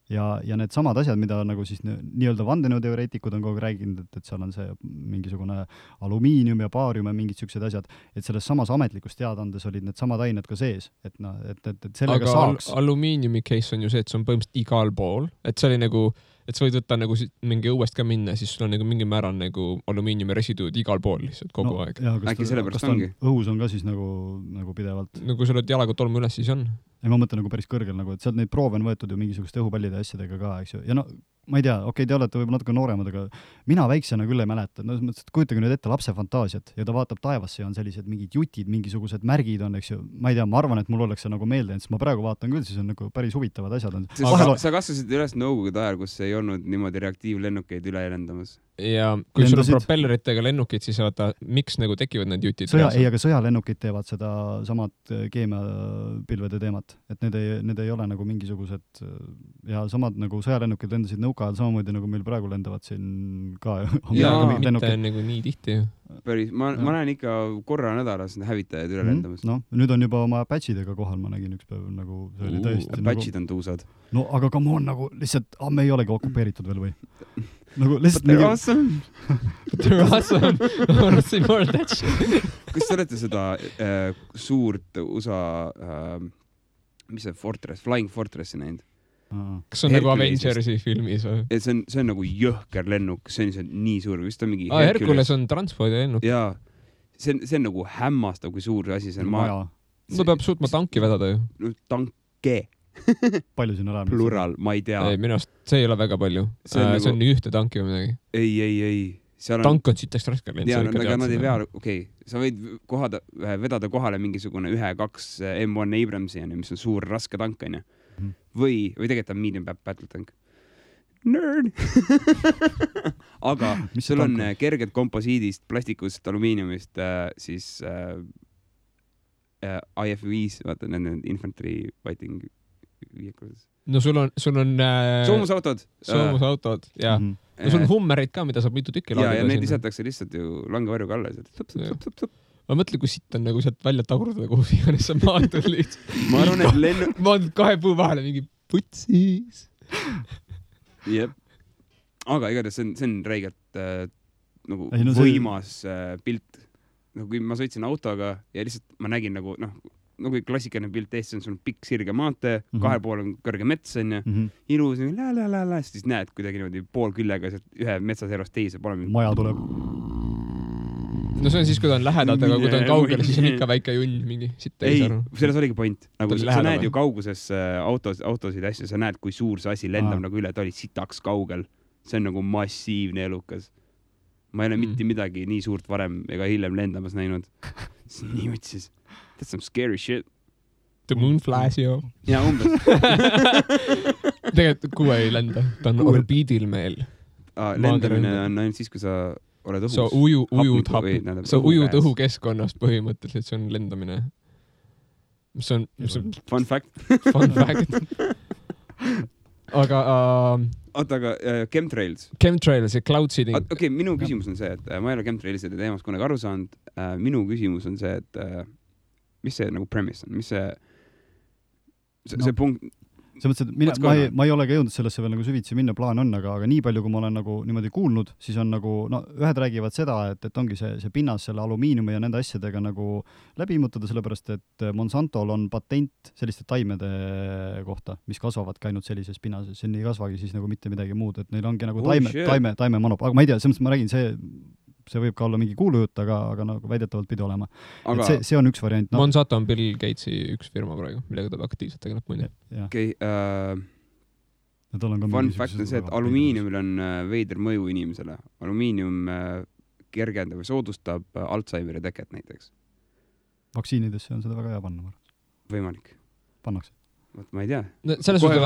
Ja need samad asjad, mida nagu siis nii-öelda vandenõuteoreetikud on kogu rääginud, et seal on see mingisugune alumiinium ja baarium ja mingid siuksed asjad, et selles samas ametlikus teadandes olid need samad ained ka sees, et sellega aga saaks. Alumiiniumi case on ju see, et see on põhimõtteliselt igal pool, et see oli nagu, et sa võid võtta nagu mingi õuest ka minna, siis sul on nagu mingi määral nagu alumiiniumi residuud igal pool lihtsalt kogu aeg. Äkki sellepärast ongi? Õhus on ka siis nagu pidevalt. No kui sa oled jalaga tolmu üles, siis on. Ei, ma mõtlen nagu päris kõrgel, nagu, et sealt neid proove on võetud ju mingisuguste õhupallide asjadega ka, eks ju. Ja no, ma ei tea, te olete võib-olla natuke nooremad, aga mina väiksena küll ei mäleta. No, kujutage nüüd ette lapse fantaasiat ja ta vaatab taevasse ja on sellised mingid jutid, mingisugused märgid on, eks ju. Ma ei tea, ma arvan, et mul oleks see nagu meelde, sest ma praegu vaatan küll, siis on nagu päris huvitavad asjad. Sa kasvasid üles nõukogude ajal, kus ei olnud niimoodi reaktiivlennukeid üle lendamas. Ja kui sul on propelleritega lennukid, siis vaata, miks nagu tekivad need jutid? Aga sõjalennukid teevad seda samad keemiapilvede teemat, et need ei ole nagu mingisugused ja samad nagu sõjalennukid lendasid nõuka ajal samamoodi nagu meil praegu lendavad siin ka. Ja mitte nagu nii tihti. Päris, ma näen ikka korra nädalas hävitajaid üle lendamas. No, nüüd on juba oma patchidega kohal, ma nägin üks päev nagu see oli tõesti. Patchid on tuusad. No aga come on nagu lihtsalt, me ei olegi okupeeritud veel või? Nagu lihtsalt But they're awesome. But they're awesome. I want to see more of that shit. Kas te olete seda suurt USA mis see Fortress, Flying Fortressi näinud? Kas on nagu Avengersi filmis või? See on nagu jõhker lennuk, see on nii suur, vist on mingi Hercules on transpordi lennuk. Jaa, see on nagu hämmastav, kui suur asi see on. No peab suutma tanki vedada ju. No tanke. Palju siin olemas? Plural, ma ei tea. Ei, minust see ei ole väga palju. See on nii ühte tanki või midagi. Ei. Tank on siit raske lend. Jaa, aga nad ei vea, okei. Sa võid vedada kohale mingisugune 1-2 M1 Abramsi, mis on suur raske tank, on ju. Või tegelikult on medium battle tank. Nerd! Aga sul on kerged komposiidist, plastikust, alumiiniumist, siis IF-5, vaata, nende infantry fighting vehicles. No sul on soomusautod, jah. No sul on hummereid ka, mida saab mitu tükki laadida. Ja need lisatakse lihtsalt ju langevarjuga alles. Ma mõtlen, kui sitt on nagu sealt välja tagurdada, kuhu iganes sa maandud lihtsalt. Ma arvan, et maandud 2 puu vahele mingi putsis. Jep. Aga igatahes see on räigelt nagu võimas pilt. Kui ma sõitsin autoga ja lihtsalt ma nägin nagu klassikaline pilt eest, see on sul pikk sirge maantee, 2 pool on kõrge mets, on ju, ilus, siis näed kuidagi niimoodi pool küllega ühe metsaservast teise. Maja tuleb. no see on siis, kui ta on lähedalt, aga kui ta on kaugel, siis on ikka väike junn mingi sitt ei, selles oligi point. Nagu sa näed ju kauguses autosid ja asju, sa näed, kui suur see asi lendab nagu üle, ta oli sitaks kaugel. See on nagu massiivne elukas. Ma ei ole mitte midagi nii suurt varem ega hiljem lendamas näinud. Nii mõtlesin, that's some scary shit. The moon flies, joo. Ja umbes. Tegelikult kuu ei lenda, ta on orbiidil meil. Lendamine on ainult siis, kui sa oled õhus. Sa ujud õhukeskkonnast põhimõtteliselt, see on lendamine. Mis on fun fact. Fun fact. Aga chemtrails ja cloud seeding. Okei, minu küsimus on see, et ma ei ole chemtrailside teemast kunagi aru saanud. Minu küsimus on see, et mis see nagu premise on? Mis see punkt? See mõttes, et ma ei ole ka jõudnud sellesse veel nagu süvitsi minna, plaan on, aga nii palju, kui ma olen nagu niimoodi kuulnud, siis on nagu, no ühed räägivad seda, et ongi see pinnas selle alumiiniumi ja nende asjadega nagu läbi immutada, sellepärast, et Monsantol on patent selliste taimede kohta, mis kasvavadki ainult sellises pinnases, see ei kasvagi siis nagu mitte midagi muud, et neil ongi nagu taime manop, aga ma ei tea, selles mõttes ma räägin, see võib ka olla mingi kuulujutt, aga nagu väidetavalt pidi olema. Aga see on üks variant. No. Monsanto on Bill Gatesi üks firma praegu, millega ta aktiivselt tegeleb muide. Okei, fun fact on see, et alumiiniumil on veider mõju inimesele. Alumiinium kergendab või soodustab Alzheimeri teket näiteks. Vaktsiinidesse on seda väga hea panna. Võimalik. Pannakse. Ma ei tea. No, selles või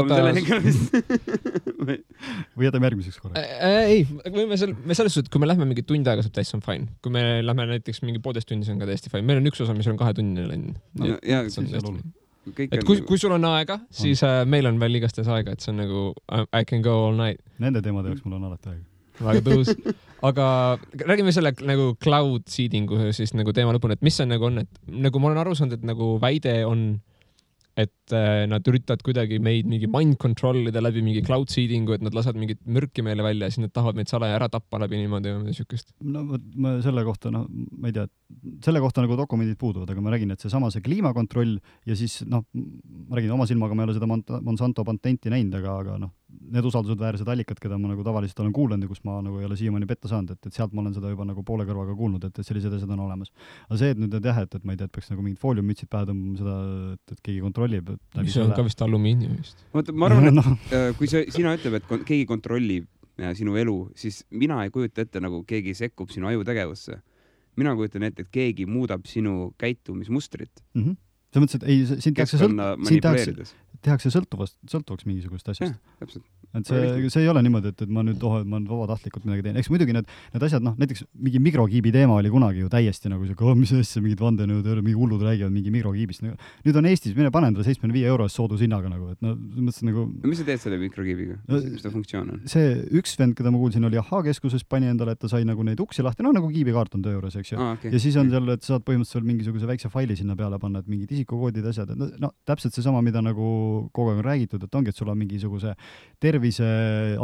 jätame järgmiseks korra? Ei, me selles suhtes, kui me lähme mingi tund aega, saab täis on fine. Kui me lähme näiteks mingi 1,5 tunni, see on ka täiesti fine. Meil on üks osa, mis on 2 tunnine länn. Kui sul on aega, siis meil on veel igastes aega, et see on nagu I can go all night. Nende teemade jaoks mul on alati aega. Väga tõus. Aga räägime selle nagu cloud seedingu siis nagu teema lõpuni, et mis see nagu on, et nagu ma olen aru saanud, et nagu väide on et nad üritavad kuidagi meid mingi mind controlida läbi mingi cloud seedingu, et nad lasavad mingit mürki meile välja ja siis nad tahavad meid salaja ära tappa läbi niimoodi või sükest. No ma selle kohta, ma ei tea, selle kohta nagu dokumendid puuduvad, aga ma räägin, et see kliimakontroll ja siis ma räägin oma silmaga, ma ei ole seda Monsanto patenti näinud, aga need usaldusväärsed allikad, keda ma nagu tavaliselt olen kuulanud ja kus ma nagu ei ole siiamaani petta saanud, et sealt ma olen seda juba nagu poole kõrvaga kuulnud, et sellised asjad on olemas. Aga see, et nüüd et ma ei tea, et peaks nagu mingid fooliummütsid pähe tõmbama seda, et keegi kontrollib. Mis on ka vist alumiiniumist. Ma arvan, et kui sina ütleb, et keegi kontrollib sinu elu, siis mina ei kujuta ette, nagu keegi sekkub sinu ajutegevusse. Mina kujutan ette, et keegi muudab sinu käitumismustrit. See mõttes, et ei, siin tehakse sõltuvaks mingisugust asjast. Täpselt. Et see ei ole niimoodi, et ma nüüd ma vabatahtlikult midagi teen. Eks muidugi need asjad, näiteks mingi mikrokiibi teema oli kunagi ju täiesti nagu see, mis asja, mingid vandenõud, mingi hullud räägivad mingi mikrokiibist. Nüüd on Eestis, mine panen talle 75 € soodushinnaga nagu, et mõtlesin nagu... Mis sa teed selle mikrokiibiga? Mis ta funktsioon on? See üks vend, keda ma kuulsin, oli Keskuses, pani endale, et ta sai nagu neid uksi lahti, nagu kiibikaart on töö juures, eks ju. Okay. Ja siis on seal, et saad põhimõtteliselt mingisuguse väikse faili sinna peale panna, et mingid isikukoodid, asjad, täpselt see sama, mida nagu kogu aeg on räägitud, et ongi, et sul on mingisuguse tervise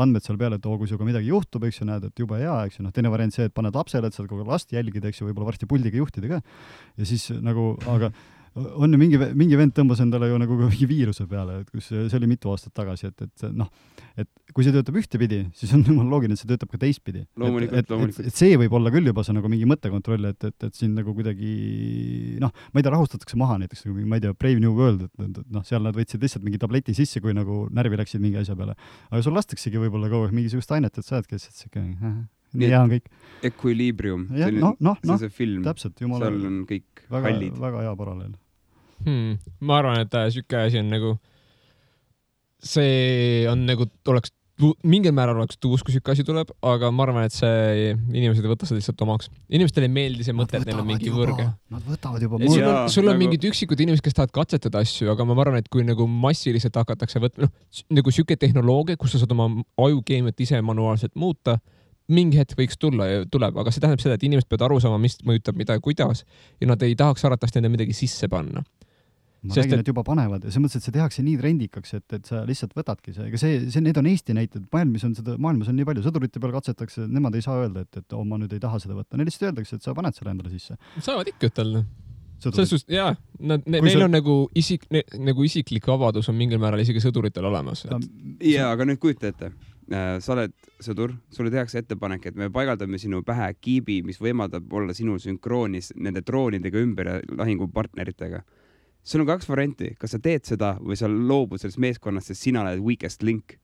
andmed seal peale, et kui sinuga midagi juhtub, eks ju, näed, et jube hea, eks ju, teine variant see, et paned lapsele, et saad kogu last jälgida, eks ju, võib-olla varsti puldiga juhtida ka. Ja siis nagu, aga on ju mingi vend tõmbas endale ju nagu mingi viiruse peale, et kus see oli mitu aastat tagasi, et kui see töötab ühtepidi, siis on loogiline, et see töötab ka teistpidi. Loomulikult. Et see võib olla küll juba see nagu mingi mõttekontroll, et siin nagu kuidagi, ma ei tea, rahustatakse maha näiteks, ma ei tea, Brave New World, et seal nad võtsid lihtsalt mingi tableti sisse, kui nagu närvi läksid mingi asja peale. Aga sul lastaksegi võib-olla kogu aeg mingisugust ainet, et sa oled kes, et nii hea on kõik. Equilibrium, see film, täpselt, seal on kõik hallid. Väga hea paralleel. Ma arvan, et süke asi on nagu, see on nagu, oleks mingil määral oleks tuus, kui süke asi tuleb, aga ma arvan, et see inimesed ei võta seda lihtsalt omaks. Inimestele ei meeldi see mõte, et neil on mingi võrge. Nad võtavad juba sul on mingid üksikud inimesed, kes tahavad katsetada asju, aga ma arvan, et kui nagu massiliselt hakatakse võtma, nagu süke tehnoloogia, kus sa saad oma ajukeemiat ise manuaalselt muuta, mingi hetk võiks tuleb, aga see tähendab seda, et inimesed peavad aru saama, mis mõjutab mida ja kuidas ja nad ei tahaks arvatavasti enda midagi sisse panna. Ma räägin, et juba panevad ja see mõttes, et see tehakse nii trendikaks, et sa lihtsalt võtadki see. Ega need on Eesti näited. Maailmas on nii palju sõdurite peal katsetakse, nemad ei saa öelda, et ma nüüd ei taha seda võtta. Neil lihtsalt öeldakse, et sa paned selle endale sisse. Saavad ikka ütelda. Jaa, neil on nagu isiklik vabadus on mingil määral isegi sõduritel olemas. Jaa, aga nüüd kujuta ette. sa oled sõdur, sulle tehakse ettepanek, et me paigaldame sinu pähe kiibi, mis võimaldab olla sinul sünkroonis nende droonidega ümber ja lahingupartneritega. Sul on 2 varianti, kas sa teed seda või sa loobud sellest meeskonnast, sest sina oled weakest link.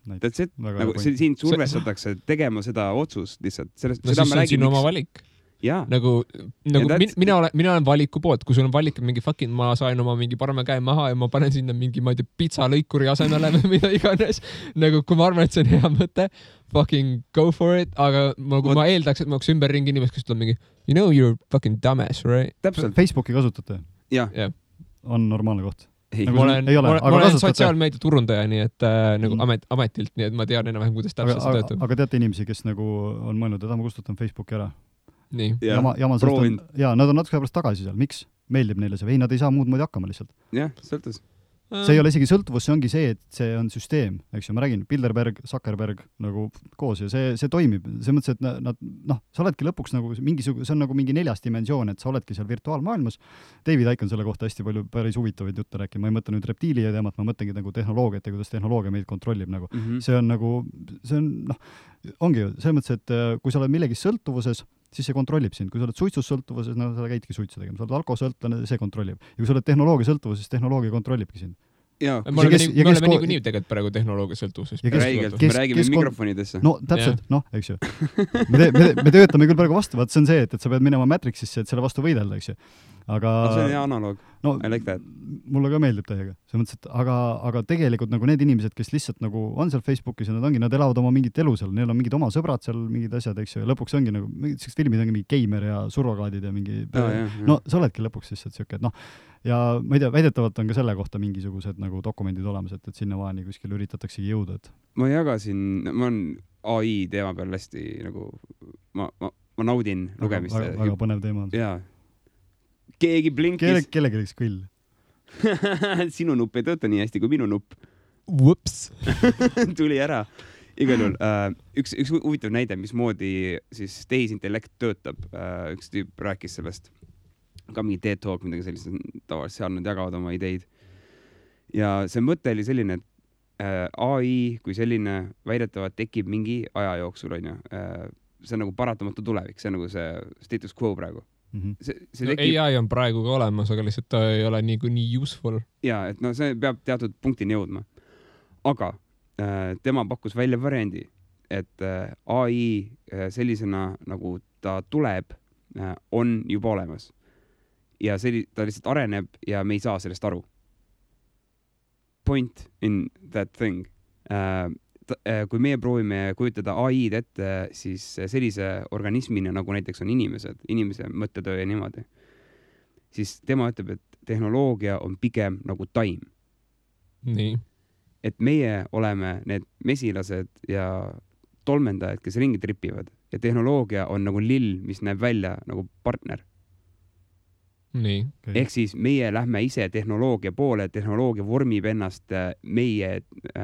That's it. Nagu siin survestatakse tegema seda otsust lihtsalt. See on sinu oma valik. Nagu mina olen valiku poolt, kui sul on valik mingi fucking, ma sain oma mingi parema käe maha ja ma panen sinna mingi, ma ei tea, pizzalõikuri asemele või mida iganes. Nagu kui ma arvan, et see on hea mõte, fucking go for it, aga ma eeldaks, et ma oleks ümberringi inimest, kes tuleb mingi, you know you're fucking dumbass, right? Täpselt. Facebooki kasutate? Jah. On normaalne koht? Ma olen sotsiaalmeedia turundaja, nii et nagu ametilt, nii et ma tean enam-vähem, kuidas täpselt see töötab. Aga teate inimesi, kes nagu on mõelnud, et ma kustutan Facebooki ära? Nii. Nad on natuke pärast tagasi seal. Miks? Meeldib neile see või? Nad ei saa muud moodi hakkama lihtsalt. Jah, sõltus. See ei ole isegi sõltuvus, see ongi see, et see on süsteem, eks ju, ma räägin, Bilderberg, Zuckerberg nagu koos ja see toimib. See mõttes, et sa oledki lõpuks nagu see on nagu mingi 4. dimensioon, et sa oledki seal virtuaalmaailmas. David Icke on selle kohta hästi palju päris huvitavaid jutte rääkima. Ma ei mõtle nüüd reptiili teemat, ma mõtlengi nagu tehnoloogiat ja kuidas tehnoloogia meid kontrollib nagu. See on nagu, ongi ju, selles mõttes, et kui sa oled millegi sõltuvuses, siis see kontrollib sind. Kui sa oled suitsus sõltuvuses, sa käidki suitsu tegema. Sa oled alkohosõltlane, see kontrollib. Ja kui sa oled tehnoloogia sõltuvuses, tehnoloogia kontrollibki sind. Me oleme niikuinii tegelikult praegu tehnoloogia sõltuvuses. Me räägime mikrofonidesse. No täpselt, eks ju. Me töötame küll praegu vastu, vaat see on see, et sa pead minema Matrixisse, et selle vastu võidelda, eks ju. Aga see on hea analoog. I like that. Mulle ka meeldib täiega. See mõttes, et aga tegelikult nagu need inimesed, kes lihtsalt nagu on seal Facebookis ja nad elavad oma mingit elu seal, neil on mingid oma sõbrad seal, mingid asjad, eks ju, ja lõpuks ongi nagu, sellised filmid ongi mingi geimer ja surrogaadid ja mingi sa oledki lõpuks lihtsalt siuke, et ja ma ei tea, väidetavalt on ka selle kohta mingisugused nagu dokumendid olemas, et sinnamaani kuskil üritataksegi jõuda, et ma jagasin, ma olen AI teema peal hästi nagu ma naudin lugemist. Väga põnev teema on. Jaa. Keegi blinkis. Kellegi oleks kõll. Sinu nupp ei tööta nii hästi kui minu nupp. Whoops. Tuli ära. Igal juhul, üks huvitav näide, mismoodi siis tehisintellekt töötab. Üks tüüp rääkis sellest. Ka mingi TED Talk, midagi sellist, tavaliselt seal nad jagavad oma ideid. Ja see mõte oli selline, et AI kui selline väidetavalt tekib mingi aja jooksul, on ju. See on nagu paratamatu tulevik, see on nagu see status quo praegu. AI on praegu ka olemas, aga lihtsalt ta ei ole nii useful. Jaa, et see peab teatud punktini jõudma. Aga tema pakkus välja variandi, et AI sellisena, nagu ta tuleb, on juba olemas. Ja ta lihtsalt areneb ja me ei saa sellest aru. Point in that thing. Kui meie proovime kujutada AI-d ette, siis sellise organismina, nagu näiteks on inimese mõttetöö ja niimoodi, siis tema ütleb, et tehnoloogia on pigem nagu taim. Nii. Et meie oleme need mesilased ja tolmendajad, kes ringi tripivad ja tehnoloogia on nagu lill, mis näeb välja nagu partner. Nii. Ehk siis meie lähme ise tehnoloogia poole, tehnoloogia vormib ennast meie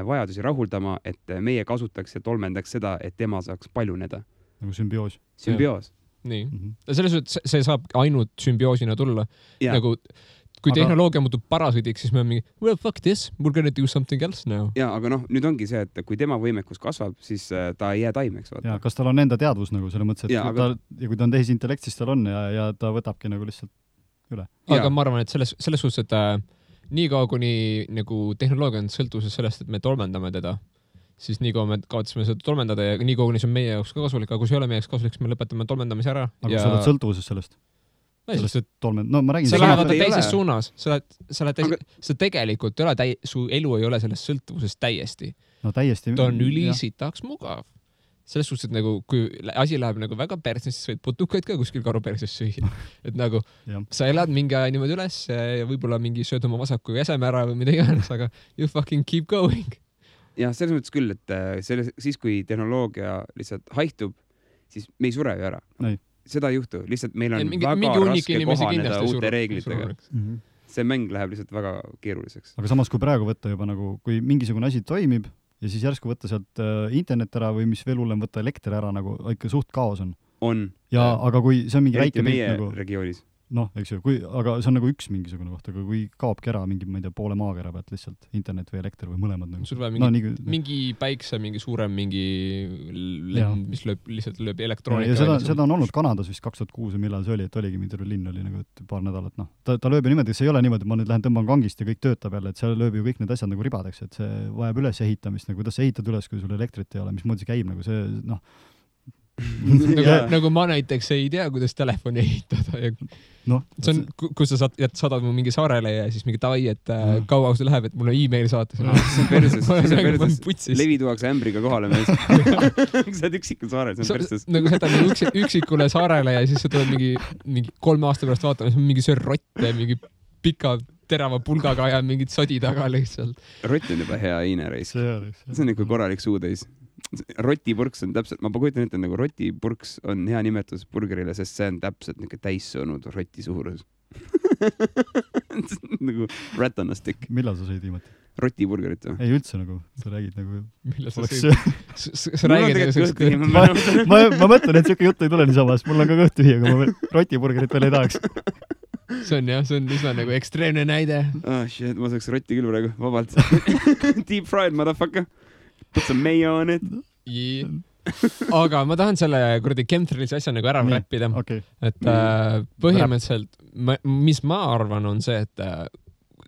vajadusi rahuldama, et meie kasutaks ja tolmendaks seda, et tema saaks paljuneda. Nagu sümbioos. Sümbioos. Nii. Selles suhtes see saab ainult sümbioosina tulla. Nagu, kui tehnoloogia muutub parasidiks, siis me on mingi, well, fuck this, we're gonna do something else now. Ja, aga nüüd ongi see, et kui tema võimekus kasvab, siis ta ei jää taimeks. Ja, kas tal on enda teadvus nagu selle mõttes, et kui ta on tehisintellekt, siis tal on ja ta võtabki nagu lihtsalt üle. Aga ma arvan, et selles suhtes, et nii kaua kuni nagu tehnoloogia on sõltuvuses sellest, et me tolmendame teda, siis nii kaua me kaotasime seda tolmendada ja nii kaua kuni see on meie jaoks ka kasulik, aga kui see ei ole meie jaoks kasulik, siis me lõpetame tolmendamise ära. Aga sa oled sõltuvuses sellest? Ma räägin. Sa lähevad teises suunas. Sa tegelikult ei ole, su elu ei ole selles sõltuvuses täiesti. No täiesti. Ta on ülisitaks mugav. Selles suhtes, et nagu, kui asi läheb nagu väga perses, siis võid putukaid ka kuskil karu perses süüa. Et nagu, sa elad mingi aja niimoodi üles ja võib-olla mingi sööd oma vasaku jäseme ära või mida iganes, aga you fucking keep going. Ja selles mõttes küll, et siis kui tehnoloogia lihtsalt haihtub, siis me ei sure ju ära. Seda ei juhtu. Lihtsalt meil on väga raske kohaneda uute reeglitega. See mäng läheb lihtsalt väga keeruliseks. Aga samas, kui praegu võtta juba nagu, kui mingisugune asi toimib, ja siis järsku võtta sealt internet ära või mis veel hullem võtta elekter ära, nagu ikka suht kaos on. On. Ja, aga kui see on mingi väike meie nagu regioonis. noh, eks ju, aga see on nagu üks mingisugune koht, aga kui kaobki ära mingi, ma ei tea, poole maakera pealt lihtsalt internet või elekter või mõlemad nagu. Sul vaja mingi päikse, mingi suurem mingi lend, mis lihtsalt lööb elektroonika. Ja seda on olnud Kanadas vist 2006 või millal see oli, et oligi mingi linn oli nagu paar nädalat, noh. Ta lööb ju niimoodi, see ei ole niimoodi, et ma nüüd lähen tõmban kangist ja kõik töötab jälle, et seal lööb ju kõik need asjad nagu ribadeks, et see vajab üles ehitamist, nagu kuidas sa ehitad üles, kui sul elektrit ei ole, mismoodi see käib, nagu see, noh. nagu ma näiteks ei tea, kuidas telefoni ehitada ja no, see on, kus sa saadad mu mingi saarele ja siis mingi davai, et kaua see läheb, et mul on e-mail saata. See on perses. Levi tuuakse ämbriga kohale mees. Sa oled üksikul saarel, see on perses. Nagu sa jätad üksikule saarele ja siis sa tuled mingi 3 aasta pärast vaatama, siis on mingi söör rott ja mingi pika terava pulgaga ja mingid sodi taga lihtsalt. Rott on juba hea iinereis. See on ikka korralik suutäis. Rotipurks on täpselt, ma kujutan ette, nagu rotipurks on hea nimetus burgerile, sest see on täpselt niisugune täissõnud roti suurus. Nagu rat on a stick. Millal sa sõid viimati? Rotiburgerit või? Ei üldse nagu, sa räägid nagu... Millal sa sõid? Sa räägid ma mõtlen, et siuke jutt ei tule niisama, sest mul on ka kõht tühi, aga ma rotiburgerit veel ei tahaks. See on üsna nagu ekstreemne näide. Shit, ma saaks rotti küll praegu, vabalt. Deep fried, motherfucker. Put some mayo on it. Aga ma tahan selle kuradi chemtrailsi asja nagu ära räppida. Okay. Et põhimõtteliselt, mis ma arvan, on see, et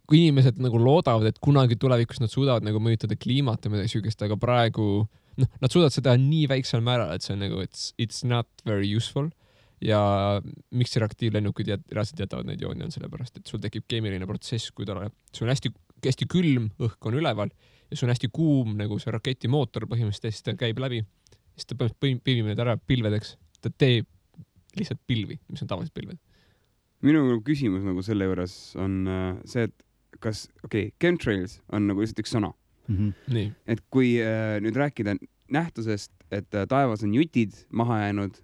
kui inimesed nagu loodavad, et kunagi tulevikus nad suudavad nagu mõjutada kliimat ja midagi süükest, aga praegu nad suudavad seda nii väiksel määral, et see on nagu, it's not very useful. Ja miks reaktiivlennukid reaalselt jätavad neid jooni on sellepärast, et sul tekib keemiline protsess, kui sul on hästi külm, õhk on üleval ja sul on hästi kuum nagu see raketimootor põhimõtteliselt, ta käib läbi, siis ta pilvib need ära pilvedeks, ta teeb lihtsalt pilvi, mis on tavalised pilved. Minu küsimus nagu selle juures on see, et kas, chemtrails on nagu lihtsalt üks sõna. Nii. Et kui nüüd rääkida nähtusest, et taevas on jutid maha jäänud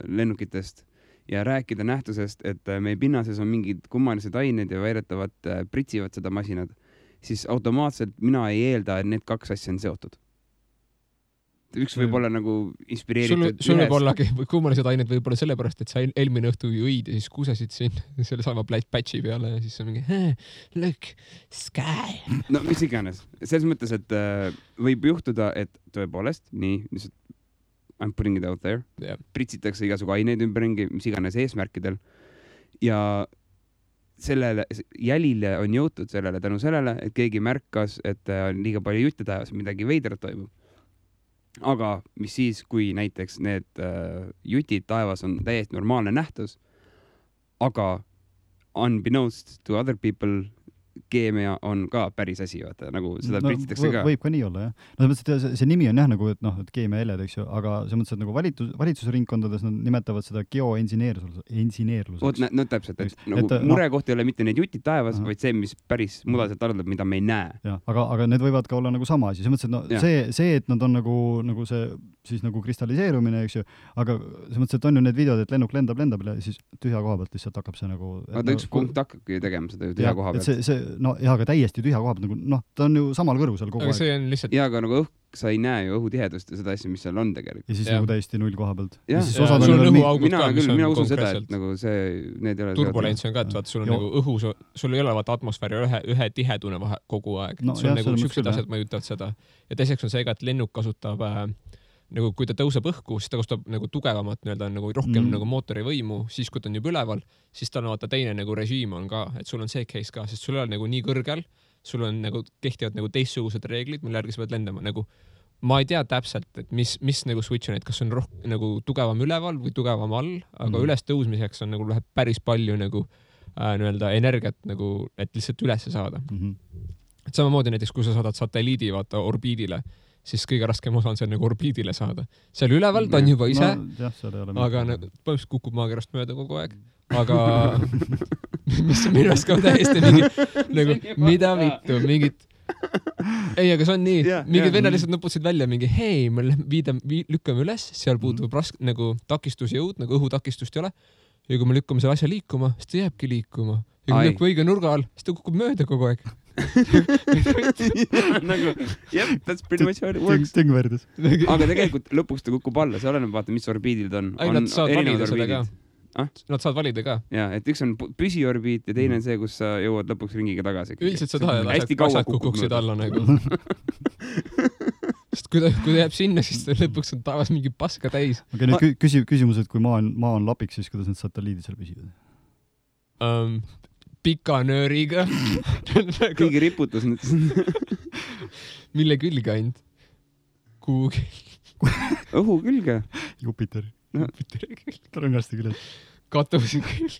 lennukitest ja rääkida nähtusest, et meie pinnases on mingid kummalised ained ja väidetavad pritsivad seda masinad, siis automaatselt mina ei eelda, et need kaks asja on seotud. Üks võib olla nagu inspireeritud sul võib ollagi kummalised ained võib olla sellepärast, et sa eelmine õhtu õid ja siis kusesid siin selle sama patchi peale ja siis on mingi look, sky. No mis iganes. Selles mõttes, et võib juhtuda, et tõepoolest nii, I'm putting it out there. Yeah. Pritsitakse igasugu aineid ümberringi, mis iganes eesmärkidel. Ja sellele jälile on jõutud sellele tänu sellele, et keegi märkas, et on liiga palju jutte taevas, midagi veidrat toimub. Aga mis siis, kui näiteks need jutid taevas on täiesti normaalne nähtus, aga unbeknownst to other people keemia on ka päris asi, vaata, nagu seda pritsitakse ka. Võib ka nii olla, jah. No see nimi on jah nagu, et noh, et keemiaheled, eks ju, aga see mõttes, et nagu valitsusringkondades nad nimetavad seda geoengineerluseks. No täpselt, et nagu murekoht ei ole mitte need jutid taevas, vaid see, mis päris mudaselt arvab, mida me ei näe. Ja, aga need võivad ka olla nagu sama asi. See mõttes, et no, see, et nad on nagu see siis nagu kristalliseerumine, eks ju, aga see mõttes, et on ju need videod, et lennuk lendab ja siis tühja koha pealt lihtsalt hakkab see nagu... Aga üks punkt hakkabki tegema seda tühja koha pealt. No jah, aga täiesti tühja koha pealt, nagu, ta on ju samal kõrgusel kogu aeg. See on lihtsalt... Ja, aga nagu sa ei näe ju õhutihedust ja seda asja, mis seal on tegelikult. Ja siis nagu täiesti null koha pealt. Ja sul on õhuaugud ka, mis on mina usun seda, et nagu see, need ei ole... Turbulents on ka, et vaata, sul on nagu õhu, sul ei ole vaata atmosfääri ühe tihedune kogu aeg. Sul on nagu süksed asjad mõjutavad seda. Ja teiseks on see ka, et lennuk kasutab nagu kui ta tõuseb õhku, siis ta kasutab nagu tugevamat, nagu rohkem nagu mootori võimu, siis kui ta on juba üleval, siis ta on vaata teine nagu režiim on ka, et sul on see case ka, sest sul on nagu nii kõrgel, sul on nagu kehtivad nagu teistsugused reeglid, mille järgi sa pead lendama, nagu ma ei tea täpselt, et mis nagu switch on, et kas on nagu tugevam üleval või tugevam all, aga üles tõusmiseks on nagu läheb päris palju nagu energiat nagu, et lihtsalt üles saada. Et samamoodi näiteks, kui sa saadad satelliidi vaata orbiidile, siis kõige raskem osa on see nagu orbiidile saada. Seal üleval ta on juba ise, aga põhimõtteliselt kukub maakerast mööda kogu aeg. Aga mis minu arust ka täiesti mingi, nagu mida vittu, mingid... Ei, aga see on nii. Mingid vennad lihtsalt nuputasid välja mingi, hei, me lükkame üles, seal puutub nagu takistusjõud, nagu õhutakistust ei ole. Ja kui me lükkame selle asja liikuma, siis ta jääbki liikuma. Ja kui lükkub õige nurga all, siis ta kukub mööda kogu aeg. Nagu, that's pretty much how it works. Aga tegelikult lõpuks ta kukub alla, see oleneb vaata, mis orbiidil ta on. Nad saavad valida seda ka. Nad saavad valida ka. Jaa, et üks on püsiorbiit ja teine on see, kus sa jõuad lõpuks ringiga tagasi. Üldiselt sa tahad, et asjad kukuksid alla nagu. Sest kui ta jääb sinna, siis lõpuks on taevas mingi paska täis. Aga nüüd küsimus, et kui maa on lapiks, siis kuidas need satelliidid seal püsivad? Pika nööriga. Kõigi riputus nüüd. Mille külge ainult? Kuhugi. Õhu külge. Jupiteri. Rõngaste külge. Katusi külge.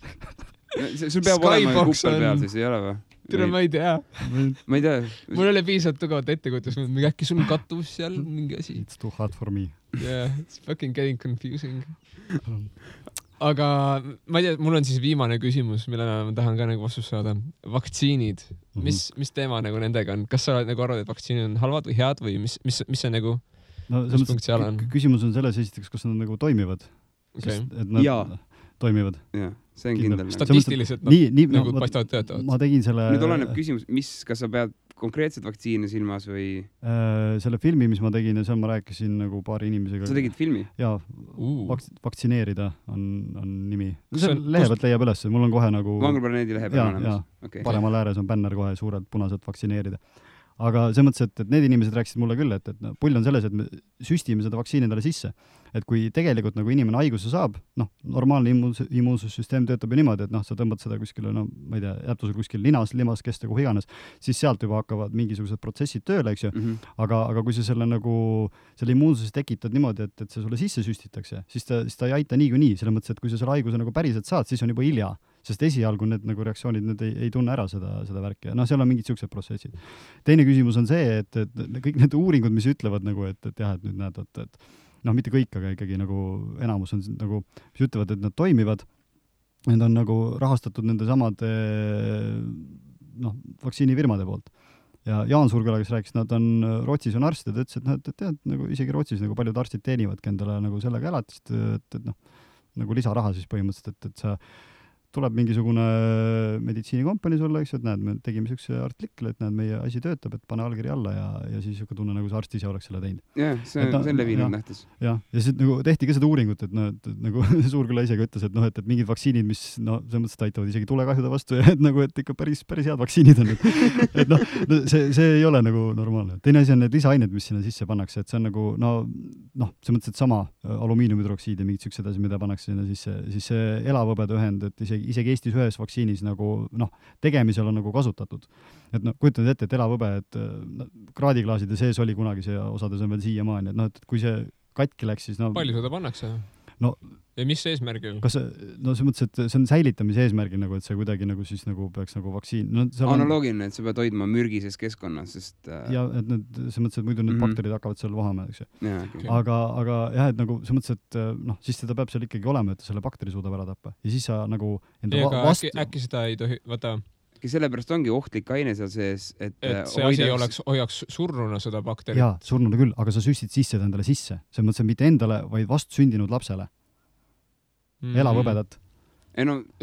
Sul peab olema kuppel peal, siis ei ole või? Tere, ma ei tea. Ma ei tea. Mul oli piisavalt tugevat ettekujutus, äkki sul on katus seal mingi asi. It's too hard for me. Yeah, it's fucking getting confusing. Aga ma ei tea, mul on siis viimane küsimus, millele ma tahan ka nagu vastust saada. Vaktsiinid. Mis teema nagu nendega on? Kas sa nagu arvad, et vaktsiinid on halvad või head või mis see nagu mis punkt seal on? Küsimus on selles esiteks, kas nad nagu toimivad. Okay. Et nad toimivad. Jaa, see on kindel. Statistiliselt nad nagu paistavad töötavad. Ma tegin selle... Nüüd oleneb küsimus, kas sa pead konkreetset vaktsiini silmas või... Selle filmi, mis ma tegin ja seal ma rääkisin nagu paari inimesega. Sa tegid filmi? Jaa, vaktsineerida on nimi. Lehe pealt leiab üles, mul on kohe nagu... Vanglplaneedi lehe peal olemas. Okay. Paremal ääres on bänner kohe suurelt punaselt vaktsineerida. Aga see mõttes, et need inimesed rääkisid mulle küll, et pull on selles, et me süstime seda vaktsiini endale sisse. Et kui tegelikult nagu inimene haiguse saab, normaalne immuunsussüsteem töötab ju niimoodi, et sa tõmbad seda kuskile, ma ei tea, jättu sul kuskil linas, limaskeste, kuhu iganes, siis sealt juba hakkavad mingisugused protsessid tööle, eks ju. Aga kui sa selle immuunsuse tekitad niimoodi, et see sulle sisse süstitakse, siis ta ei aita niikuinii, selle mõttes, et kui sa selle haiguse nagu päriselt saad, siis on juba hilja. Sest esialgu need nagu reaktsioonid, need ei tunne ära seda värki. Seal on mingid siuksed protsessid. Teine küsimus on see, et kõik need uuringud, mis ütlevad nagu, et jah, et nüüd näed, et mitte kõik, aga ikkagi nagu enamus on nagu, mis ütlevad, et nad toimivad. Need on nagu rahastatud nende samade vaktsiinifirmade poolt. Ja Jaan Surgala, kes rääkis, nad on Rootsis on arstid, ütles, et tead, nagu isegi Rootsis nagu paljud arstid teenivad endale nagu sellega elatist, et nagu lisaraha siis põhimõtteliselt, et sa tuleb mingisugune meditsiinikompanii sulle, eks, et näed, me tegime siukse artikli, et näed, meie asi töötab, et pane allkiri alla ja siis siuke tunne, nagu see arst ise oleks selle teinud. Jah, see on levinud nähtus. Ja siis nagu tehti ka seda uuringut, et nagu Suurküla isegi ütles, et mingid vaktsiinid, mis selles mõttes aitavad isegi tulekahjude vastu ja et ikka päris head vaktsiinid on. Et see ei ole nagu normaalne. Teine asi on need lisaained, mis sinna sisse pannakse, et see on nagu, see mõttes, et sama alumiiniumhüdroksiid ja mingid siuksed asi, mida pannakse sinna sisse, siis see elavõbede ühend, et isegi Eestis ühes vaktsiinis nagu, tegemisel on nagu kasutatud. Et kujutad ette, et elavõbe, et kraadiklaaside sees oli kunagi see osades on veel siiamaani, et kui see katki läks, siis palju seda pannakse? Ja mis eesmärgil? Kas see mõttes, et see on säilitamise eesmärgil, nagu, et see kuidagi nagu siis nagu peaks nagu vaktsiin... Analoogiline, et sa pead hoidma mürgises keskkonnas, sest... Ja, et see mõttes, et muidu need bakterid hakkavad seal vahama, eks ju. Ja, okay. Aga jah, et nagu see mõttes, et siis seda peab seal ikkagi olema, et selle bakteri suudab ära tappa. Ja siis sa nagu... Äkki seda ei tohi... Vaata... Sellepärast ongi ohtlik aine seal sees, et see asi hoiaks surnuna seda bakterit. Jaa, surnuna küll, aga sa süstid sisse endale sisse. See mõttes, et mitte endale, vaid vastsündinud lapsele. Elavõbedat.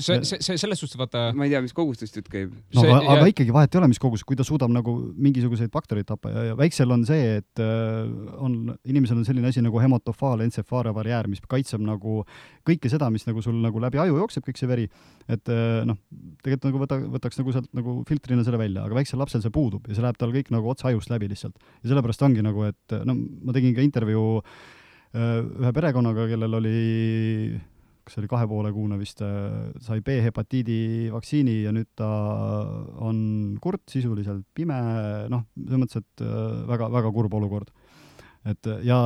See selles suhtes, vaata... Ma ei tea, mis kogustest jutt käib. Aga ikkagi vahet ei ole, mis kogus, kui ta suudab nagu mingisuguseid baktereid tappa ja väiksel on see, et inimesel on selline asi nagu hemotofaal entsefaarebarjäär, mis kaitseb nagu kõike seda, mis nagu sul nagu läbi aju jookseb, kõik see veri. Et tegelikult nagu võtaks nagu sealt nagu filtrina selle välja, aga väiksel lapsel see puudub ja see läheb tal kõik nagu otsa ajust läbi lihtsalt. Ja sellepärast ongi nagu, et ma tegin ka intervjuu ühe perekonnaga, kellel oli kas oli 2,5 kuune vist, sai B-hepatiidi vaktsiini ja nüüd ta on kurt, sisuliselt pime, selles mõttes, et väga, väga kurb olukord. Ja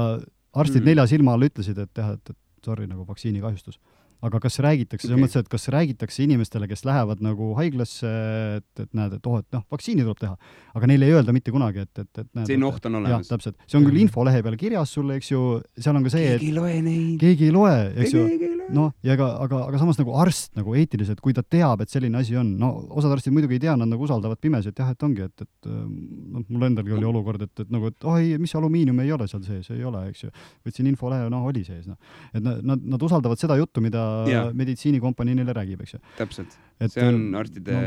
arstid 4 silma all ütlesid, et sorry, nagu vaktsiini kahjustus. Aga kas räägitakse, selles mõttes, et kas räägitakse inimestele, kes lähevad nagu haiglasse, et näed, et vaktsiini tuleb teha, aga neile ei öelda mitte kunagi, et näed, see oht on olemas. Jah, täpselt. See on küll infolehe peal kirjas sulle, eks ju, seal on ka see, keegi ei loe neid. Keegi ei loe, eks ju. Aga samas nagu arst nagu eetiliselt, kui ta teab, et selline asi on, osad arstid muidugi ei tea, nad nagu usaldavad pimesi, et jah, et ongi, et mul endalgi oli olukord, et mis alumiinium ei ole seal sees, ei ole, eks ju. Võtsin infolehe, oli sees. Et nad usaldavad seda juttu, mida meditsiinikompanii neile räägib, eks ju. Täpselt. See on arstide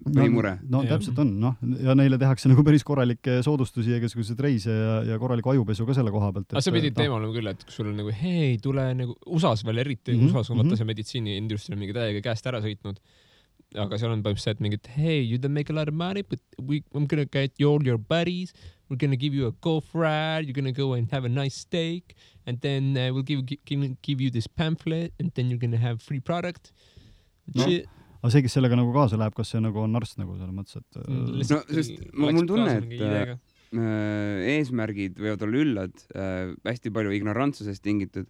põhimure. No täpselt on, noh, ja neile tehakse nagu päris korralikke soodustusi ja igasugused reise ja korraliku ajupesu ka selle koha pealt. Aga see pidi teema olema küll, et kui sul on nagu, hei, tule nagu USAs veel eriti, USAs on vaata see meditsiiniindustria mingi täiega käest ära sõitnud. Aga seal on põhimõtteliselt mingid, hey, you don't make a lot of money, but I'm gonna get you all your buddies, we're gonna give you a golf ride, you're gonna go and have a nice steak, and then we'll give you this pamphlet, and then you're gonna have free product. Aga see, kes sellega nagu kaasa läheb, kas see nagu on arst nagu selles mõttes, et... No, sest mul tunne, et eesmärgid võivad olla üllad, hästi palju ignorantsusest tingitud.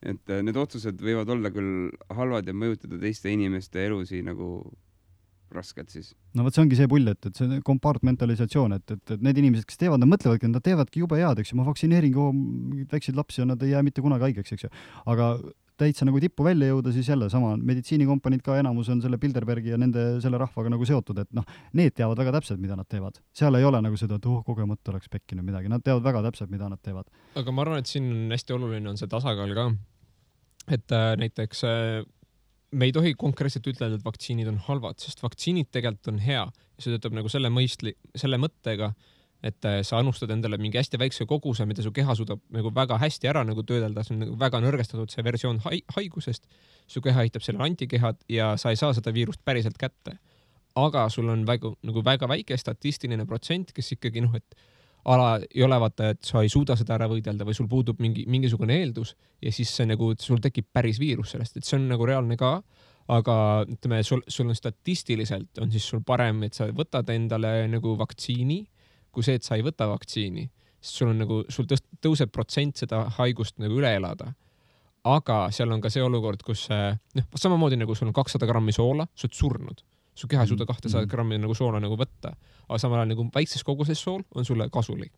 Et need otsused võivad olla küll halvad ja mõjutada teiste inimeste elusi nagu raskelt siis. No võt see ongi see pull, et see kompartmentalisatsioon, et need inimesed, kes teevad, nad mõtlevadki, nad teevadki jube head, eks ju, ma vaktsineerin väikseid lapsi ja nad ei jää mitte kunagi haigeks, eks ju. Aga täitsa nagu tippu välja jõuda, siis jälle sama meditsiinikompaniid ka enamus on selle Bilderbergi ja selle rahvaga nagu seotud, et noh, need teavad väga täpselt, mida nad teevad. Seal ei ole nagu seda, et kogemata oleks pekkinud midagi. Nad teavad väga täpselt, mida nad teevad. Aga ma arvan, et siin on hästi oluline on see tasakaal ka. Et näiteks me ei tohi konkreetselt ütelda, et vaktsiinid on halvad, sest vaktsiinid tegelikult on hea. Ja see töötab nagu selle mõttega, et sa annustad endale mingi hästi väikse koguse, mida su keha suudab nagu väga hästi ära nagu töödelda, see on nagu väga nõrgestatud see versioon haigusest, su keha hitab selle antikehad ja sa ei saa seda viirust päriselt kätte. Aga sul on väga väike statistiline protsent, kes ikkagi et ala ei ole vaata, et sa ei suuda seda ära võidelda või sul puudub mingisugune eeldus ja siis see nagu, sul tekib päris viirus sellest, et see on nagu reaalne ka, aga ütleme, sul on statistiliselt on siis sul parem, et sa võtad endale nagu vaktsiini, kui see, et sa ei võta vaktsiini, sest sul on nagu, sul tõuseb protsent seda haigust nagu üle elada. Aga seal on ka see olukord, kus samamoodi nagu sul on 200 grammi soola, sa oled surnud. Su keha ei suuda 200 grammi nagu soola nagu võtta. Aga samal ajal nagu väikses koguses sool on sulle kasulik.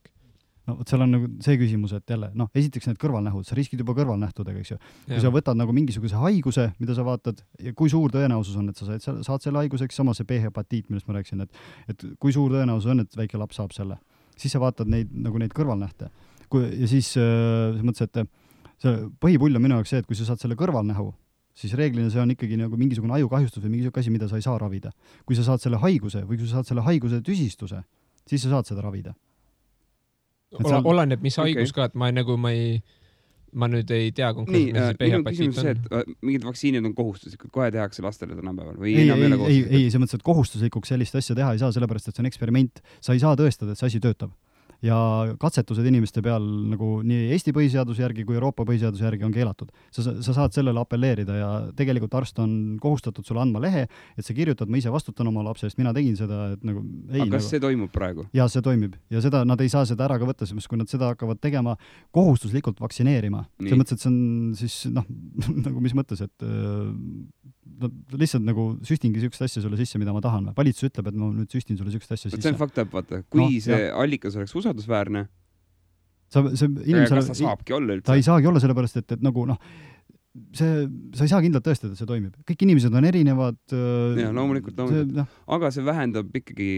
No, seal on nagu see küsimus, et jälle, esiteks need kõrvalnähud, sa riskid juba kõrvalnähtudega, eks ju. Kui sa võtad nagu mingisuguse haiguse, mida sa vaatad, ja kui suur tõenäosus on, et sa saad selle haiguseks, sama see B-hepatiit, millest ma rääkisin, et kui suur tõenäosus on, et väike laps saab selle, siis sa vaatad neid kõrvalnähte. Ja siis mõttes, et see põhipull on minu jaoks see, et kui sa saad selle kõrvalnähu, siis reeglina see on ikkagi nagu mingisugune ajukahjustus või mingisugune asi, mida sa ei saa ravida. Kui sa saad selle haiguse või kui sa saad selle haiguse tüsistuse, siis sa saad seda ravida. Oleneb, mis haigus ka, et ma nüüd ei tea konkreetselt, mis see B-hepatiit on. Et mingid vaktsiinid on kohustuslikud, kohe tehakse lastele tänapäeval või ei, see mõttes, et kohustuslikuks sellist asja teha ei saa, sellepärast, et see on eksperiment. Sa ei saa tõestada, et see asi töötab. Ja katsetused inimeste peal nagu nii Eesti põhiseaduse järgi kui Euroopa põhiseaduse järgi on keelatud. Sa saad sellele appelleerida ja tegelikult arst on kohustatud sulle andma lehe, et sa kirjutad, ma ise vastutan oma lapse eest, mina tegin seda, et nagu ei. Aga kas see toimub praegu? Ja see toimib. Ja seda, nad ei saa seda ära ka võtta, sest kui nad seda hakkavad tegema kohustuslikult vaktsineerima. See mõttes, et see on siis, nagu mis mõttes, et lihtsalt nagu süstingi sükst asja sulle sisse, mida ma tahan. Valitsus ütleb, et ma nüüd süstin sulle sükst asja sisse. See on fakt, vaata. Kui see allikas oleks usaldusväärne, kas ta saabki olla üldse? Ta ei saagi olla sellepärast, et nagu sa ei saa kindlalt tõestada, et see toimib. Kõik inimesed on erinevad. Ja, loomulikult. Aga see vähendab ikkagi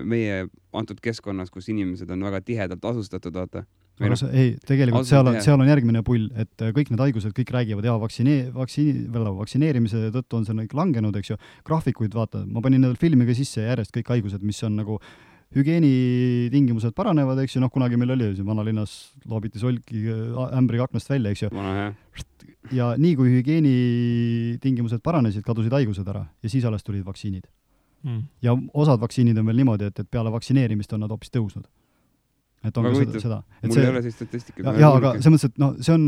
meie antud keskkonnas, kus inimesed on väga tihedalt asustatud, vaata. Tegelikult seal on järgmine pull, et kõik need haigused kõik räägivad, vaktsineerimise tõttu on see kõik langenud, eks ju. Graafikuid vaata, ma panin need filmiga sisse järjest kõik haigused, mis on nagu hügieenitingimused paranevad, eks ju, kunagi meil oli vanalinnas loobiti solki ämbri aknast välja, eks ju. Ja nii kui hügieenitingimused paranesid, kadusid haigused ära ja siis alles tulid vaktsiinid. Ja osad vaktsiinid on veel niimoodi, et peale vaktsineerimist on nad hoopis tõusnud. Et on ka seda. Mul ei ole see statistika. Ja, aga see mõttes, et see on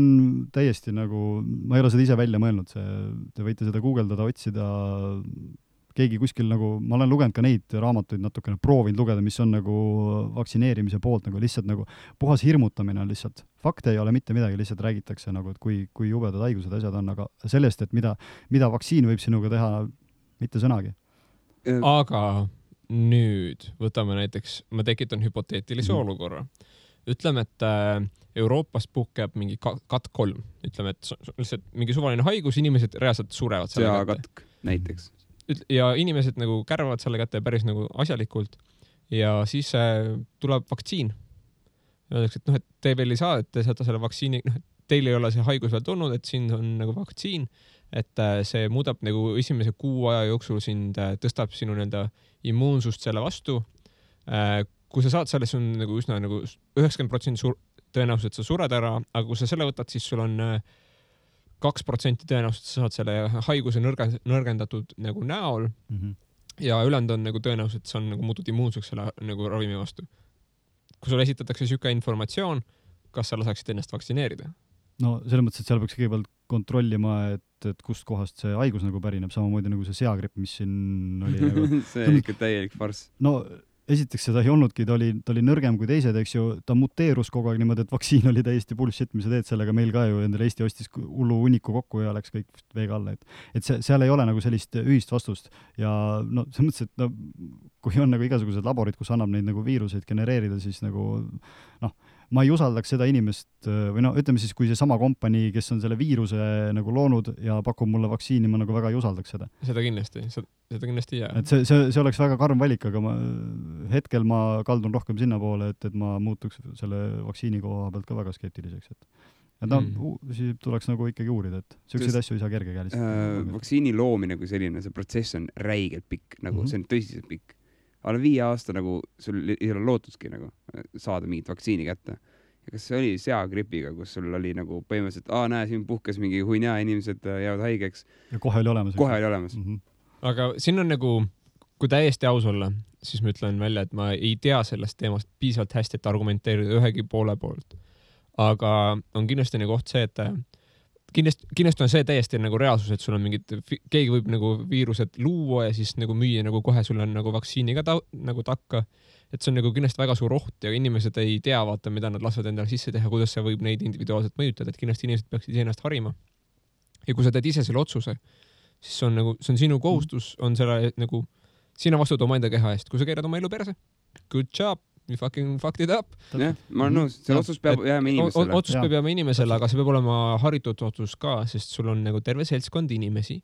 täiesti nagu, ma ei ole seda ise välja mõelnud, te võite seda guugeldada, otsida, keegi kuskil nagu, ma olen lugenud ka neid raamatuid natukene, proovinud lugeda, mis on nagu vaktsineerimise poolt, nagu lihtsalt nagu puhas hirmutamine on lihtsalt. Fakte ei ole mitte midagi, lihtsalt räägitakse nagu, et kui jubedad haigused asjad on, aga sellest, et mida vaktsiin võib sinuga teha, mitte sõnagi. Aga nüüd võtame näiteks, ma tekitan hüpoteetilise olukorra. Ütleme, et Euroopas puhkeb mingi katk 3. Ütleme, et lihtsalt mingi suvaline haigus, inimesed reaalselt surevad selle kätte. Katk näiteks. Ja inimesed nagu kärvavad selle kätte päris nagu asjalikult ja siis tuleb vaktsiin. Öeldakse, et et te veel ei saa, et te saate selle vaktsiini, teil ei ole see haigus veel tulnud, et siin on nagu vaktsiin, et see muudab nagu esimese kuu aja jooksul sind, tõstab sinu nii-öelda immuunsust selle vastu. Kui sa saad selle, see on nagu üsna nagu 90% tõenäoliselt sa sured ära, aga kui sa selle võtad, siis sul on 2% tõenäoliselt sa saad selle haiguse nõrgendatud nagu näol ja ülejäänud on nagu tõenäoliselt sa on nagu muutud immuunseks selle nagu ravimi vastu. Kui sulle esitatakse siuke informatsioon, kas sa lasaksid ennast vaktsineerida? No selles mõttes, et seal peaks kõigepealt kontrollima, et kust kohast see haigus nagu pärineb, samamoodi nagu see seagripp, mis siin oli nagu... see on ikka täielik farss. No esiteks seda ei olnudki, ta oli nõrgem kui teised, eks ju, ta muteerus kogu aeg niimoodi, et vaktsiin oli täiesti bullshit, mis sa teed sellega, meil ka ju endale Eesti ostis hullu hunniku kokku ja läks kõik veega alla, et seal ei ole nagu sellist ühist vastust ja no selles mõttes, et no, kui on nagu igasugused laborid, kus annab neid nagu viiruseid genereerida, siis nagu noh, ma ei usaldaks seda inimest või no ütleme siis, kui see sama kompanii, kes on selle viiruse nagu loonud ja pakub mulle vaktsiini, ma nagu väga ei usaldaks seda. Seda kindlasti jää. Et see oleks väga karm valik, aga hetkel ma kaldun rohkem sinna poole, et ma muutuks selle vaktsiini koha pealt ka väga skeptiliseks. Et no, siis tuleks nagu ikkagi uurida, et selliseid asju ei saa kergekäeliselt. Vaktsiini loomine kui selline, see protsess on räigelt pikk, nagu see on tõsiselt pikk. Alla 5 aasta nagu sul ei ole lootudki nagu saada mingit vaktsiini kätte. Ja kas see oli seagripiga, kus sul oli nagu põhimõtteliselt, näe, siin puhkes mingi huinja, inimesed jäävad haigeks. Ja kohe oli olemas. Aga siin on nagu, kui täiesti aus olla, siis ma ütlen välja, et ma ei tea sellest teemast piisavalt hästi, et argumenteerida ühegi poole poolt. Aga on kindlasti nagu oht see, et kindlasti on see täiesti nagu reaalsus, et sul on mingid, keegi võib nagu viirused luua ja siis nagu müüa nagu kohe sul on nagu vaktsiini ka nagu takka. Et see on nagu kindlasti väga suur oht ja inimesed ei tea vaata, mida nad lasvad endale sisse teha, kuidas see võib neid individuaalselt mõjutada, et kindlasti inimesed peaksid ennast harima. Ja kui sa teed ise selle otsuse, siis see on sinu kohustus, on selle nagu, sina vastud oma enda keha eest. Kui sa keerad oma elu perse, good job, you fucking fucked it up. Jah, ma olen nõus, see otsus peab jääma inimesele. Otsus peab jääma inimesele, aga see peab olema haritud otsus ka, sest sul on nagu terve seltskond inimesi,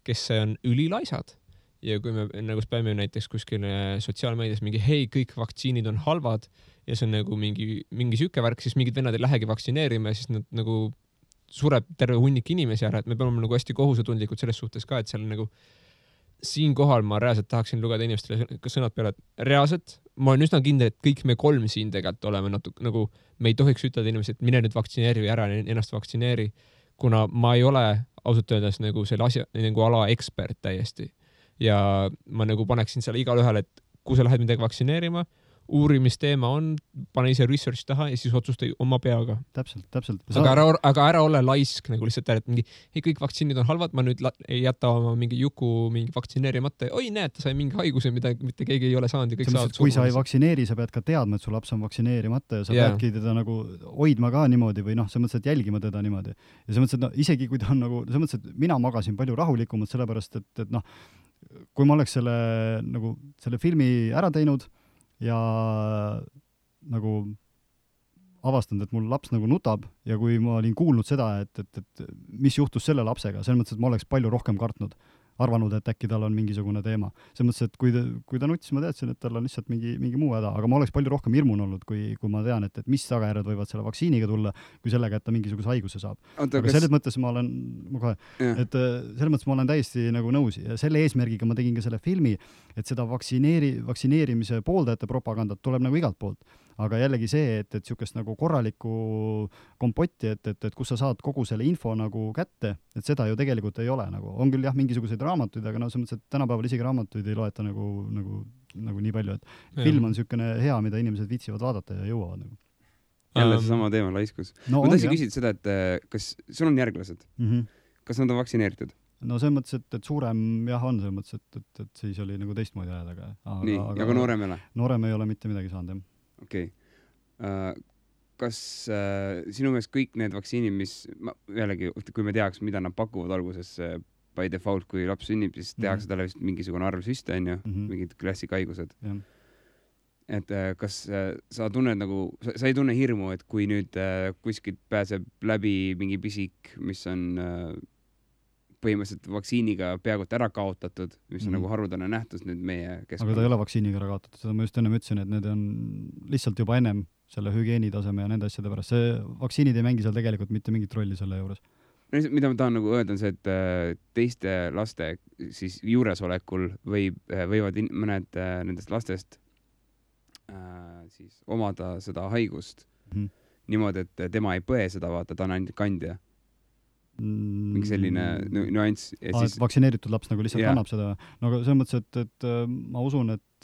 kes on ülilaisad. Ja kui me nagu späime näiteks kuskil sotsiaalmeedias mingi, hei, kõik vaktsiinid on halvad ja see on nagu mingi süke värk, siis mingid vennad ei lähegi vaktsineerima ja siis nad nagu sureb terve hunnik inimesi ära, et me peame nagu hästi kohusetundlikud selles suhtes ka, et seal nagu siin kohal ma reaalselt tahaksin lugeda inimestele sõnad peale, et reaalselt ma olen üsna kindel, et kõik me 3 siin tegelikult oleme natuke nagu, me ei tohiks ütelda inimesed, et mine nüüd vaktsineeri ära, ennast vaktsineeri, kuna ma ei ole ausalt öeldes nagu selle asja nagu ala ekspert täiesti. Ja ma nagu paneksin selle igal ühel, et kui sa lähed midagi vaktsineerima, uurimisteema on, pane ise research taha ja siis otsusta oma peaga. Täpselt. Aga ära ole laisk nagu lihtsalt, et mingi, hei, kõik vaktsiinid on halvad, ma nüüd ei jäta oma mingi juku mingi vaktsineerimata. Oi, näed, ta sai mingi haiguse, mida mitte keegi ei ole saanud. Ja kõik saavad kui sa ei vaktsineeri, sa pead ka teadma, et su laps on vaktsineerimata ja sa peadki teda nagu hoidma ka niimoodi või noh, see mõttes, et jälgima teda niimoodi. Ja see mõttes, et no, isegi kui ta on nagu, see mõttes, et mina magasin palju rahulikumalt sellepärast, et noh, kui ma oleks selle filmi ära teinud ja nagu avastanud, et mul laps nagu nutab ja kui ma olin kuulnud seda, et mis juhtus selle lapsega, selles mõttes, et ma oleks palju rohkem kartnud, arvanud, et äkki tal on mingisugune teema. Selles mõttes, et kui ta nutis, ma teadsin, et tal on lihtsalt mingi muu häda, aga ma oleks palju rohkem hirmun olnud, kui ma tean, et mis tagajärjed võivad selle vaktsiiniga tulla, kui sellega, et ta mingisuguse haiguse saab. Aga selles mõttes ma olen täiesti nagu nõus ja selle eesmärgiga ma tegin ka selle filmi, et seda vaktsineerimise pooldajate propagandat tuleb nagu igalt poolt. Aga jällegi see, et sükest nagu korralikku kompotti, et kus sa saad kogu selle info nagu kätte, et seda ju tegelikult ei ole nagu. On küll jah, mingisuguseid raamatuid, aga no see mõttes, et tänapäeval isegi raamatuid ei loeta nagu nii palju, et film on sükene hea, mida inimesed viitsivad vaadata ja jõuavad nagu. Jälle see sama teema, laiskus. Ma tahtsin küsida seda, et kas sul on järglased? Kas nad on vaktsineeritud? No see mõttes, et suurem jah on, see mõttes, et siis oli nagu teistmoodi ajad, aga noorem ei ole? Noorem ei ole mitte midagi saanud, jah. Okei. Kas sinu meelest kõik need vaktsiinid, mis jällegi, kui me teaks, mida nad pakuvad alguses by default, kui laps sünnib, siis tehakse talle vist mingisugune arv süste, on ju, mingid klassikaigused. Et kas sa tunned nagu, sa ei tunne hirmu, et kui nüüd kuskilt pääseb läbi mingi pisik, mis on põhimõtteliselt vaktsiiniga peaaegu ära kaotatud, mis on nagu harudane nähtus nüüd meie keskkonna. Aga ta ei ole vaktsiiniga ära kaotatud, seda ma just enne ütlesin, et need on lihtsalt juba ennem selle hügieenitaseme ja nende asjade pärast. See vaktsiinid ei mängi seal tegelikult mitte mingit rolli selle juures. mida ma tahan nagu öelda on see, et teiste laste siis juuresolekul võivad mõned nendest lastest siis omada seda haigust niimoodi, et tema ei põe seda, vaata, ta on ainult kandja. Mingi selline nüanss. Siis... vaktsineeritud laps nagu lihtsalt kannab seda. No aga selles mõttes, et ma usun, et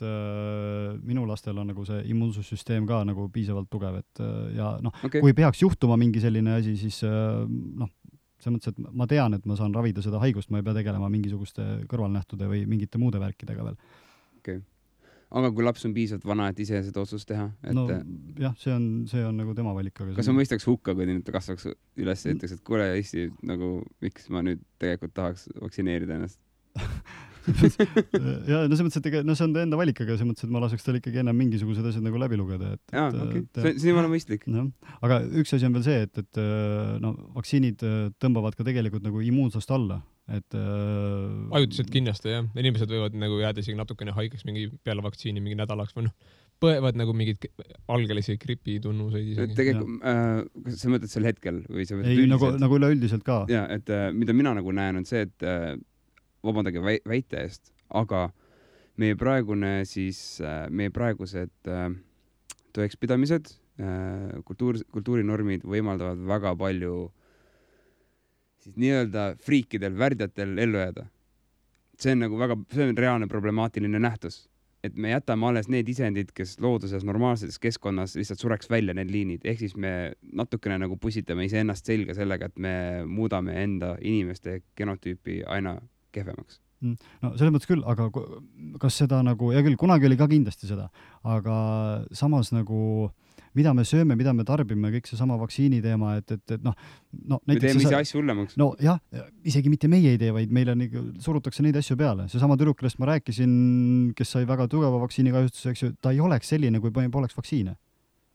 minu lastel on nagu see immuunsussüsteem ka nagu piisavalt tugev, et ja kui peaks juhtuma mingi selline asi, siis selles mõttes, et ma tean, et ma saan ravida seda haigust, ma ei pea tegelema mingisuguste kõrvalnähtude või mingite muude värkidega veel. Okay. Aga kui laps on piisavalt vana, et ise seda otsust teha? Et... No jah, see on nagu tema valik. Aga kas ma mõistaks hukka, kui ta kasvaks üles ja ütleks, et kuule, Eesti, nagu miks ma nüüd tegelikult tahaks vaktsineerida ennast? ja no selles mõttes, et see on ta enda valik, aga selles mõttes, et ma laseks tal ikkagi ennem mingisugused asjad nagu läbi lugeda. See on mõistlik. Aga üks asi on veel see, et vaktsiinid tõmbavad ka tegelikult nagu immuunsust alla. Ajutiselt kindlasti, jah. Inimesed võivad nagu jääda isegi natukene haigeks mingi peale vaktsiini mingi nädalaks või põevad nagu mingid algelisi gripitunnuseid isegi. Tegelikult, sa mõtled sel hetkel? Või sa ei, nagu üleüldiselt ka. Ja, et mida mina nagu näen on see, et vabandage väite eest, aga meie praegused tõekspidamised, kultuurinormid võimaldavad väga palju siis nii-öelda friikidel, värdjatel ellu jääda. See on reaalne problemaatiline nähtus, et me jätame alles need isendid, kes looduses normaalses keskkonnas lihtsalt sureks välja need liinid, ehk siis me natukene nagu pusitame iseennast selga sellega, et me muudame enda inimeste genotüüpi aina kehvemaks. No selles mõttes küll, aga kas seda nagu, ja küll kunagi oli ka kindlasti seda, aga samas nagu mida me sööme, mida me tarbime, kõik see sama vaktsiini teema, et me teeme ise asju hullemaks. No jah, isegi mitte meie ei tee, vaid meile surutakse neid asju peale. See sama tüdruk, kellest ma rääkisin, kes sai väga tugeva vaktsiinikahjustuse, eks ju, ta ei oleks selline, kui poleks vaktsiine.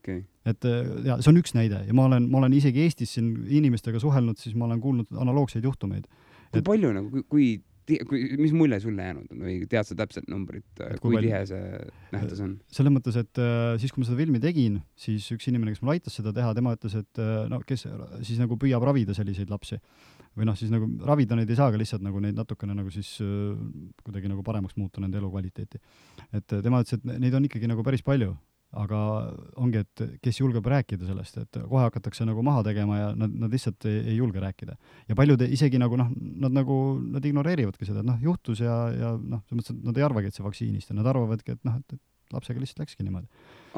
Okay. Et ja see on üks näide ja ma olen isegi Eestis siin inimestega suhelnud, siis ma olen kuulnud analoogseid juhtumeid. Kui palju nagu, mis mulje sulle jäänud on või tead sa täpselt numbrit, kui tihe see nähtus on? Selles mõttes, et siis kui ma seda filmi tegin, siis üks inimene, kes mul aitas seda teha, tema ütles, et kes siis nagu püüab ravida selliseid lapsi või siis nagu ravida neid ei saa, aga lihtsalt nagu neid natukene nagu siis kuidagi nagu paremaks muuta nende elukvaliteeti. Et tema ütles, et neid on ikkagi nagu päris palju. Aga ongi, et kes julgeb rääkida sellest, et kohe hakatakse nagu maha tegema ja nad lihtsalt ei julge rääkida. Ja paljud isegi nagu nad ignoreerivadki seda, et juhtus ja selles mõttes, et nad ei arvagi, et see vaktsiinist ja nad arvavadki, et lapsega lihtsalt läkski niimoodi.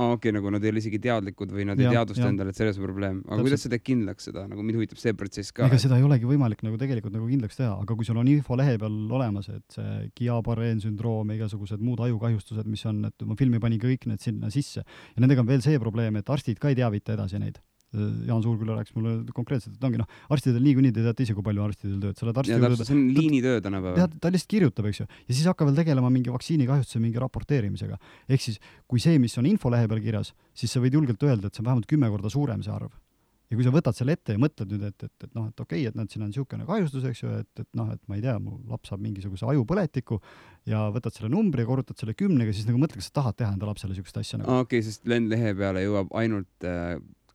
Okei, nagu nad ei ole isegi teadlikud või nad ei teadvusta endale, et selles on probleem. Aga kuidas seda kindlaks seda? Nagu mind huvitab see protsess ka. Ega seda ei olegi võimalik nagu tegelikult nagu kindlaks teha, aga kui sul on info lehe peal olemas, et see Guillain-Barré sündroom ja igasugused muud ajukahjustused, mis on, et ma filmi panin kõik need sinna sisse. Ja nendega on veel see probleem, et arstid ka ei teavita edasi neid. Jaan Suurküla rääkis mulle konkreetselt, et ongi arstidel niikuinii te teate ise, kui palju arstidel tööd. Ja täpselt, see on liinitöö tänapäeval. Ta lihtsalt kirjutab, eks ju. Ja siis hakka veel tegelema mingi vaktsiinikahjustuse mingi raporteerimisega. Ehk siis, kui see, mis on infolehe peal kirjas, siis sa võid julgelt öelda, et see on vähemalt 10 korda suurem see arv. Ja kui sa võtad selle ette ja mõtled nüüd, et okei, et siin on niisugune kahjustus, eks ju, et ma ei tea, mu laps saab mingisuguse ajupõletiku ja võtad selle numbri ja korrutad selle 10-ga, siis nagu mõtle, kas sa tahad teha enda lapsele niisugust asja. Okei, sest lehe peale jõuab ainult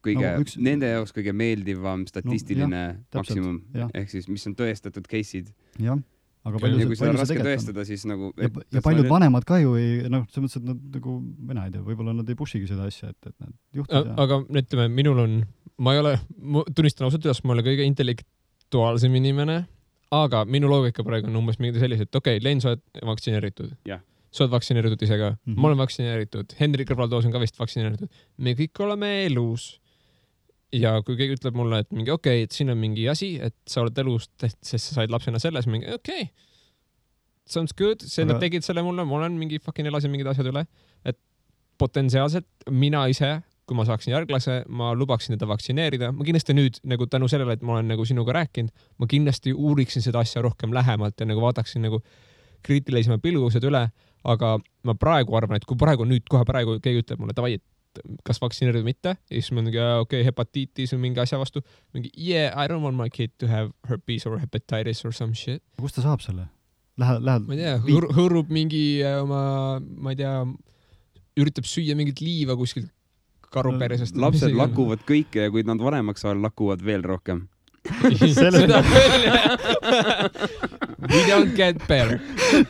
nende jaoks kõige meeldivam statistiline maksimum, ehk siis mis on tõestatud case'id. Jah, aga kui seda on raske tõestada, siis nagu... Ja paljud vanemad ka ju ei, selles mõttes, et nad nagu, mina ei tea, võib-olla nad ei pushigi seda asja, et nad juhtud. Aga ütleme, minul on, ma tunnistan ausalt üles, ma olen kõige intellektuaalsem inimene, aga minu loogika praegu on umbes mingi sellised, et okei, Len, sa oled vaktsineeritud. Sa oled vaktsineeritud ise ka. Ma olen vaktsineeritud. Henri Kõrvaltoos on ka vist vaktsineeritud. Me kõik oleme elus. Ja kui keegi ütleb mulle, et mingi okei, et siin on mingi asi, et sa oled elus, sest sa said lapsena selles, mingi okei. Sounds good. Nad tegid selle mulle, ma olen mingi fucking elasin mingid asjad üle. Et potentsiaalselt mina ise, kui ma saaksin järglase, ma lubaksin teda vaktsineerida. Ma kindlasti nüüd nagu tänu sellele, et ma olen nagu sinuga rääkinud, ma kindlasti uuriksin seda asja rohkem lähemalt ja nagu vaataksin nagu kriitilisema pilgused üle. Aga ma praegu arvan, et kui kohe praegu keegi ütleb mulle, davai, et kas vaktsineerida mitte, ja siis ma mingi, okei, hepatiitis või mingi asja vastu, mingi, I don't want my kid to have herpes or hepatitis or some shit. Kust ta saab selle? Lähed? Ma ei tea, hõõrub mingi ma ei tea, üritab süüa mingit liiva kuskilt karuperesest. Lapsed lakuvad kõike ja kui nad vanemaks saavad, lakuvad veel rohkem. seda küll, we don't get better.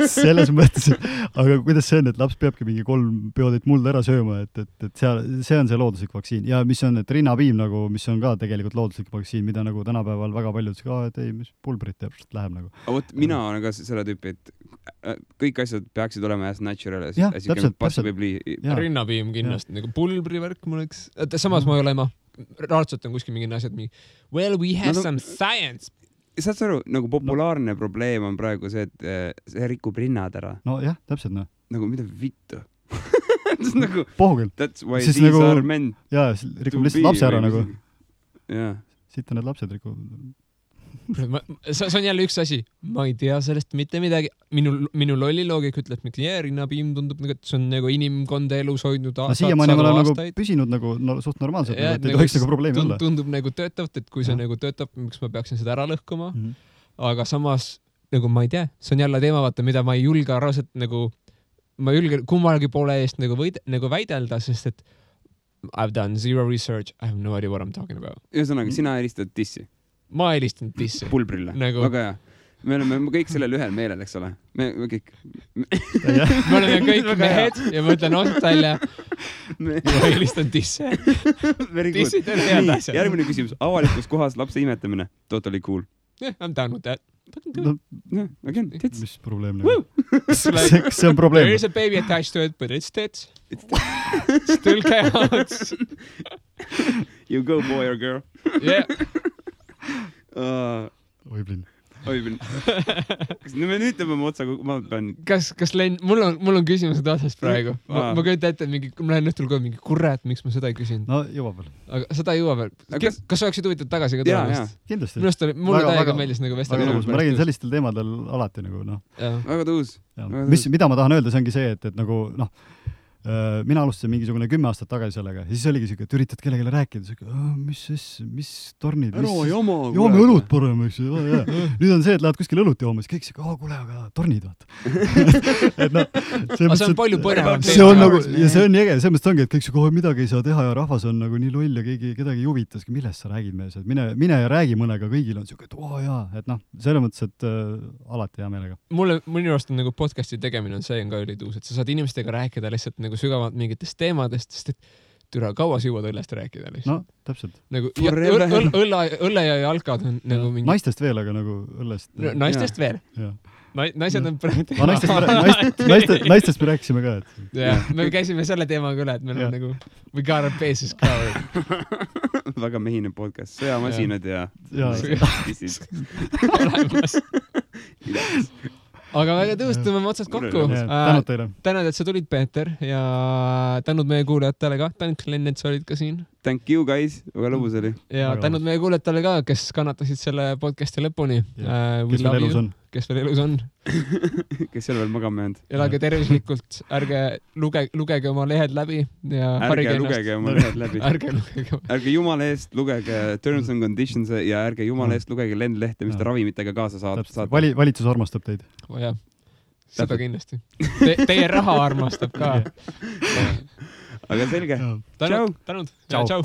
Selles mõttes, aga kuidas see on, et laps peabki mingi 3 peotäit mulda ära sööma, et see on see looduslik vaktsiin ja mis on, et rinnapiim nagu, mis on ka tegelikult looduslik vaktsiin, mida nagu tänapäeval väga paljud ütlesid, et ei, mis pulbrit teeb, läheb nagu. Aga võt, mina olen ka selle tüüpi, et kõik asjad peaksid olema as natural as you can possibly. Rinnapiim kindlasti, nagu pulbrivärk mul oleks, samas ma ei ole raadselt on kuskil mingid asjad well, we have some science. Saad sa aru, nagu populaarne probleem on praegu see, et see rikub rinnad ära. No jah, täpselt noh. Nagu mida vittu? Nagu, pohugel. That's why these nagu, are meant. Jaa, rikub lihtsalt lapse ära nagu. Jaa. Siit on need lapsed rikub. See on jälle üks asi. Ma ei tea sellest mitte midagi. Minu lolli loogik ütleb, et rinnapiim tundub, et see on nagu inimkonda elus hoidnud siiamaani ma olen nagu püsinud nagu suht normaalselt, et ei tohiks nagu probleemi olla. Tundub nagu töötavat, et kui see nagu töötab, miks ma peaksin seda ära lõhkuma. Aga samas, nagu ma ei tea, see on jälle teema, vaata, mida ma ei julge arvaselt nagu, ma ei julge kummalgi poole eest nagu väidelda, sest et I've done zero research, I have no idea what I'm talking about. Ühesõnaga, sina helistad dissi. Ma helistanud dissi. Pulbrille. Nagu... Väga hea. Me oleme kõik sellel ühel meelel, eks ole? Me kõik. Me oleme kõik mehed ja ma ütlen osalt välja. Ma helistanud disse. Dissid on head asjad. Järgmine küsimus. Avalikus kohas lapse imetamine. Totally cool. Yeah, I'm down with that. Again, tits. Mis probleem? See on probleem. There is a baby attached to it, but it's tits. Still counts. You go, boy or girl. Yeah. Oiblin. Kas me nüüd tõmbame otsa, kui ma pean... Kas Len, mul on küsimused otsast praegu. Ma köita ette, ma lähen õhtul kohe mingi kurat, miks ma seda ei küsinud. No, jõuab veel. Aga seda ei jõua veel. Kas oleksid huvitatud tagasi ka tulemast? Kindlasti. Mulle täiega meeldis nagu vestelda. Ma räägin sellistel teemadel alati nagu, noh. Väga tõus. Mida ma tahan öelda, see ongi see, et nagu, noh, mina alustasin mingisugune 10 aastat tagasi sellega ja siis oligi siuke, et üritad kellelegi rääkida, mis tornid, joome õlut parem, eks ju, nüüd on see, et lähed kuskil õlut jooma, siis kõik siuke, kuule, aga tornid, vaata. Et noh, see on palju põnevam. See on nagu, ja see on äge, selles mõttes ongi, et kõik siuke, midagi ei saa teha ja rahvas on nagu nii loll ja kedagi ei huvita, millest sa räägid mees, et mine ja räägi mõnega, kõigil on siuke, et jaa, et noh, selles mõttes, et alati hea meelega. Minu arust on nagu podcasti tegemine on see ka ülituus, et sa saad inimestega rääkida lihtsalt nagu sügavalt mingitest teemadest, sest et türa kaua sa jõuad õllest rääkida lihtsalt. No, täpselt. Nagu, õlle ja jalkad on nagu mingi... Naistest veel, aga nagu õllest... Naistest veel? Naised on praegu... Naistest me rääkisime ka, et... Jah, me käisime selle teemaga üle, et meil on nagu... We got our bases covered. Väga mehine podcast. Sõjamasinad ja... Olemas. Aga väga tõus, tõmbame otsast kokku. Tänud teile. Tänud, et sa tulid, Peeter, ja tänud meie kuulajatele ka. Tänud, Glenn, et sa olid ka siin. Thank you, guys. Väga lõbus oli. Ja tänud meie kuulajatele ka, kes kannatasid selle podcasti lõpuni. Kes veel elus on. Kes seal veel magama jäänud. Elage tervislikult. Ärge lugege oma lehed läbi. Ärge lugege oma lehed läbi. Ärge jumala eest lugege terms and conditions ja ärge jumala eest lugege lendlehte, mis te ravimitega kaasa saate. Valitsus armastab teid. Jah, seda kindlasti. Teie raha armastab ka. Aga selge. Tänud. Ciao. Ciao.